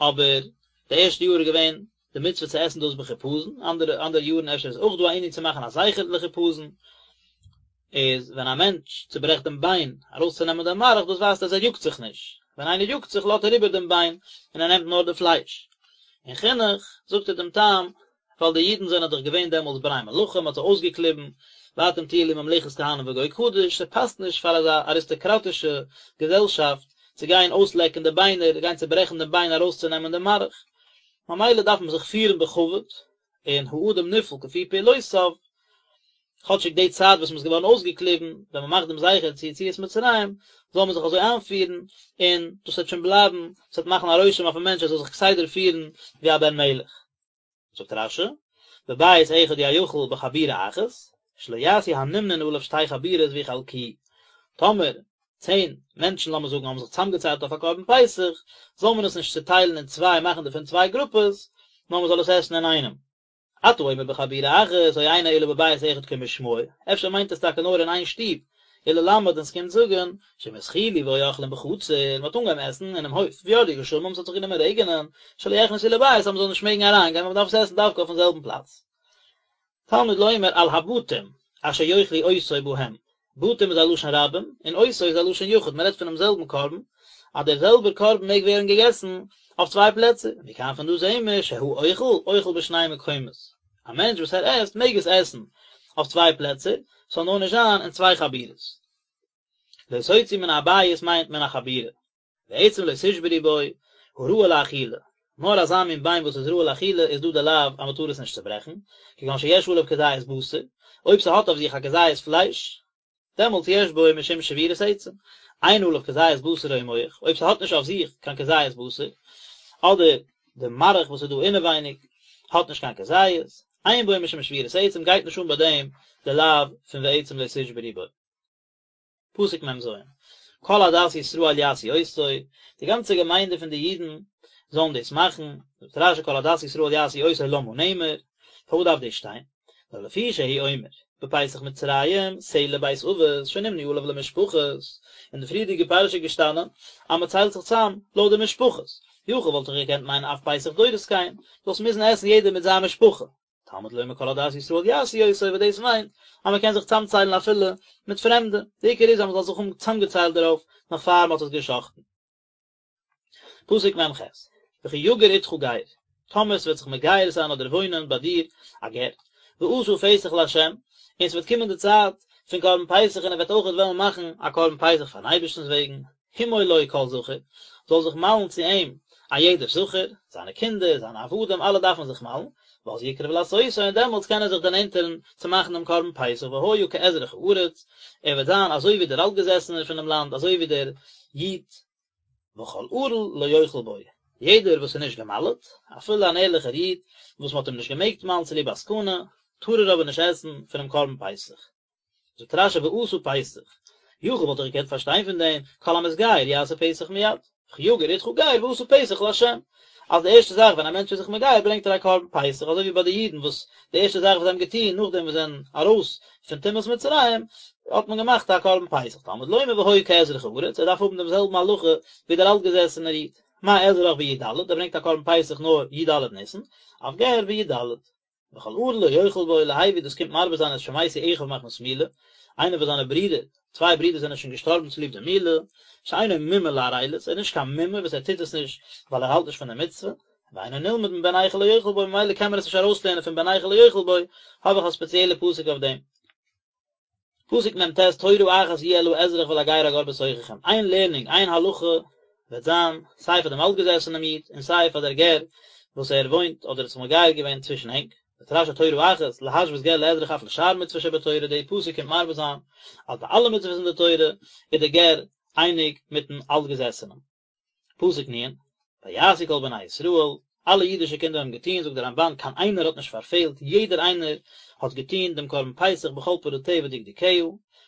אבער די ערשטע יאר איז געווען די מצוה צו עסן דאס בחיפזון, אנדערע אנדערע יארן אפשר איז אויך דא א ענין צו מאכן א זכר לחיפזון, איז ווען א מענטש צוברעכט דעם ביין ארויסצונעמען דעם מארך דאס ווייזט אז ער יאגט זיך נישט. ווען איינער יאגט זיך לאזט ער איבער דעם ביין און ער נעמט נאר די פלייש. אין חינוך זאגט ער דעם טעם, ווייל די אידן זענען דאך געווען דעמאלטס בני מלכים, מ'האט זיי אויסגעקליבן, ואתם תהיו לי ממלכת כהנים וגוי קדוש, ס'פאסט נישט פאר אזא אריסטאקראטישע געזעלשאפט צו גיין אויסלעקן די ביינער, גיין צוברעכן דעם ביין ארויסצונעמען דעם מארך, ממילא דארף מען זיך פירן בכבוד, און האדם נפעל כפי פעולותיו, כאטשיג די צייט וואס מען איז געווארן אויסגעקליבן, ווען מען מאכט דעם זכר צו יציאת מצרים, זאל מען זיך אזוי איינפירן, און דאס וועט שוין בלייבן, עס וועט מאכן א רושם אויפן מענטש ער זאל זיך כסדר פירן ווי א בן מלך. זאגט רש"י, בבית אחד יאכל בחבורה אחת, שלא יעשו הנמנין עליו שתי חבורות ויחלקוהו. טאמער צען מענטשן לאמיר זאגן האבן זיך צוזאמגעציילט אויף א קרבן פסח, זאל מען עס נישט צוטיילן אין צוויי מאכן דערפון צוויי גרופעס, נאר מען זאל עס עסן אינאיינעם. אתה אומר בחבורה אחת, או אינו אלא בבית אחד כמשמעו, אפשר מיינט עס טאקע נאר אין איין שטוב, וללמד און ס'קומט זאגן, שאם התחילו והיו אוכלים בחצר, מ'האט אנגעהויבן עסן אינעם הויף, וירדו גשמים, ס'האט זיך גענומען רעגענען, שלא יכנסו לבית אז מ'זאל נישט מעגן אריינגיין, ווייל מ'דארף עס עסן דווקא אויפן זעלבן פלאץ. תלמוד לומר על הבתים אשר יאכלו אותו בהם, בתים איז א לשון רבים, און אותו איז א לשון יחיד, מ'רעדט פונעם זעלבן קרבן, אז דער זעלבער קרבן מעג ווערן געגעסן אויף צוויי פלעצער, מכאן פון דא זעהן מיר שהאוכל אוכל בשני מקומות, א מענטש וואס ער עסט מעג עס עסן אויף צוויי פלעצער, ס'זאל נאר נישט זיין אין צוויי חבורות. לא תוציא מן הבית מיינט מן החבורה. ועצם לא תשברו בו, הראוי לאכילה, נאר אזא מין ביין וואס איז ראוי לאכילה איז דא די לאו אז מען טאר עס נישט צוברעכן, כגון שיש עליו כזית בשר, אויב ס'האט אויף זיך א כזית פלייש, דעמאלטס יש בו משום שבירת עצם, אין עליו כזית בשר או מח, אויב ס'האט נישט אויף זיך קיין כזית בשר, אדער די מארך וואס איז דא אינעווייניג האט נישט קיין כזית, אין בו משום שבירת עצם גייט נישט אן ביי דעם די לאו פון ועצם לא תשברו בו. פסוק מ"ז, כל עדת ישראל יעשו אותו, די גאנצע געמיינדע פון די אידן זאלן דאס מאכן, זאגט רש"י כל עדת ישראל יעשו אותו למה נאמר, פארוואס דארף דאס שטיין? נאר לפי שהוא אומר, בפסח מצרים, שה לבית אבות, שנמנו עליו למשפחות, אין די פריערדיגע פרשה איז געשטאנען אז מען ציילט זיך צאם לויט די משפחות, יכול וואלט איך געקענט מיינען אף פסח דורות כן, זאלסט מוזן עסן יעדער מיט זיין משפחה, תלמוד לומר כל עדת ישראל יעשו אותו וואס דאס מיינט אז מען קען זיך צאמציילן אפילו מיט פרעמדע, די עיקר איז אז מען זאל זיך האבן צאמגעציילט דערויף נאך פאר מען האט עס גע'שחט'ן. פסוק מ"ח, וכי יגור אתך גר, טאמער ס'וועט זיך מגייר זיין אדער וואוינען ביי דיר א גר, ועשה פסח לה', און ס'וועט קומען די צייט פון קרבן פסח און ער וועט אויכעט וועלן מאכן א קרבן פסח פארן אייבערשטנ'ס וועגן, המול לו כל זכר, זאל זיך מל'ן צו אים א יעדער זכר, זיינע קינדער, זיינע עבדים, אלע דארפן זיך מל'ן, ואז יקרב לעשותו, און דעמאלטס קען ער זיך דערנענטערן צו מאכן דעם קרבן פסח, והיה כאזרח הארץ, ער וועט זיין אזוי ווי דער אלטגעזעסענער פונעם לאנד, אזוי ווי דער איד. וכל ערל לא יאכל בו, יעדער וואס איז נישט געמל'ט, אפילו אן ערליכער איד, וואס מען האט אים נישט געמעגט מל'ן צוליב א סכנה, טאר ער אבער נישט עסן פונעם קרבן פסח. זאגט רש"י ועשה פסח, יכול וואלט איך געקענט פארשטיין פון דעם, כל המתגייר יעשה פסח מיד, וכי יגור אתך גר ועשה פסח לה', אז די ערשטע זאך ווען א מענטש איז זיך מגייר ברענגט ער א קרבן פסח, אזוי ווי ביי די אידן וואס די ערשטע זאך וואס זיי האבן געטון נאכדעם וואס זיי זענען ארויס פון טומאת מצרים האט מען געמאכט א קרבן פסח, תלמוד לומר והיה כאזרח הארץ, ער דארף האבן דעם זעלבן הלכה ווי דער אלטגעזעסענער איד, מה אזרח בי"ד, ער ברענגט א קרבן פסח נאר י"ד ניסן, אף גר בי"ד. וכל ערל לא יאכל בו להביא דאס קומט מרבה זיין את שמתו אחיו מחמת מילה, איינער וואס זיינע ברידער, צוויי ברידער זענען שוין געשטארבן צוליב די מילה, שאינו מומר לערלות, ער איז נישט קיין מומר וואס ער טוט עס נישט ווייל ער האלט נישט פון די מצוה, ואינו נלמד מבן נכר לא יאכל בו ממילא קען מען עס נישט ארויסלערנען פון בן נכר לא יאכל בו, האב איך א ספעציעלע פסוק אויף דעם. פסוק מ"ט תורה אחת יהיה לאזרח ולגר הגר בתוככם, איין לערנונג, איין הלכה וועט זיין סיי פאר דעם אלטגעזעסענעם איד און סיי פאר דער גר וואס ער וואוינט אדער האט זיך מגייר געווען צווישן ענק, זאגט רש"י תורה אחת, להשוות גר לאזרח אף לשאר מצוות שבתורה, די פסוק קומט מרבה זיין אז ביי אלע מצוות אין די תורה איז דער גר אייניג מיטן אלטגעזעסענעם. פסוק נ', ויעשו כל בני ישראל, אלע אידישע קינדער האבן געטון, זאגט דער רמב"ן, קיין איינער האט נישט פארפעלט, יעדער איינער האט געטון דעם קרבן פסח בכל פרטיה ודקדוקיה,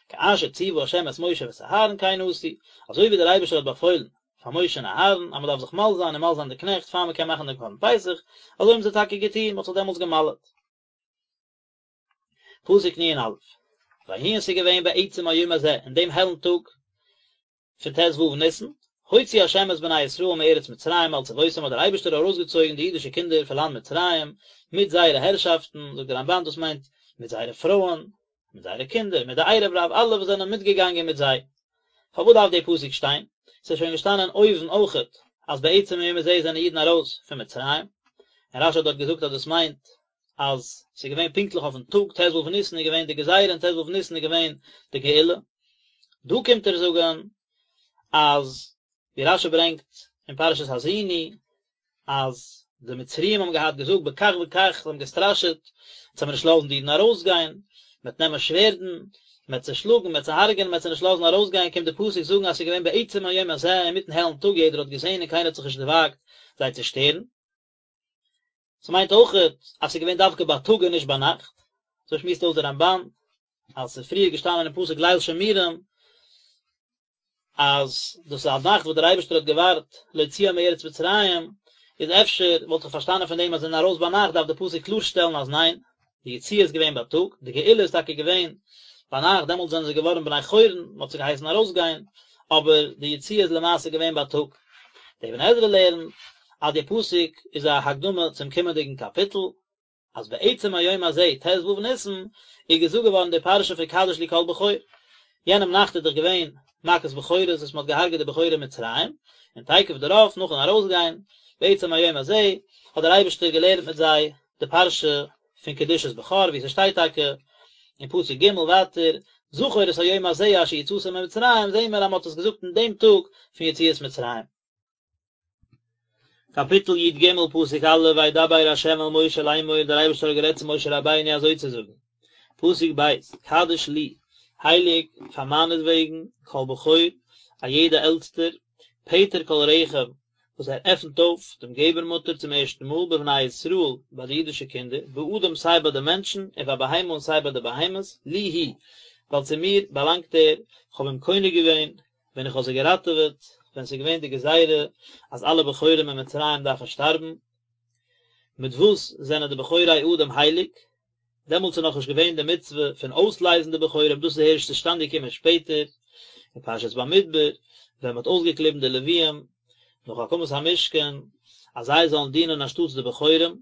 כאשר ציוה ה' את משה ואת אהרן כן עשו, אזוי ווי דער אייבערשטער האט באפוילן פאר משה און אהרן אז מען דארף זיך מל זיין און מל זיין די קנעכט פאר מען קען מאכן דעם קרבן פסח, אזוי האבן זיי טאקע געטון, מען האט זיך דעמאלטס געמל'עט. פסוק נ"א, ויהי און ס'איז געווען בעצם היום הזה, אין דעם העלן טאג, פון ט"ו ניסן, הוציא ה' את בני ישראל מארץ מצרים על צבאותם האט דער אייבערשטער ארויסגעצויגן די אידישע קינדער פון לאנד מצרים מיט זייערע הערשאפטן, זאגט דער רמב"ן דאס מיינט מיט זייערע פרויען, מיט זייערע קינדער, מיט די ערב רב אלע וואס זענען מיטגעגאנגען מיט זיי. פארוואס דארף דער פסוק שטיין? ס'איז שוין געשטאנען אויבן אויכעט אז בעצם היום הזה זענען אידן ארויס פון מצרים, און רשי האט דארט געזאגט אז דאס מיינט אז ס'איז געווען פונקטליך אויפן טאג ט"ו ניסן איז געווען די גזירה און ט"ו ניסן איז געווען די גאולה. דא קומט ער זאגן אז ווי רשי ברענגט אין פרשת האזינו אז די מצריים האבן געהאט געזאגט בכך וכך, זיי האבן געסטראשעט, אונז וועלן מיר נישט לאזן די אידן ארויסגיין, מען וועט נעמען שווערדן, מען וועט זיי שלאגן, מען וועט זיי הרג'ענען, מען וועט זיי נישט לאזן ארויסגיין, קומט די פסוק זאגן אז ס'איז געווען בעצם היום הזה, אינמיטן העלן טאג, יעדער האט געזען און קיינער האט זיך נישט דערוואגט זיי צו שטערן. ס'מיינט אויכעט אז ס'איז געווען דווקא בייטאג און נישט ביינאכט, אזוי שמועסט אויס דער רמב"ן, אז ס'איז פריער געשטאנען אין פסוק ליל שמורים, אז דאס איז א נאכט וואס דער אייבערשטער האט געווארט להוציאם מארץ מצרים, איז אפשר וואלט איך פארשטאנען פון דעם אז זיי זענען ארויס ביינאכט דארף דער פסוק קלארשטעלן אז ניין, די יציאה איז געווען בייטאג, די גאולה איז טאקע געווען ביינאכט, דעמאלטס זענען זיי געווארן בני חורין, מען האט זיי געהייסן ארויסגיין, אבער די יציאה איז למעשה געווען בייטאג. דער אבן עזרא לערנט אז די פסוק איז א הקדמה צום קומענדיגן קאפיטל, אז בעצם היום הזה ט"ו ניסן איז געזאגט געווארן די פרשה פון קדש לי כל בכור, יענעם נאכט איז דאך געווען מכת בכורות וואס מען האט געהארגעט די בכורים אין מצרים, און תיכף דערויף נאכן ארויסגיין, בעצם היום הזה, האט דער אייבערשטער געלערנט מיט זיי די פרשה פון קדושת בכור ווי ס'שטייט טאקע אין פסוק ג' ווייטער, זכור את היום הזה אשר יצאתם ממצרים, זעהן מיר אז מען האט עס געזאגט אין דעם טאג פון יציאת מצרים. קאפיטל י"ג פסוק א' וידבר ה' אל משה לאמור דער אייבערשטער האט גערעדט צו משה רבינו אזוי צו זאגן, פסוק ב', קדש לי, הייליג פאר מיינעטוועגן, כל בכור, א יעדע עלטסטער, פטר כל רחם, וואס ער עפנט אויף דעם געבערמוטער צום ערשטן מאל בבני ישראל ביי די אידישע קינדער, באדם סיי ביי די מענטשן, ובבהמה און סיי ביי די בהמות, לי הוא, ווייל צו מיר באלאנגט ער, כ'האב אים קונה געווען, ווען איך האב זיי געראטעוועט, ווען ס'איז געווען די גזירה אז אלע בכורים אין מצרים דארפן שטארבן. מיט וואס זענען די בכורי אדם הייליג? דעמאלטס איז נאכנישט געווען די מצוה פון אויסלייזן די בכורים, דאס איז הערשט צושטאנד געקומען שפעטער, אין פרשת במדבר, ווען מ'האט אויסגעקליבן די לוויים נאך הקמת המשכן, אז זיי זאלן דינען אנשטאטס די בכורים,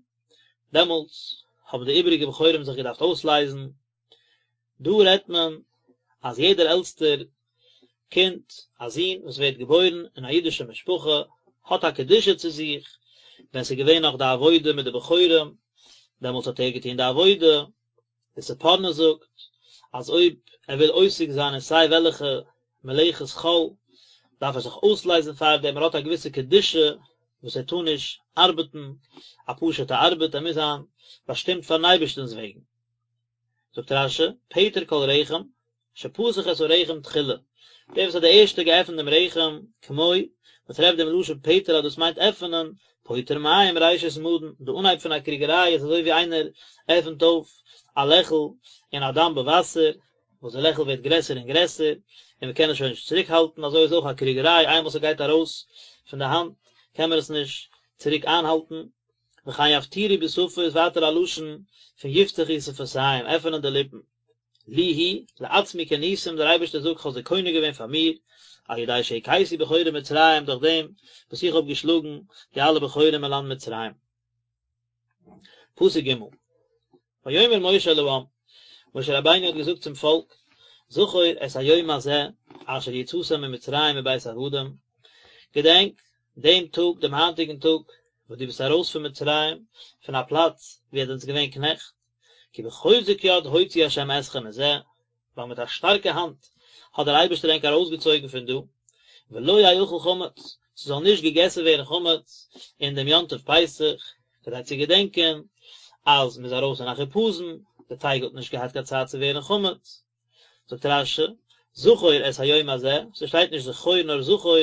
דעמאלטס האבן די איבעריגע בכורים זיך געדארפט אויסלייזן. דא רעדט מען אז יעדער עלטסטער קינד, א זון וואס ווערט געבוירן אין א אידישע משפחה, האט א קדושה צו זיך, ווען ס'איז געווען נאך די עבודה מיט די בכורים, דעמאלטס האט ער געטון די עבודה, די ספורנו זאגט אז אויב ער וויל עוסק זיין אין סיי וועלכע מלאכת חול, דארף ער זיך אויסלייזן פאר דעם, ער האט א געוויסע קדושה וואס ער טאר נישט ארבעטן א פשוט'ע ארבעט, ער מוז זיין באשטימט פאר'ן אייבערשטנ'ס וועגן. זאגט רש"י, פטר כל רחם, שפתח את הרחם תחילה, דער וואס האט די ערשטע געעפנט דעם רחם, כמו, מען טרעפט דעם לשון פטר אז דאס מיינט עפענען, פוטר מים ראשית מדון, די אנהייב פון א קריגעריי איז אזוי ווי איינער עפנט אויף א לעכל אין א דאמבע וואסער, וואס די לעכל ווערט גרעסער און גרעסער, און מען קען עס שוין נישט צוריק האלטן, אזוי איז אויך א קריגעריי, איינמאל ס'גייט ארויס פון די האנט קען מען עס נישט צוריק איינהאלטן. וכן יפטירו בשפה איז ווייטער א לשון פון יפתחו שפתיים, עפענען די ליפן. לי הוא, לעצמי קניתים, דער אייבערשטער זאגט כ'האב זיי קונה געווען פאר מיר, על ידי שהכיתי בכורי מצרים דורך דעם וואס איך האב געשלאגן די אלע בכורים אין לאנד מצרים. פסוק ג' ויאמר משה אל העם, משה רבינו האט געזאגט צום פאלק, זכור את היום הזה אשר יצאתם ממצרים מבית עבדים, געדענק דעם טאג, דעם היינטיגן טאג, וואס דו ביסט ארויס פון מצרים, פון א פלאץ וואו עטס זענטס געווען קנעכט, כי בחוזק יד הוציא ה' אתכם מזה, ווייל מיט א שטארקע האנט האט דער אייבערשטער ענק ארויסגעצויגן פון דא, ולא יאכל חמץ, ס'זאל נישט געגעסן ווערן חמץ אין דעם יום טוב פסח, כדי צו געדענקען אז מ'איז ארויס אין א חיפזון, די טייג האט נישט געהאט קיין צייט צו ווערן חמץ. זאגט רש"י, זכור את היום הזה, ס'שטייט נישט זכור נאר זכור,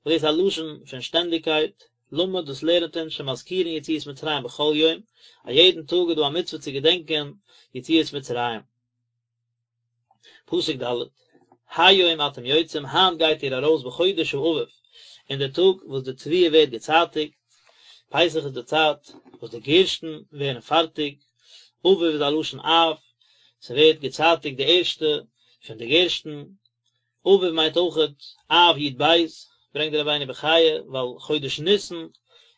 וואס דאס איז א לשון פון שטענדיגקייט, למד דאס לערנט אונז שמזכירין יציאת מצרים בכל יום, א יעדן טאג איז דא א מצוה צו געדענקען יציאת מצרים. פסוק ד', היום אתם יוצאים, היינט גייט איר ארויס בחודש האביב, אין די טאג וואס די תבואה ווערט געצייטיגט, פסח איז די צייט וואס די גערשטן ווערן פארטיג, אביב איז א לשון אב, ס'ווערט געצייטיגט די ערשטע פון די גערשטן, אביב מיינט אויכעט אב י"ב, ברענגט דער רבינו בחיי, ווייל חודש ניסן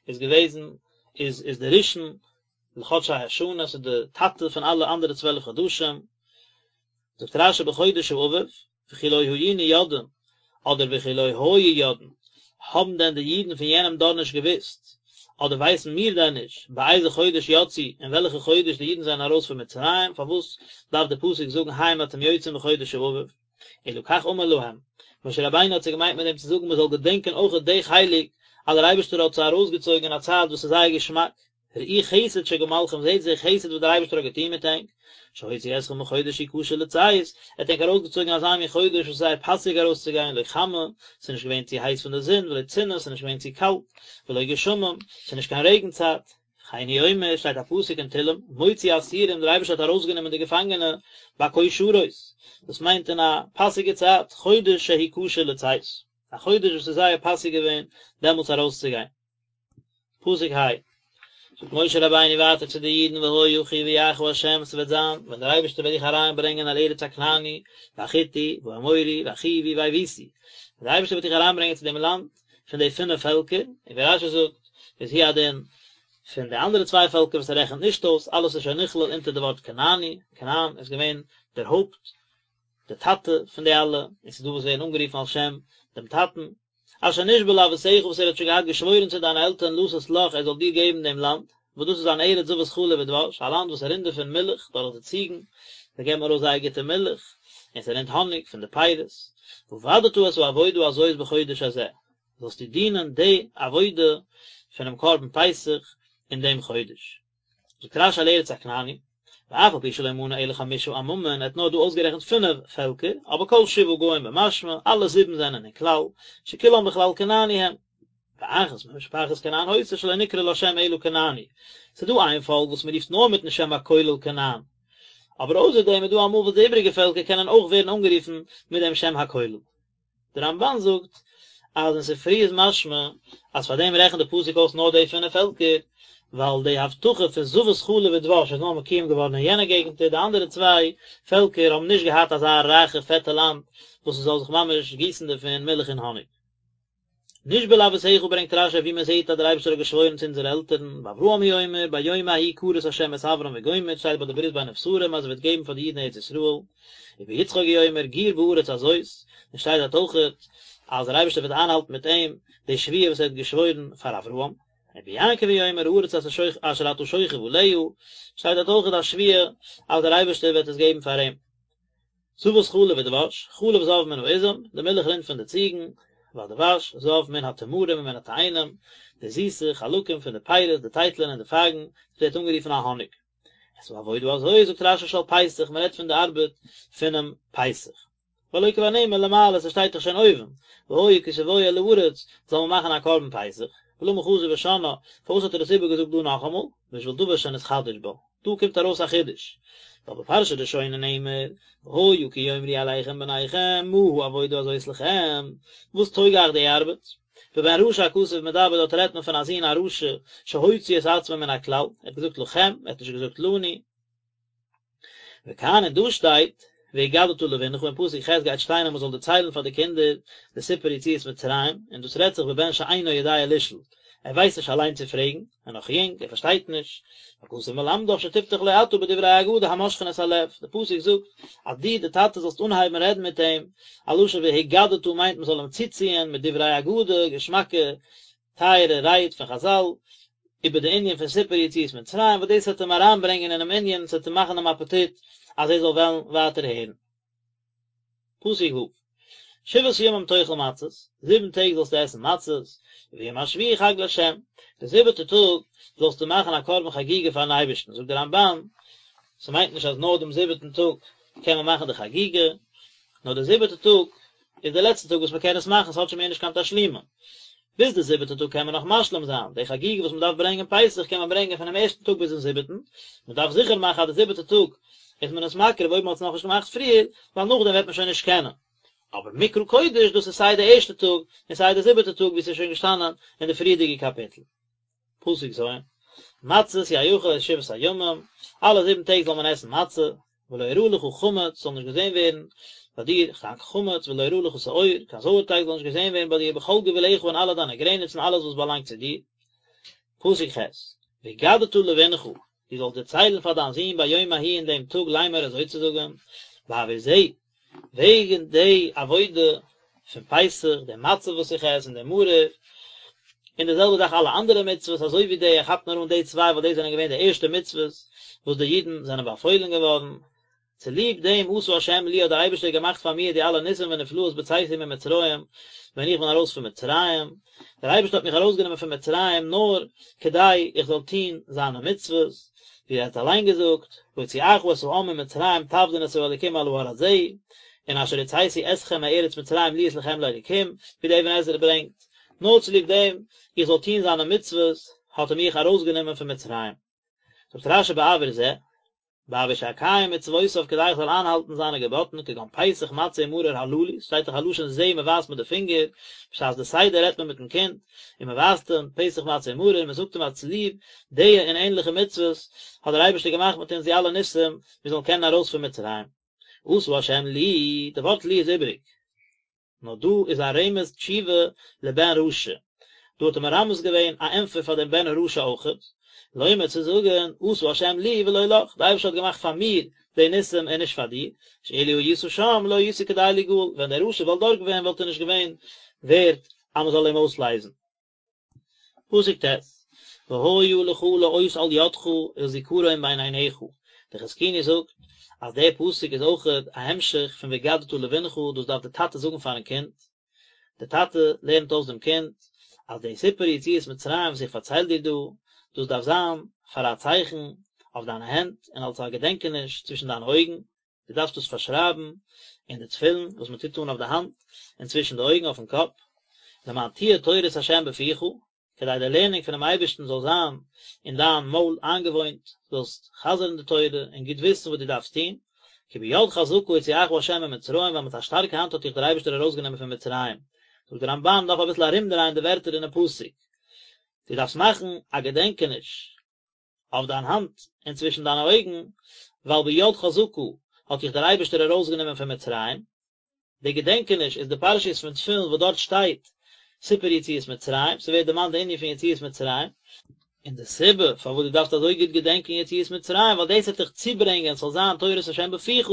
איז געוועזן איז איז די ראשון לחדשי השנה, ס'איז די טאטע פון אלע אנדערע 12 חדשים, זאגט רש"י בחודש האביב, וכי לא היינו יודעים. אדער וכי לא היו יודעין, האבן דען די אידן פון יענעם דור נישט געוואוסט, אדער ווייסן מיר דען נישט, באיזה חודש יצאו, אין וועלכע חודש די אידן זענען ארויס פון מצרים, פארוואס דארף דער פסוק זאגן היום אתם יוצאים בחודש האביב? אלא כך אמר להם, משה רבינו האט זיי געמיינט מיט דעם צו זאגן מען זאל געדענקען אויכעט די חלק אז דער אייבערשטער האט זיי ארויסגעצויגן אין א צייט וואס איז זייער געשמאק, ראו חסד שגמלכם זעהט די חסד וואס דער אייבערשטער האט געטון מיט ענק, שהוציא אתכם בחודש שהוא כשר לצאת, ער האט ענק ארויסגעצויגן אין אזא מין חודש וואס איז זייער פאסיג ארויסצוגיין, לא חמה, ס'איז נישט געווען צו הייס פון די זון, ולא צינה, ס'איז נישט געווען צו קאלט, ולא גשמים, ס'איז נישט קיין רעגן צייט. וכן הוא אומר, שטייט א פסוק אין תהלים, מוציא אסירים, דער אייבערשטער האט ארויסגענומען די געפאנגענע, בכושרות, דאס מיינט אין א פאסיגע צייט, חודש שהוא כשר לצאת, א חודש וואס איז זייער פאסיג געווען דעמאלטס ארויסצוגיין. פסוק ה, זאגט משה רבינו ווייטער צו די אידן והיה כי יביאך ה' ס'וועט זיין ווען דער אייבערשטער וועט דיך אריינברענגען אל ארץ הכנעני והחתי והאמורי והחוי והיבוסי, ווען דער אייבערשטער וועט דיך אריינברענגען צו דעם לאנד פון די פינף פעלקער, און ווי רשי זאגט איז הוא הדין פון די אנדערע צוויי פעלקער וואס ער רעכנט נישט אויס, אלעס איז שוין נכלל אונטער די ווארט כנעני, כנען איז געווען דער הויפט, דער טאטע פון די אלע, און ס'איז דא וואס ווערן אנגערופן על שם דעם טאטן. אשר נשבע לאבותיך וואס ער האט שוין געהאט געשוואוירן צו דיינע עלטערן לתת לך ער זאל דיר געבן דעם לאנד, וואס דאס איז אן ארץ זבת חלב ודבש, א לאנד וואס רינט דערפון מילך דורך די ציגן, זיי געבן ארויס זייער גוטע מילך, און ס'רינט האניג פון די פירות. ועבדת את העבודה הזאת בחודש הזה, זאלסטו דינען די עבודה פונעם קרבן פסח אין דעם חודש. זאגט רשי אל ארץ הכנעני, ואף על פי שלא מנה אלא חמשה עממין, ער האט נאר דא אויסגערעכנט פינף פעלקער, אבער כל שבעה גוים במשמע, אלע זיבן זענען אין כלל, שכולם בכלל כנעני הם. ואחת ממשפחת כנען היתה שלא נקרא לה שם אלא כנעני, ס'איז דא איין פאלק וואס מ'רופט נאר מיטן שם הכולל כנען, אבער אויסער דעם איז דא אמאל וואס די איבריגע פעלקער קענען אויך ווערן אנגערופן מיט דעם שם הכולל. דער רמבן זאגט אז אין ספרי איז משמע אז פאר דעם רעכנט די פסוק אויס נאר די פינף פעלקער, ווייל די הבטחה פון זבת חלב ודבש איז נאר מקוים געווארן אין יענע געגנטער, די אנדערע צוויי פעלקער האבן נישט געהאט אזא רייכע פעטע לאנד וואס עס זאל זיך ממש גיסן דערפון מילך און האניג. נשבע לאבותיך ברענגט רשי ווי מען זעט אז דער אייבערשטער האט געשוואוירן צו אונזערע עלטערן, באברהם הוא אומר, ביום ההוא כרת השם את אברם וגומר, שטייט ביי די ברית בין הבתרים אז ער וועט געבן פאר די אידן ארץ ישראל, וביצחק הוא אומר גור בארץ הזאת, און שטייט דארט אויכעט אז דער אייבערשטער וועט איינהאלטן מיט אים די שבועה וואס ער האט געשוואוירן פאר אברהם, וביעקב הוא אומר הארץ אשר אתה שוכב עליה, שטייט דארט אויכעט א שבועה אז דער אייבערשטער וועט עס געבן פאר אים. זבת חלב ודבש, חלב זב מן העזים, די מילך רינט פון די ציגן, והדבש זב מן התמרים ומן התאנים, די זיסע חלקים פון די פירות, די טייטלען און די פייגן, עס ווערט אנגערופן א האניג. את העבודה הזאת זאגט רשי של פסח, מען רעדט פון די ארבעט פונעם פסח. והלא כבר נאמר למעלה, ס'שטייט דאך שוין אויבן, והיה כי תבואו אל הארץ, זאל מען מאכן א קרבן פסח, ולמה חזר ושנאה, פארוואס האט ער עס איבערגעזאגט דא נאכאמאל, בשביל דבר שנתחדש בה, דא קומט ארויס א חידוש, ווייל בפרשה ראשונה נאמר, והיה כי יאמרו אליכם בניכם מה העבודה הזאת לכם, וואס טויג אייך די ארבעט? בבן רשע הכתוב מדבר דארט רעדט מען פון א זון א רשע שהוציא את עצמו מן הכלל, ער האט געזאגט לכם, ער האט נישט געזאגט לנו. וכאן און דא שטייט, והגדת לבנך, אין פסוק ח' גייט שטיין אז מען זאל דערציילן פאר די קינדער די סיפור יציאת מצרים, און דאס רעדט זיך בבן שאינו יודע לשאול, ער ווייסט נישט אליין צו פרעגן, ער איז נאך יונג, ער פארשטייט נישט, והכתוב מלמדך שתפתח לו אתה בדברי אגדה המושכין את הלב, די פסוק זאגט אז דו די טאטע זאלסט אנהייבן רעדן מיט אים, א לשון והגדת מיינט מען זאל אים צוציען מיט דברי אגדה, געשמאקע טייערע רייד פון חזל, איבער די ענין פון סיפור יציאת מצרים, וואס דאס וועט אים אריינברענגען אינעם ענין, ס'וועט אים מאכן דעם אפעטיט אז ער זאל וועלן ווייטער הערן. פסוק ו', שבעת ימים תאכל מצות, זיבן טעג זאלסטו עסן מצות, וביום השביעי חג לה', די זיבעטע טאג זאלסטו מאכן א קרבן חגיגה פארן אייבערשטן, זאגט דער רמבן, ס'מיינט נישט אז נאר דעם זיבעטן טאג קען מען מאכן די חגיגה, נאר די זיבעטע טאג איז די לעצטע טאג וואס מען קען עס מאכן, ס'האט שוין מער נישט קיין תשלומין. ביז די זיבעטע טאג קען מען נאך משלים זיין, די חגיגה וואס מען דארף ברענגען פסח קען מען ברענגען פונעם ערשטן טאג ביזן זיבעטן, מען דארף זיכער מאכן אז די זיבעטע טאג איז מען עס מקריב אויב מען האט עס נאכנישט געמאכט פריער, ווייל נאכדעם וועט מען שוין נישט קענען. אבער מקרא קודש דאס איז סיי די ערשטע טאג און סיי די זיבעטע טאג ווי עס איז שוין געשטאנען אין די פריערדיגע קאפיטל. פסוק ז', מצות יאכל את שבעת הימים, אלע זיבן טעג זאל מען עסן מצה, ולא יראה לך חמץ, ס'זאל נישט געזען ווערן ביי דיר קיין חמץ, ולא יראה לך שאור, קיין זויערטייג זאל נישט געזען ווערן ביי דיר, בכל גבולך אין אלע דיינע גרעניצן, אלעס וואס באלאנגט צו דיר. פסוק ח', והגדת לבנך, דו זאלסט דערציילן פאר דיין זון ביום ההוא אין דעם טאג לאמר אזוי צו זאגן, בעבור זה, וועגן די עבודה. פון פסח, די מצה וואס איך עס און די מרור, און די זעלבע זאך אלע אנדערע מצוות אזוי ווי די, ער כאפט נאר אן די צוויי ווייל די זענען געווען די ערשטע מצוות וואס די אידן זענען באפוילן געווארן, צוליב דעם עשה ה' לי האט דער אייבערשטער געמאכט פאר מיר די אלע ניסים ונפלאות בצאתי ממצרים, ווען איך בין ארויס פון מצרים, דער אייבערשטער האט מיך ארויסגענומען פון מצרים נאר כדי איך זאל טון זיינע מצוות, ווי ער האט אליין געזאגט, בהוציאך את העם ממצרים תעבדון את האלוקים על ההר הזה, און אשר הוצאתי אתכם מארץ מצרים להיות לכם לאלוקים, ווי דער אבן עזרא ברענגט, נאר צוליב דעם איך זאל טון זיינע מצוות האט ער מיך ארויסגענומען פון מצרים. זאגט רשי בעבור זה, בעבור שאקיים מצוותיו כדי איך זאל איינהאלטן זיינע געבאטן כגון פסח מצה ומרור הללו, שטייט דאך א לשון זה מען ווייזט מיט די פינגער, בשעת די סדר רעדט מען מיטן קינד, און מען ווייזט אים פסח מצה ומרור, און מען זאגט אים אז צוליב די און ענליכע מצוות האט דער אייבערשטער געמאכט מיט אונז די אלע ניסים מיר זאלן קענען ארויס פון מצרים. עשה ה' לי, די ווארט לי איז איבעריג. נאר דא איז א רמז תשובה לבן רשע, דא האט ער מרמז געווען א ענטפער פאר דעם בן הרשע אויכעט, לומר צו זאגן, עשה השם לי ולא לך, די אייבערשטער האט געמאכט פאר מיר די ניסים און נישט פאר דיר, שאילו היית שם לא היית כדאי ליגאל, ווען דער רשע וואלט דארט געווען וואלט ער נישט געווען ווערט אז מען זאל אים אויסלייזן. פסוק ט', והיה לך לאות על ידך ולזכרון בין עיניך, דער חזקוני זאגט אז דער פסוק איז אויכעט א המשך פון והגדת לבנך, דאס דארף דער טאטע זאגן פארן קינד, דער טאטע לערנט אויס דעם קינד אז די סיפור יציאת מצרים וואס איך פארצייל דיר דא, דאס דארף זיין פאר א צייכן אויף דיינע הענט און אלס א געדענקעניש צווישן דיינע אויגן, דו דארפסט דאס פארשרייבן אין די תפילין וואס מען טוט אן אויף די האנט און צווישן די אויגן אויפן קאפ, למען תהיה תורת ה' בפיך, כדי די לערנונג פונעם אייבערשטן זאל זיין אין דיין מויל איינגעוואוינט, זאלסט חזר'ן די תורה און גוט וויסן וואס דו דארפסט טון, כי ביד חזקה הוציאך ה' ממצרים, ווייל מיט א שטארקע האנט האט דיך דער אייבערשטער ארויסגענומען פון מצרים. זאגט דער רמב"ן, מען דארף אביסל ארומדרייען די ווערטער אינעם פסוק, דו דארפסט מאכן א געדענקעניש אויף דיין האנט און צווישן דיינע אויגן, ווייל ביד חזקה האט דיך דער אייבערשטער ארויסגענומען פון מצרים. די געדענקעניש איז די פרשיות פון תפילין וואס דארט שטייט סיפור יציאת מצרים, ס'ווערט דערמאנט די ענין פון יציאת מצרים, און די סיבה פארוואס דו דארפסט אזוי גוט געדענקען יציאת מצרים, ווייל דאס וועט דיך צוברענגען ס'זאל זיין תורת השם בפיך,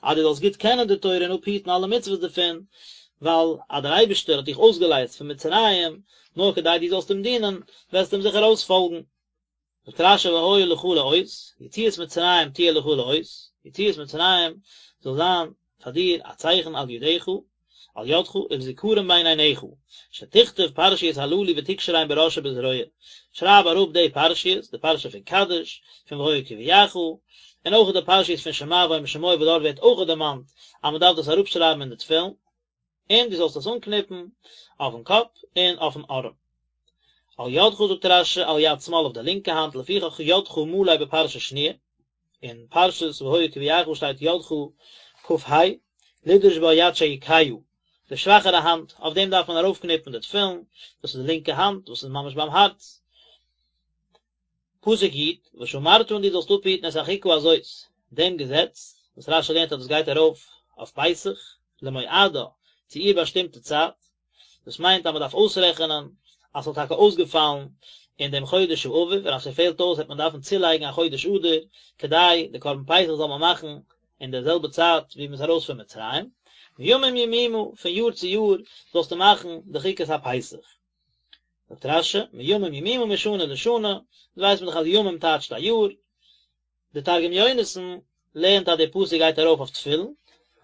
אז דו זאלסט גוט קענען די תורה און אפהיטן אלע מצוות דערפון, ווייל אז דער אייבערשטער האט דיך אויסגעלייזט פון מצרים, נאר כדי דו זאלסט אים דינען, וועסטו אים זיכער אויספאלגן. זאגט רש"י והיה לך לאות, יציאת מצרים תהיה לך לאות, יציאת מצרים זאל זיין פאר דיר א צייכן על ידך, על ידך, ולזכרון בין עיניך, שתכתוב פרשיות הללו ותקשרן בראש ובזרוע, שרייב אראפ די פרשיות, די פרשה פון קדש, פון והיה כי יביאך, און אויך די פרשיות פון שמע והיה אם שמוע וואס דארט ווערט אויך דערמאנט אז מען דארף דאס אראפשרייבן אין די תפילין. און דו זאלסט עס אנקניפן אויפן קאפ און אויפן ארעם. על ידך זאגט רש"י על יד שמאל אויף די לינקע האנט לפיכך ידך מלא בפרשה שניה, אין פרשת והיה כי יביאך שטייט ידך כ"ה, לדרוש בה יד שהיא כהה, די שוואכערע האנט, אויף דעם דארף מען ארויפקניפן די תפילין, דאס איז די לינקע האנט וואס איז ממש ביים הארץ. פסוק י', ושמרת און דו זאלסט אפהיטן את החוקה הזאת, דעם געזעץ, וואס רש"י לערנט אז דאס גייט ארויף אויף פסח, למועדה, צו איר באשטימטע צייט, דאס מיינט אז מען דארף אויסרעכענען אז ס'זאל טאקע אויסגעפאלן אין דעם חודש האביב, און אז ס'פעלט אויס וועט מען דארפן צולייגן א חודש אדר, כדי די קרבן פסח זאל מען מאכן אין דער זעלבע צייט ווי מ'איז ארויס פון מצרים, מימים ימימה, פון יאר צו יאר זאלסטו מאכן די חוקת הפסח. זאגט רש"י, מימים ימימה משנה לשנה, דאס ווייסט מען דאך אז ימים טייטשט א יאר, די תרגום יונתן לערנט אז די פסוק גייט ארויף אויף תפילין,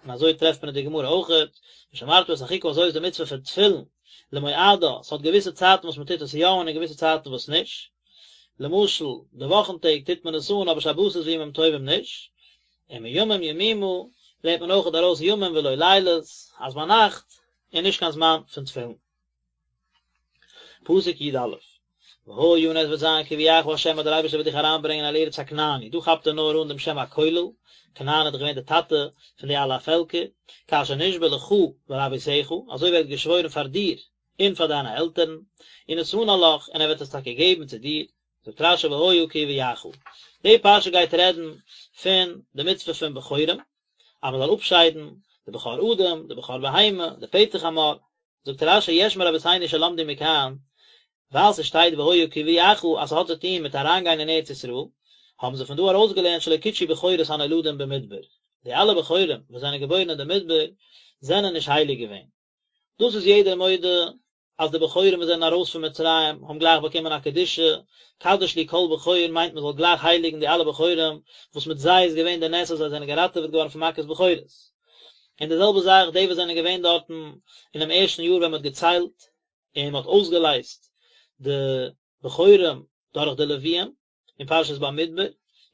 און אזוי טרעפט מען אין די גמרא אויכעט, ושמרת את החוקה הזאת איז די מצוה פון תפילין, למועדה, ס'האט געוויסע צייטן וואס מען טוט עס יא אן און געוויסע צייטן וואס נישט, למשל די וואכן טעג טוט מען עס אן אבער שבתות וימים טובים נישט, און מימים ימימה לערנט מען אויכעט ארויס ימים ולא לילות, אז ביינאכט איז נישט קיין זמן פון תפילין. פסוק י"א, והיה און עס וועט זיין כי יביאך ה' אז דער אייבערשטער וועט דיך אריינברענגען אל ארץ הכנעני, דא כאפט ער נאר אן דעם שם הכולל, כנען איז דאך געווען דער טאטע פון די אלע פעלקער, כאשר נשבע לך ולאבותיך, אזוי ווי ער האט געשוואוירן פאר דיר און פאר דיינע עלטערן, ונתנה לך, און ער וועט עס טאקע געבן צו דיר, זאגט רש"י והיה כי יביאך. די פרשה גייט רעדן פון די מצוה פון בכורים, אז מען זאל אפשיידן די בכור אדם, די בכור בהמה, די פטר חמור, זאגט רש"י יש מרבותינו שלמדו מכאן, ווייל ס'שטייט והיה כי יביאך אז ס'האט צו טון מיט אריינגיין אין ארץ ישראל, האבן זיי פון דא ארויסגעלערנט שלא קודשו בכורות הנולדים במדבר, די אלע בכורים וואס זענען געבוירן אין די מדבר זענען נישט הייליג געווען. דאס איז יעדער מודה אז די בכורים וואס זענען ארויס פון מצרים האבן גלייך באקומען א קדושה, קדש לי כל בכור מיינט מען זאל גלייך הייליגן די אלע בכורים וואס מיט זיי איז געווען די נס אז זיי זענען געראטעוועט געווארן פון מכת בכורות. און די זעלבע זאך די וואס זענען געווען דארטן אינעם ערשטן יאר ווען מען האט געציילט און מען האט אויסגעלייזט די בכורים דורך די לוויים אין פרשת במדבר,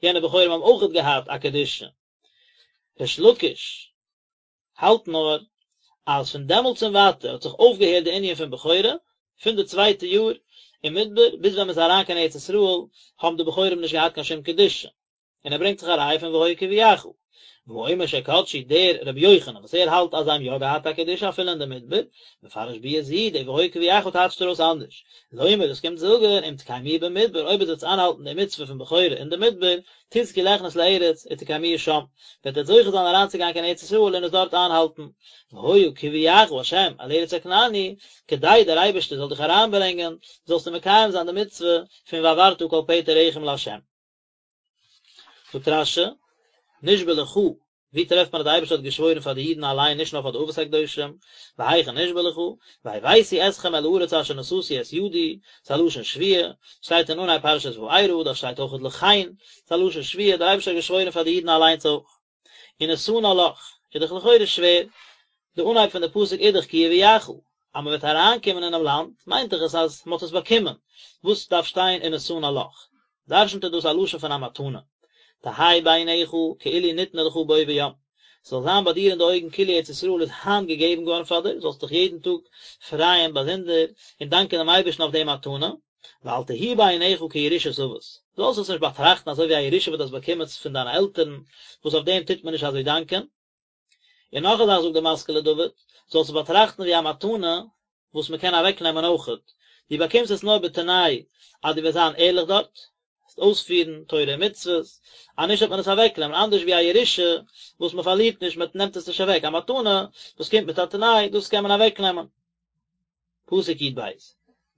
יענע בכורים האבן אויכעט געהאט א קדושה. ריש לקיש האלט נאר אז פון דעמאלטס און ווייטער האט זיך אויפגעהערט די ענין פון בכורה, פון די צווייטע יאר אין מדבר ביז ווען מען איז אריין קיין ארץ ישראל האבן די בכורים נישט געהאט קיין שום קדושה, און ער ברענגט זיך א ראיה פון והיה כי יביאך. והאומר שקדשו דער רבי יוחנן וואס ער האלט אז זיי האבן יא געהאט א קדושה אפילו אין די מדבר, מפרש ביאה זו, די והיה כי יביאך טייטשט ער אויס אנדערש, לומר דאס קומט זאגן אם תקיימוה במדבר אויב עטס וועטס איינהאלטן די מצוה פון בכורה אין די מדבר, תזכו ליכנס לארץ ותקיימוה שם, וועט עטס זוכה זיין אריינצוגיין קיין ארץ ישראל און עס דארט איינהאלטן, והיה כי יביאך ה' אל ארץ הכנעני, כדי דער אייבערשטער זאל דיך אריינברענגען, זאלסטו מקיים זיין די מצוה פון והעברת כל פטר רחם לה'. זאגט רש"י, נשבע לך, ווי טרעפט מען אז דער אייבערשטער האט געשוואוירן פאר די אידן אליין נישט נאר פאר די אבות הקדושים, והיכן נשבע לך, והבאתי אתכם אל הארץ אשר נשאתי את ידי, ס'איז א לשון שבועה, שטייט אין אנהייב פרשת וארא, דארט שטייט אויכעט לכן, ס'איז א לשון שבועה, דער אייבערשטער האט געשוואוירן פאר די אידן אליינס אויך. ונתנה לך, איז דאך לכאורה שווער, די אנהייב פון די פסוק איז דאך כי יביאך, אז מען וועט אריינקומען אינעם לאנד, מיינט דאך עס אז מען האט עס באקומען, וואס דארף שטיין ונתנה לך? דרשנ'ט ער דאס א לשון פון א מתנה, תהא בעיניך כאילו ניתנה לך בו ביום, ס'זאל זיין ביי דיר אין די אויגן כאילו ארץ ישראל איז היינט געגעבן געווארן פאר דיר, זאלסט דיך יעדן טאג פרייען באזונדער און דאנקען דעם אייבערשטן אויף די מתנה, ואל תהי בעיניך כירושת אבות, זאלסט עס נישט באטראכטן אזוי ווי א ירושה וואס דו האסט באקומען פון דיינע עלטערן, וואס אויף דעם טוט מען נישט אזוי דאנקען. און נאך א זאך זאגט דער משכיל לדוד, זאלסט עס באטראכטן ווי א מתנה וואס מען קען אוועקנעמען אויכעט, דו באקומסט עס נאר בתנאי אז דו וועסט זיין ערליך דארט, וועסט אויספירן תורה און מצוות, אז נישט וועט מען עס אוועקנעמען, אנדערש ווי א ירושה וואס מען פארלירט נישט, מען נעמט עס נישט אוועק, א מתנה וואס קומט מיט א תנאי, דאס קען מען אוועקנעמען. פסוק י"ב,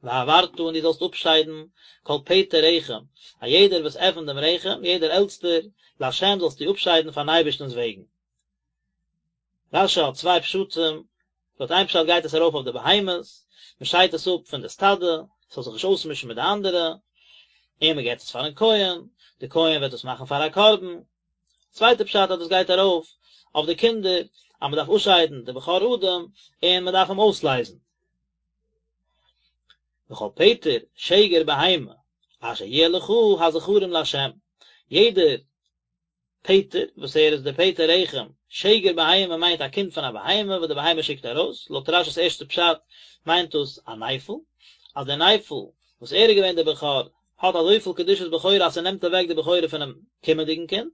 והעברת און דו זאלסט אפשיידן כל פטר רחם, א יעדער וואס עפנט דעם רחם, יעדער עלטסטער, לה' זאלסטו אפשיידן פארן אייבערשטנ'ס וועגן. רש"י האט צוויי פשטים, לויט איין פשט גייט עס ארויף אויף די בהמות, מען שיידט עס אפ פון די סטאדע, עס זאל זיך נישט אויסמישן מיט די אנדערע, און מען געבט עס פארן כהן, די כהן וועט עס מאכן פאר א קרבן. צווייטע פשט אז דאס גייט ארויף אויף די קינדער, אז מען דארף אפשיידן די בכור אדם און מען דארף אים אויסלייזן. וכל פטר שגר בהמה אשר יהיה לך הזכרים לה', יעדער פטר, וואס ער איז דער פטר רחם, שגר בהמה מיינט א קינד פון א בהמה וואס די בהמה שיקט ארויס, לויט רש"י'ס ערשטע פשט מיינט דאס א נפל, אז דער נפל וואס ער איז געווען דער בכור האט אזויפיל קדושת בכורה אז ס'נעמט אוועק די בכורה פונעם קומענדיגן קינד,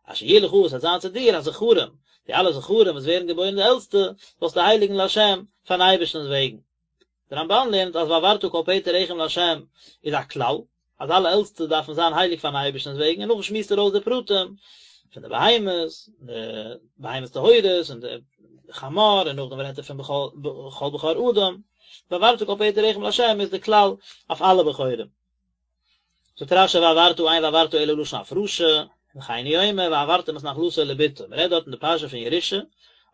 אשר יהיה לך וואס וועט זיין צו דיר הזכרים, די אלע זכרים וואס ווערן געבוירן די עלטסטע, זאלסטו הייליגן לה' פארן אייבערשטנ'ס וועגן. דער רמב"ן לערנט אז והעברת כל פטר רחם לה' איז א כלל, אז אלע עלטסטע דארפן זיין הייליג פארן אייבערשטנ'ס וועגן, און נאכדעם שמועסט ער אויס די פרטים פון די בהמות, די בהמות טהורות און די חמור, און נאכדעם רעדט ער פון כל בכור אדם, והעברת כל פטר רחם לה' איז די כלל אויף אלע בכורים. זאגט רש"י והעברת אין והעברת אלא לשון הפרשה, וכן הוא אומר והעברתם את נחלתו לבתו, מען רעדט דארט אין די פרשה פון ירושה,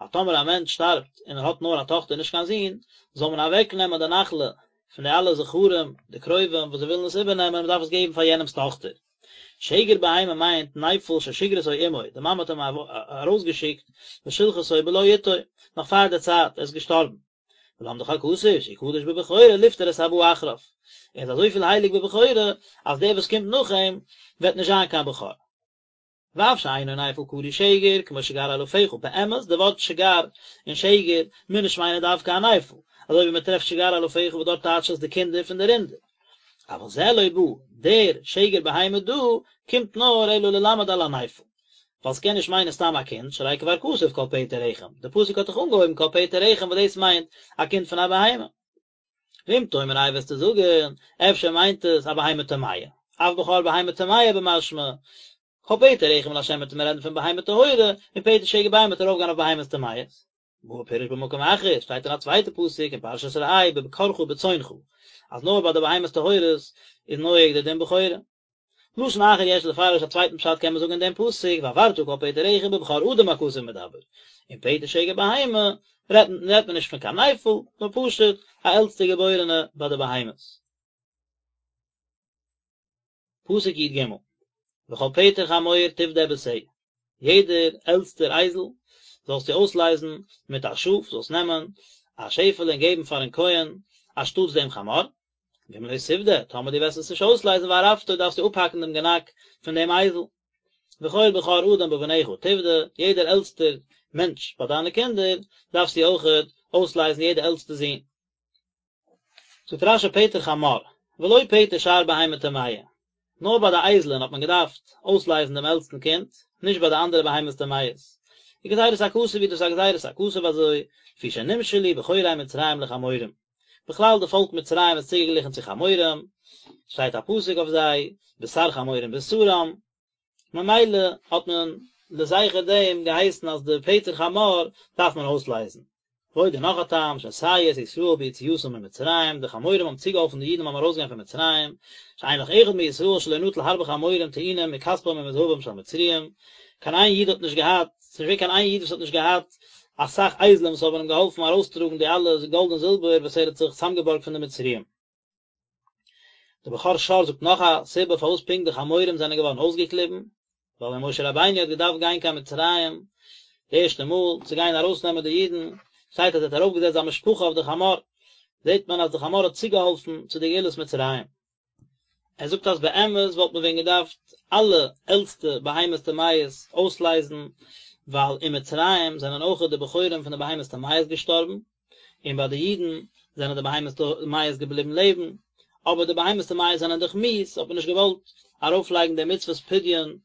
אז טאמער א מענטש שטארבט און ער האט נאר א טאכטער נישט קיין זון, זאל מען אוועק נעמען די נחלה פון די אלע זכרים, די קרובים וואס זיי ווילן עס איבערנעמען, מען דארף עס געבן פאר יענעמ'ס טאכטער. שגר בהמה מיינט נפל ששיגרתו אמו, די מאמע האט אים ארויסגעשיקט ושלחתו בלא עתו, נאך פאר די צייט, ער איז געשטארבן. ולמדך הכתוב שהוא קדוש בבכורה לפטור את הבא אחריו, ער איז אזויפיל הייליג בבכורה אז דער וואס קומט נאך אים וועט נישט זיין קיין בכור. ואף שאינו נפל קרוי שגר כמו שגר אלפיך, באמת די ווארט שגר און שגר מוז נישט מיינען דווקא א נפל, אזוי ווי מען טרעפט שגר אלפיך וואס דארט טייטשט עס די קינדער פון די רינדער. אבל זה לא בא, דער שגר בהמה דא קומט נאר אלא ללמד על הנפל. ווייל ס'קען נישט מיינען סתם א קינד, שהרי כבר כתוב כל פטר רחם, די פסוק האט דאך אנגעהויבן כל פטר רחם וואס דאס מיינט א קינד פון א בהמה. ואם תאמר איי וועסטו זאגן, אפשר מיינט עס א בהמה טמאה, אף בכור בהמה טמאה במשמע, כל פטר רחם לה' וועט מען רעדן פון בהמה טהורה, און פטר שגר בהמה וועט ארויפגיין אויף בהמות טמאות. בא ופירש במקום אחר, שטייט אין א צווייטע פסוק אין פרשת ראה בבקרך ובצאנך, אז נאר ביי די בהמות טהורות איז נוהג די דין בכורה. לשון אחר יש לפרש א צווייטן פשט קען מען זאגן אין דעם פסוק והעברת כל פטר רחם בבכור אדם הכתוב מדבר, און פטר שגר בהמה רעדט מען נישט פון קיין נפל, נאר פשוט א עלטסטע געבוירענע ביי די בהמות. פסוק י ג, וכל פטר חמור תפדה בשה, יעדער עלטסטער אייזל זאלסטו אויסלייזן מיט א שאף, זאלסט נעמען א שעפעלע און געבן פארן כהן אנשטאטס דעם חמור, ואם לא תפדה, טאמער דו וועסט עס נישט אויסלייזן וערפתו דארפסטו אפהאקן דעם גענאק פון דעם אייזל. וכל בכור אדם בבניך תפדה, יעדער עלטסטער מענטש ביי דיינע קינדער דארפסטו אויכעט אויסלייזן יעדער עלטסטע זון. זאגט רשי פטר חמור, ולא פטר שאר בהמה טמאה, נאר ביי די אייזלען האט מען געדארפט אויסלייזן דעם עלטסטן קינד, נישט ביי די אנדערע בהמות טמאות. וגזירת הכתוב היא דאס איז א גזירת הכתוב אזוי, לפי שנמשלו בכורי מצרים לחמורים. בכלל די פאלק מצרים איז צוגעגליכן צו חמורים, שטייט א פסוק אויף זיי, בשר חמורים בשרם, ממילא האט מען לזכר דעם געהייסן אז די פטר חמור דארף מען אויסלייזן. ועוד און נאך א טעם, שסייעו את ישראל ביציאתם ממצרים, די חמורים האבן צוגעהאלפן די אידן ביים ארויסגיין פון מצרים, שאין לך אחד מישראל שלא נטל הרבה חמורים טעונים מכספם ומזהבם של מצרים, קיין איין איד האט נישט געהאט, ס'איז נישט געווען קיין איין איד וואס האט נישט געהאט אסאך אייזלען וואס האבן אים געהאלפן ארויסטראגן די אלע גאלד און זילבער וואס ער האט זיך צוזאמגעבארגט פון די מצריים. דער בכור שור זאגט נאך א סיבה פארוואס פונקט די חמורים זענען געווארן אויסגעקליבן, ווייל ווען משה רבינו האט געדארפט גיין קיין מצרים די ערשטע מאל צו גיין ארויסנעמען די אידן, שטייט אז ער האט ארויפגעזעצט זיין משפחה אויף די חמור, זעט מען אז די חמור האט צוגעהאלפן צו די גאולת מצרים. ער זאגט אז באמת וואלט מען ווען געדארפט אלע עלטסטע בהמות טמאות אויסלייזן, ווייל אין מצרים זענען אויכעט די בכורים פון די בהמות טמאות געשטארבן, און ביי די אידן זענען די בהמות טמאות געבליבן לעבן, אבער די בהמות טמאות זענען דאך מיאוס, האט מען נישט געוואלט ארויפלייגן די מצוות פדיון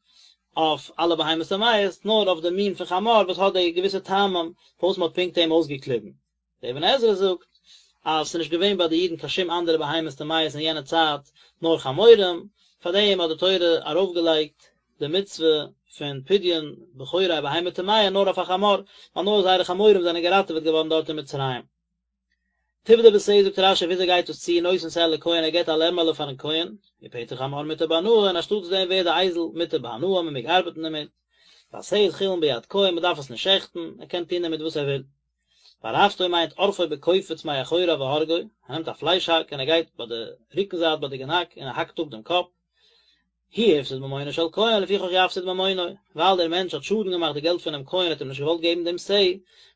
אויף אלע בהמות טמאות, נאר אויף די מין פון חמור וואס האט די געוויסע טעמים פארוואס מען האט פונקט אים אויסגעקליבן. דער אבן עזרא זאגט אז ס'איז נישט געווען ביי די אידן קיין שום אנדערע בהמות טמאות אין יענע צייט נאר חמורים, פארדעם האט די תורה ארויפגעלייגט די מצוה פון פדיון בכורי בהמה טמאה נאר אויף א חמור, ווייל נאר זייערע חמורים זענען געראטעוועט געווארן דארט אין מצרים. תפדה בשה זאגט רשי וויאזוי גייט דאס צו נותן שה לכהן ער געבט א לעמעלע פארן כהן, ופטר חמור מותר בהנאה און אנשטאטס דעם ווערט די אייזל מותר בהנאה מען מעג ארבעטן דערמיט, והשה איז חולין ביד כהן מען דארף עס נישט שעכטן, ער קען טון דערמיט וואס ער וויל. וערפתו מיינט עורפו בקופיץ מאחוריו והורגו, ער נעמט א פלייש האק און ער גייט ביי די רוקן זייט ביי די גענאק און ער האקט אפ דעם קאפ, הוא הפסיד ממונו של כהן לפיכך יפסיד ממונו, ווייל דער מענטש האט שאדן געמאכט די געלט פונעם כהן האט אים נישט געוואלט געבן דעם שה,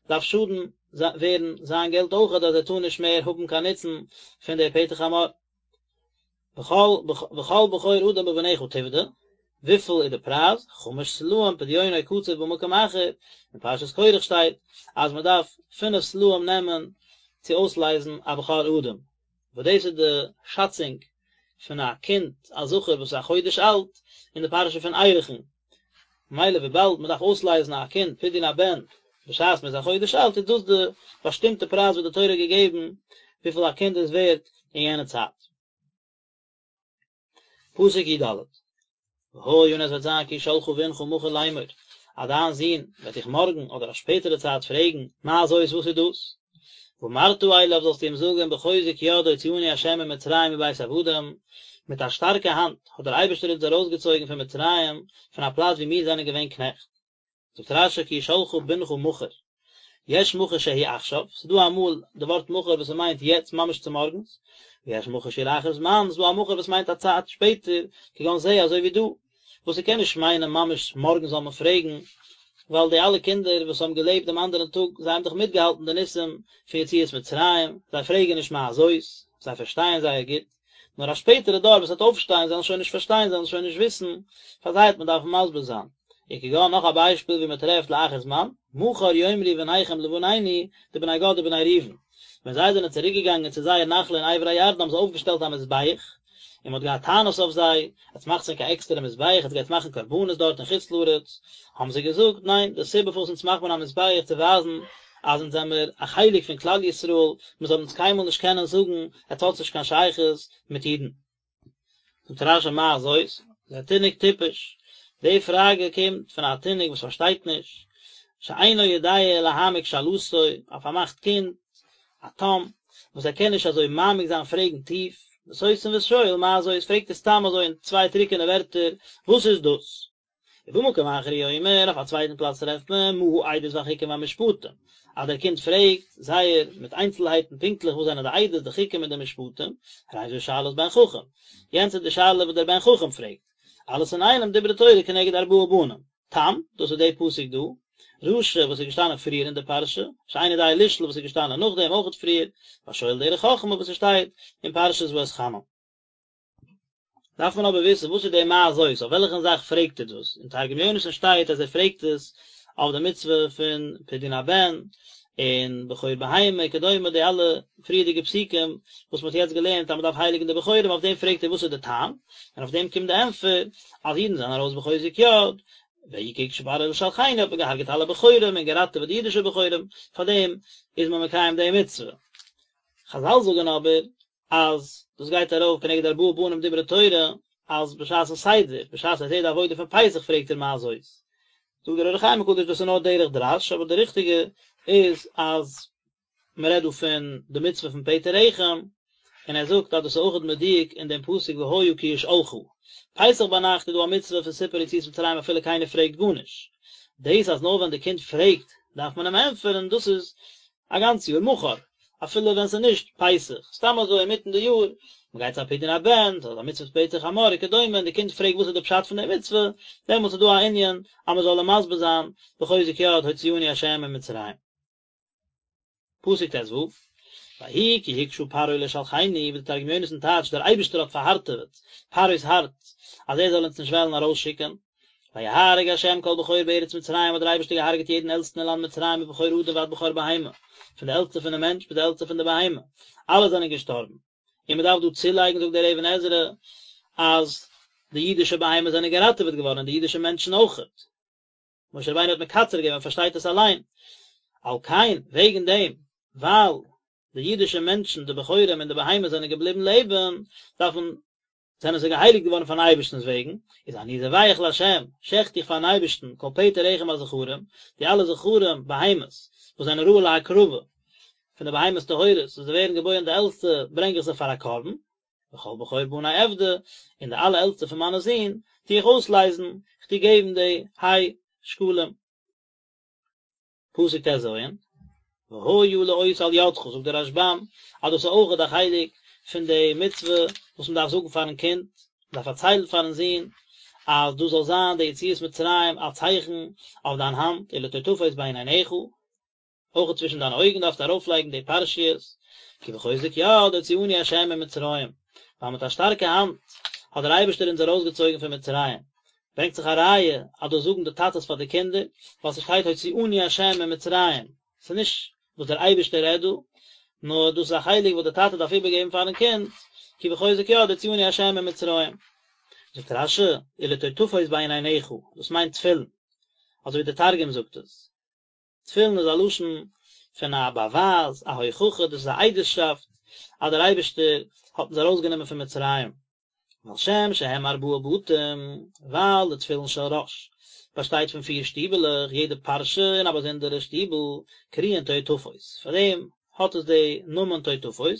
דארף שאדן ווערן זיין געלט אויכעט אז ער טאר נישט מער האבן קיין נוצן פון די פטר חמור. וכל וכל בכור אדם בבניך תפדה, וויפיל איז די פרייז? חמש סלעים פדיונו קצוב במקום אחר, אין פרשת קרח שטייט אז מען דארף פינף סלעים נעמען צו אויסלייזן א בכור אדם, וואס דאס איז די שאצונג פון א קינד א זכר וואס איז א חודש אלט אין די פרשה פון ערכין, ממילא וויבאלד מען דארף אויסלייזן א קינד פדיון הבן בשעת מען איז א חודש אלט איז דאס די באשטימטע פרייז וואס די תורה האט געגעבן וויפיל א קינד איז ווערט אין יענע צייט. פסוק י ד, והיה און עס וועט זיין כי ישאלך בנך מחר לאמור, אז דיין זון וועט דיך מארגן אדער א שפעטערע צייט פרעגן, מה זאת וואס איז דאס? ואמרת אליו זאלסטו אים זאגן בחוזק יד הוציאנו ה' ממצרים מבית עבדים, מיט א שטארקע האנט האט דער אייבערשטער אונז ארויסגעצויגן פון מצרים, פון א פלאץ וואו מיר זענען געווען קנעכט. זאגט רשי כי ישאלך בנך מחר, יש מחר שהוא עכשיו, ס'איז דא אמאל די ווארט מחר וואס ס'מיינט יעצט ממש צומארגנס, ויש מחר שהוא לאחר זמן, ס'איז דא א מחר וואס מיינט א צייט שפעטער, כגון זה אזוי ווי דא, וואס ס'קען נישט מיינען ממש מארגן זאל מען פרעגן, ווייל די אלע קינדער וואס האבן געלעבט דעם אנדערן טאג, זיי האבן דאך מיטגעהאלטן די ניסים פון יציאת מצרים, זיי פרעגן נישט מה זאת, זיי פארשטייען זייער גוט. נאר א שפעטערע דור וואס וועט אויפשטיין זיי וועלן שוין נישט פארשטיין זיי וועלן שוין נישט וויסן, פאר זיי וועט מען דארפן מסביר זיין. וכגון נאך א ביישפיל ווי מען טרעפט לאחר זמן, מחר יאמרו בניכם לבנינו, די בני גד ובני ראובן, ווען זיי זענען צוריק געגאנגען צו זייער נחלה אין עבר הירדן האבן זיי אויפגעשטעלט א מזבח, און מען האט געהאט טענות אויף זיי, עטס מאכטס ענק א עקסטערע מזבח, עטס גייטס מאכן קרבנות דארט אין חוץ לארץ, האבן זיי געזאגט, ניין, די סיבה פארוואס אונז מאכט מען א מזבח צו ווייזן אז אונז זעמער א חלק פון כלל ישראל, מען זאל אונז קיינמאל נישט קענען זאגן עטס האטס נישט קיין שייכות מיט אידן. זאגט רשי מה זאת, זה תינוק טיפש, די פראגע קומט פון א תינוק וואס פארשטייט נישט, שאינו יודע להעמיק שאלתו, א פארמאכט קינד, א תם, וואס ער קען נישט אזוי מעמיק זיין פרעגן טיף. וסותם ושואל מה זאת, פרעגט ער סתם אזוי אין צוויי טרוקענע ווערטער, וואס איז דאס? ובמקום אחר הוא אומר, אויף א צווייטן פלאץ טרעפט מען, מה העדות והחוקים והמשפטים, אז דער קינד פרעגט זייער מיט איינצלהייטן פונקטליך וואס זענען די עדות, די חוקים און די משפטים, הרי זו שאלת בן חכם, יענץ איז די שאלה וואס דער בן חכם פרעגט, אלעס אינאיינעם דברה תורה כנגד ארבעה בנים, תם, דאס איז די פסוק דא, רשע וואס איז געשטאנען פריער אין די פרשה, שאינו יודע לשאול וואס איז געשטאנען נאכדעם אויכעט פריער, והשואל דרך חכמה וואס עס שטייט אין פרשת ואתחנן. דארף מען אבער וויסן וואס איז די מה זאת, אויף וועלכן זאך פרעגט ער דאס, אין תרגום יונתן שטייט אז ער פרעגט עס אויף די מצוה פון פדיון הבן, און בכור בהמה וכדומה די אלע פריערדיגע פסוקים וואס מען האט יעצט געלערנט אז מען דארף הייליגן די בכורים אויף דעם פרעגט ער וואס איז די טעם, און אויף דעם קומט די ענטפער אז אידן זענען ארויס בחוזק יד, ויהי כי הקשה פרעה לשלחנו האט מען געהארגעט אלע בכורים און געראטעוועט די אידישע בכורים, פאר דעם איז מען מקיים די מצוה. חזל זאגן אבער אז דאס גייט ארויף כנגד ארבעה בנים דברה תורה, אז בשעת'ן סדר, בשעת ער זעט די עבודה פון פסח פרעגט ער מה זאת. זאגט דער אור החיים הקדוש דאס איז נאר דרך דרש, אבער די ריכטיגע איז אז מען רעדט דא פון די מצוה פון פטר רחם, און ער זאגט אז דאס איז אויכעט מדויק אין דעם פסוק והיה כי ישאלך. פסח ביינאכט איז דא א מצוה פון סיפור יציאת מצרים אפילו קיינער פרעגט גארנישט. דאס אז נאר ווען די קינד פרעגט דארף מען אים ענטפערן, דאס איז א גאנץ יאר מחר, אפילו ווען ס'איז נישט פסח, סתם אזוי אינמיטן די יאר, מ'גייט צו א פדיון הבן, ס'איז א מצוות פטר חמור וכדומה, און די קינד פרעגט וואס איז די פשט פון די מצוה, דעמאלטס איז דא א ענין אז מ'זאל אים מסביר זיין בחוזק יד הוציאנו ה' ממצרים. פסוק ט"ו, ויהי כי הקשה פרעה לשלחנו, ווי די תרגום יונתן טייטשט דער אייבערשטער האט פארהארטעוועט פרעה'ס הארץ אז ער זאל אונז נישט וועלן ארויסשיקן, ויהרג ה' כל בכור בארץ מצרים האט דער אייבערשטער געהארגעט יעדן עלטסטן אין לאנד מצרים מבכור אדם ועד בכור בהמה, פון די עלטסטע פון די מענטש ביז די עלטסטע פון די בהמה, אלע זענען געשטארבן. און מען דארף דא צולייגן זאגט דער אבן עזרא אז די אידישע בהמות זענען געראטעוועט געווארן און די אידישע מענטשן אויכעט. משה רבינו האט מקצר געווען מען פארשטייט עס אליין. על כן, וועגן דעם, ווייל די אידישע מענטשן, די בכורים און די בהמות זענען געבליבן לעבן, דארף מען זענען זיי געהייליגט געווארן פארן אייבערשטנ'ס וועגן, איז אני זובח לה', שעכט איך פארן אייבערשטן, כל פטר רחם הזכרים, די אלע זכרים, בהמות, וואס זענען ראוי להקרבה, פון די בהמות טהורות, וואס זיי ווערן געבוירן די עלטסטע, ברענג איך זיי פאר א קרבן, וכל בכור בני אפדה, און די אלע עלטסטע פון מיינע זין, טו איך אויסלייזן, איך טו געבן די ה' שקלים. פסוק ט"ז, והיה לאות על ידך, זאגט דער רשב"ם אז דאס איז אויכעט א חלק פון די מצוה וואס מען דארף זאגן פארן קינד, מען דארף פארציילן פארן זון אז דאס זאל זיין די יציאת מצרים א צייכן אויף דיין האנט, ולטוטפות בין עיניך, אויכעט צווישן דיינע אויגן דארפסטו ארויפלייגן די פרשיות, כי בחוזק יד הוציאנו ה' ממצרים, ווייל מיט א שטארקע האנט האט דער אייבערשטער אונז ארויסגעצויגן פון מצרים, ברענגט זיך א ראיה אז דאס זאגן די טאטעס פאר די קינדער, ווייל ס'שטייט הוציאנו ה' ממצרים, ס'איז נישט וואס דער אייבערשטער רעדט דא, נאר דאס איז א חלק וואס דער טאטע דארף איבערגעבן פארן קינד, כי בחוזק יד הוציאנו ה' ממצרים. זאגט רש"י, ולטוטפות בין עיניך, דאס מיינט תפילין, אזוי ווי דער תרגום זאגט עס. תפילין איז א לשון פון א באווייז, א הוכחה, דאס איז א עדות'שאפט אז דער אייבערשטער האט אונז ארויסגענומען פון מצרים. ועל שם שהם ארבעה בתים, ווייל די תפילין של ראש באשטייט פון פיר שטיבעלעך, יעדע פרשה אין א באזונדערע שטיבל, קרויין טוטפות, פאר דעם האט עס די נאמען טוטפות,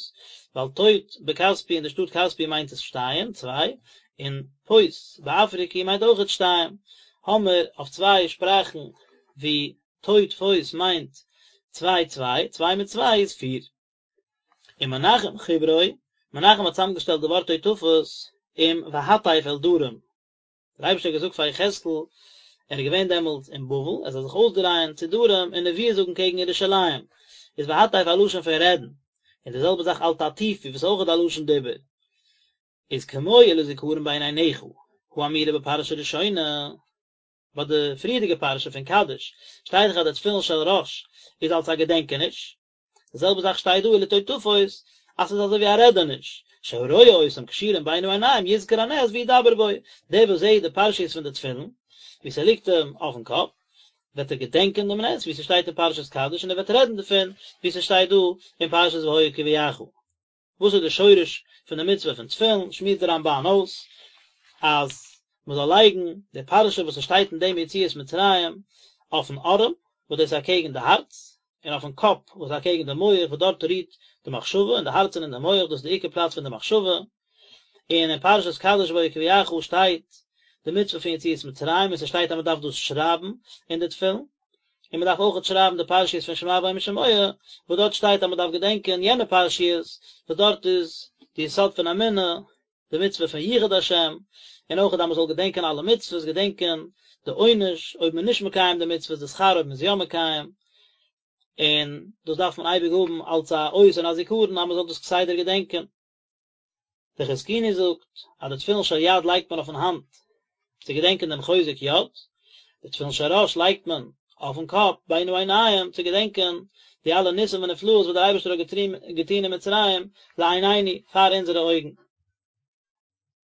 ווייל טוט בכספי אין די שטאט כספי מיינט עס שתיים, צוויי, און פות באפריקי מיינט אויכעט שתיים, האמער אויף צוויי שפראכן ווי טוטפות מיינט צוויי צוויי, צוויי מיט צוויי איז פיר. ומנחם חיברו, מנחם האט צוזאמגעשטעלט די ווארט טוטפות עם והטף אל דרום. דער אייבערשטער האט געזאגט פאר יחזקאל, ער איז געווען דעמאלטס אין בבל, ער זאל זיך אויסדרייען צו דרום און נביאות זאגן קעגן ירושלים, איז והטף א לשון פון רעדן, און די זעלבע זאך אל תטיפו וואס איז אויכעט א לשון דיבור, איז כמו ולזכרון בין עיניך, האמורה בפרשה ראשונה. ביי די פריערדיגע פרשה פון קדש שטייט דאך אז די תפילין של ראש איז אלס א געדענקעניש, די זעלבע זאך שטייט דא ולטוטפות אז ס'איז אזוי ווי א רעדעניש, שהרואה אותם קשורים בין העיניים יזכור הנס וידבר בו, דער וואס זעט די פרשיות פון די תפילין ווי ס'ליגט אים אויפן קאפ, וועט ער געדענקען דעם נס ווי ס'שטייט אין פרשת קדש און ער וועט רעדן דערפון ווי ס'שטייט דא אין פרשת והיה כי יביאך. וואס איז די שורש פון די מצוה פון תפילין, שמועסט די רמב"ן אויס אז מען זאל לייגן די פרשה וואס עס שטייט אין דעם יציאת מצרים אויפן ארעם, וואס דאס איז אקעגן די הארץ, און אויפן קאפ וואס איז אקעגן די מח, וואס דארט רוהט די מחשבה, אין די הארץ און אין די מח, דאס איז די עיקר פלאץ פון די מחשבה. און אין פרשת קדש בו יקביעך שטייט די מצוה פון יציאת מצרים און ס'שטייט אז מ'דארף דאס שרייבן אין די תפילין, און מ'דארף אויכעט שרייבן די פרשיות פון שמע והיה אם שמוע, וואס דארט שטייט אז מ'דארף געדענקען יענע פרשיות, וואס דארט איז די יסוד פון אמונה, די מצוה פון יחוד השם, און אויכעט אז מ'זאל געדענקען אלע מצוות, געדענקען די עונש אויב מ'איז נישט מקיים די מצוות, די שכר אויב מ'איז יא מקיים, און דאס דארף מען אייביג האבן אלס א אות און א זיכרון אז מ'זאל דאס כסדר געדענקען. דער חזקוני זאגט אז די תפילין של יד לייגט מען אויפן האנט צו געדענקען דעם חוזק יד, די תפילין של ראש לייגט מען אויפן קאפ בין העיניים צו געדענקען די אלע ניסים ונפלאות וואס דער אייבערשטער האט געטון אין מצרים לעינינו פאר אונזערע אויגן.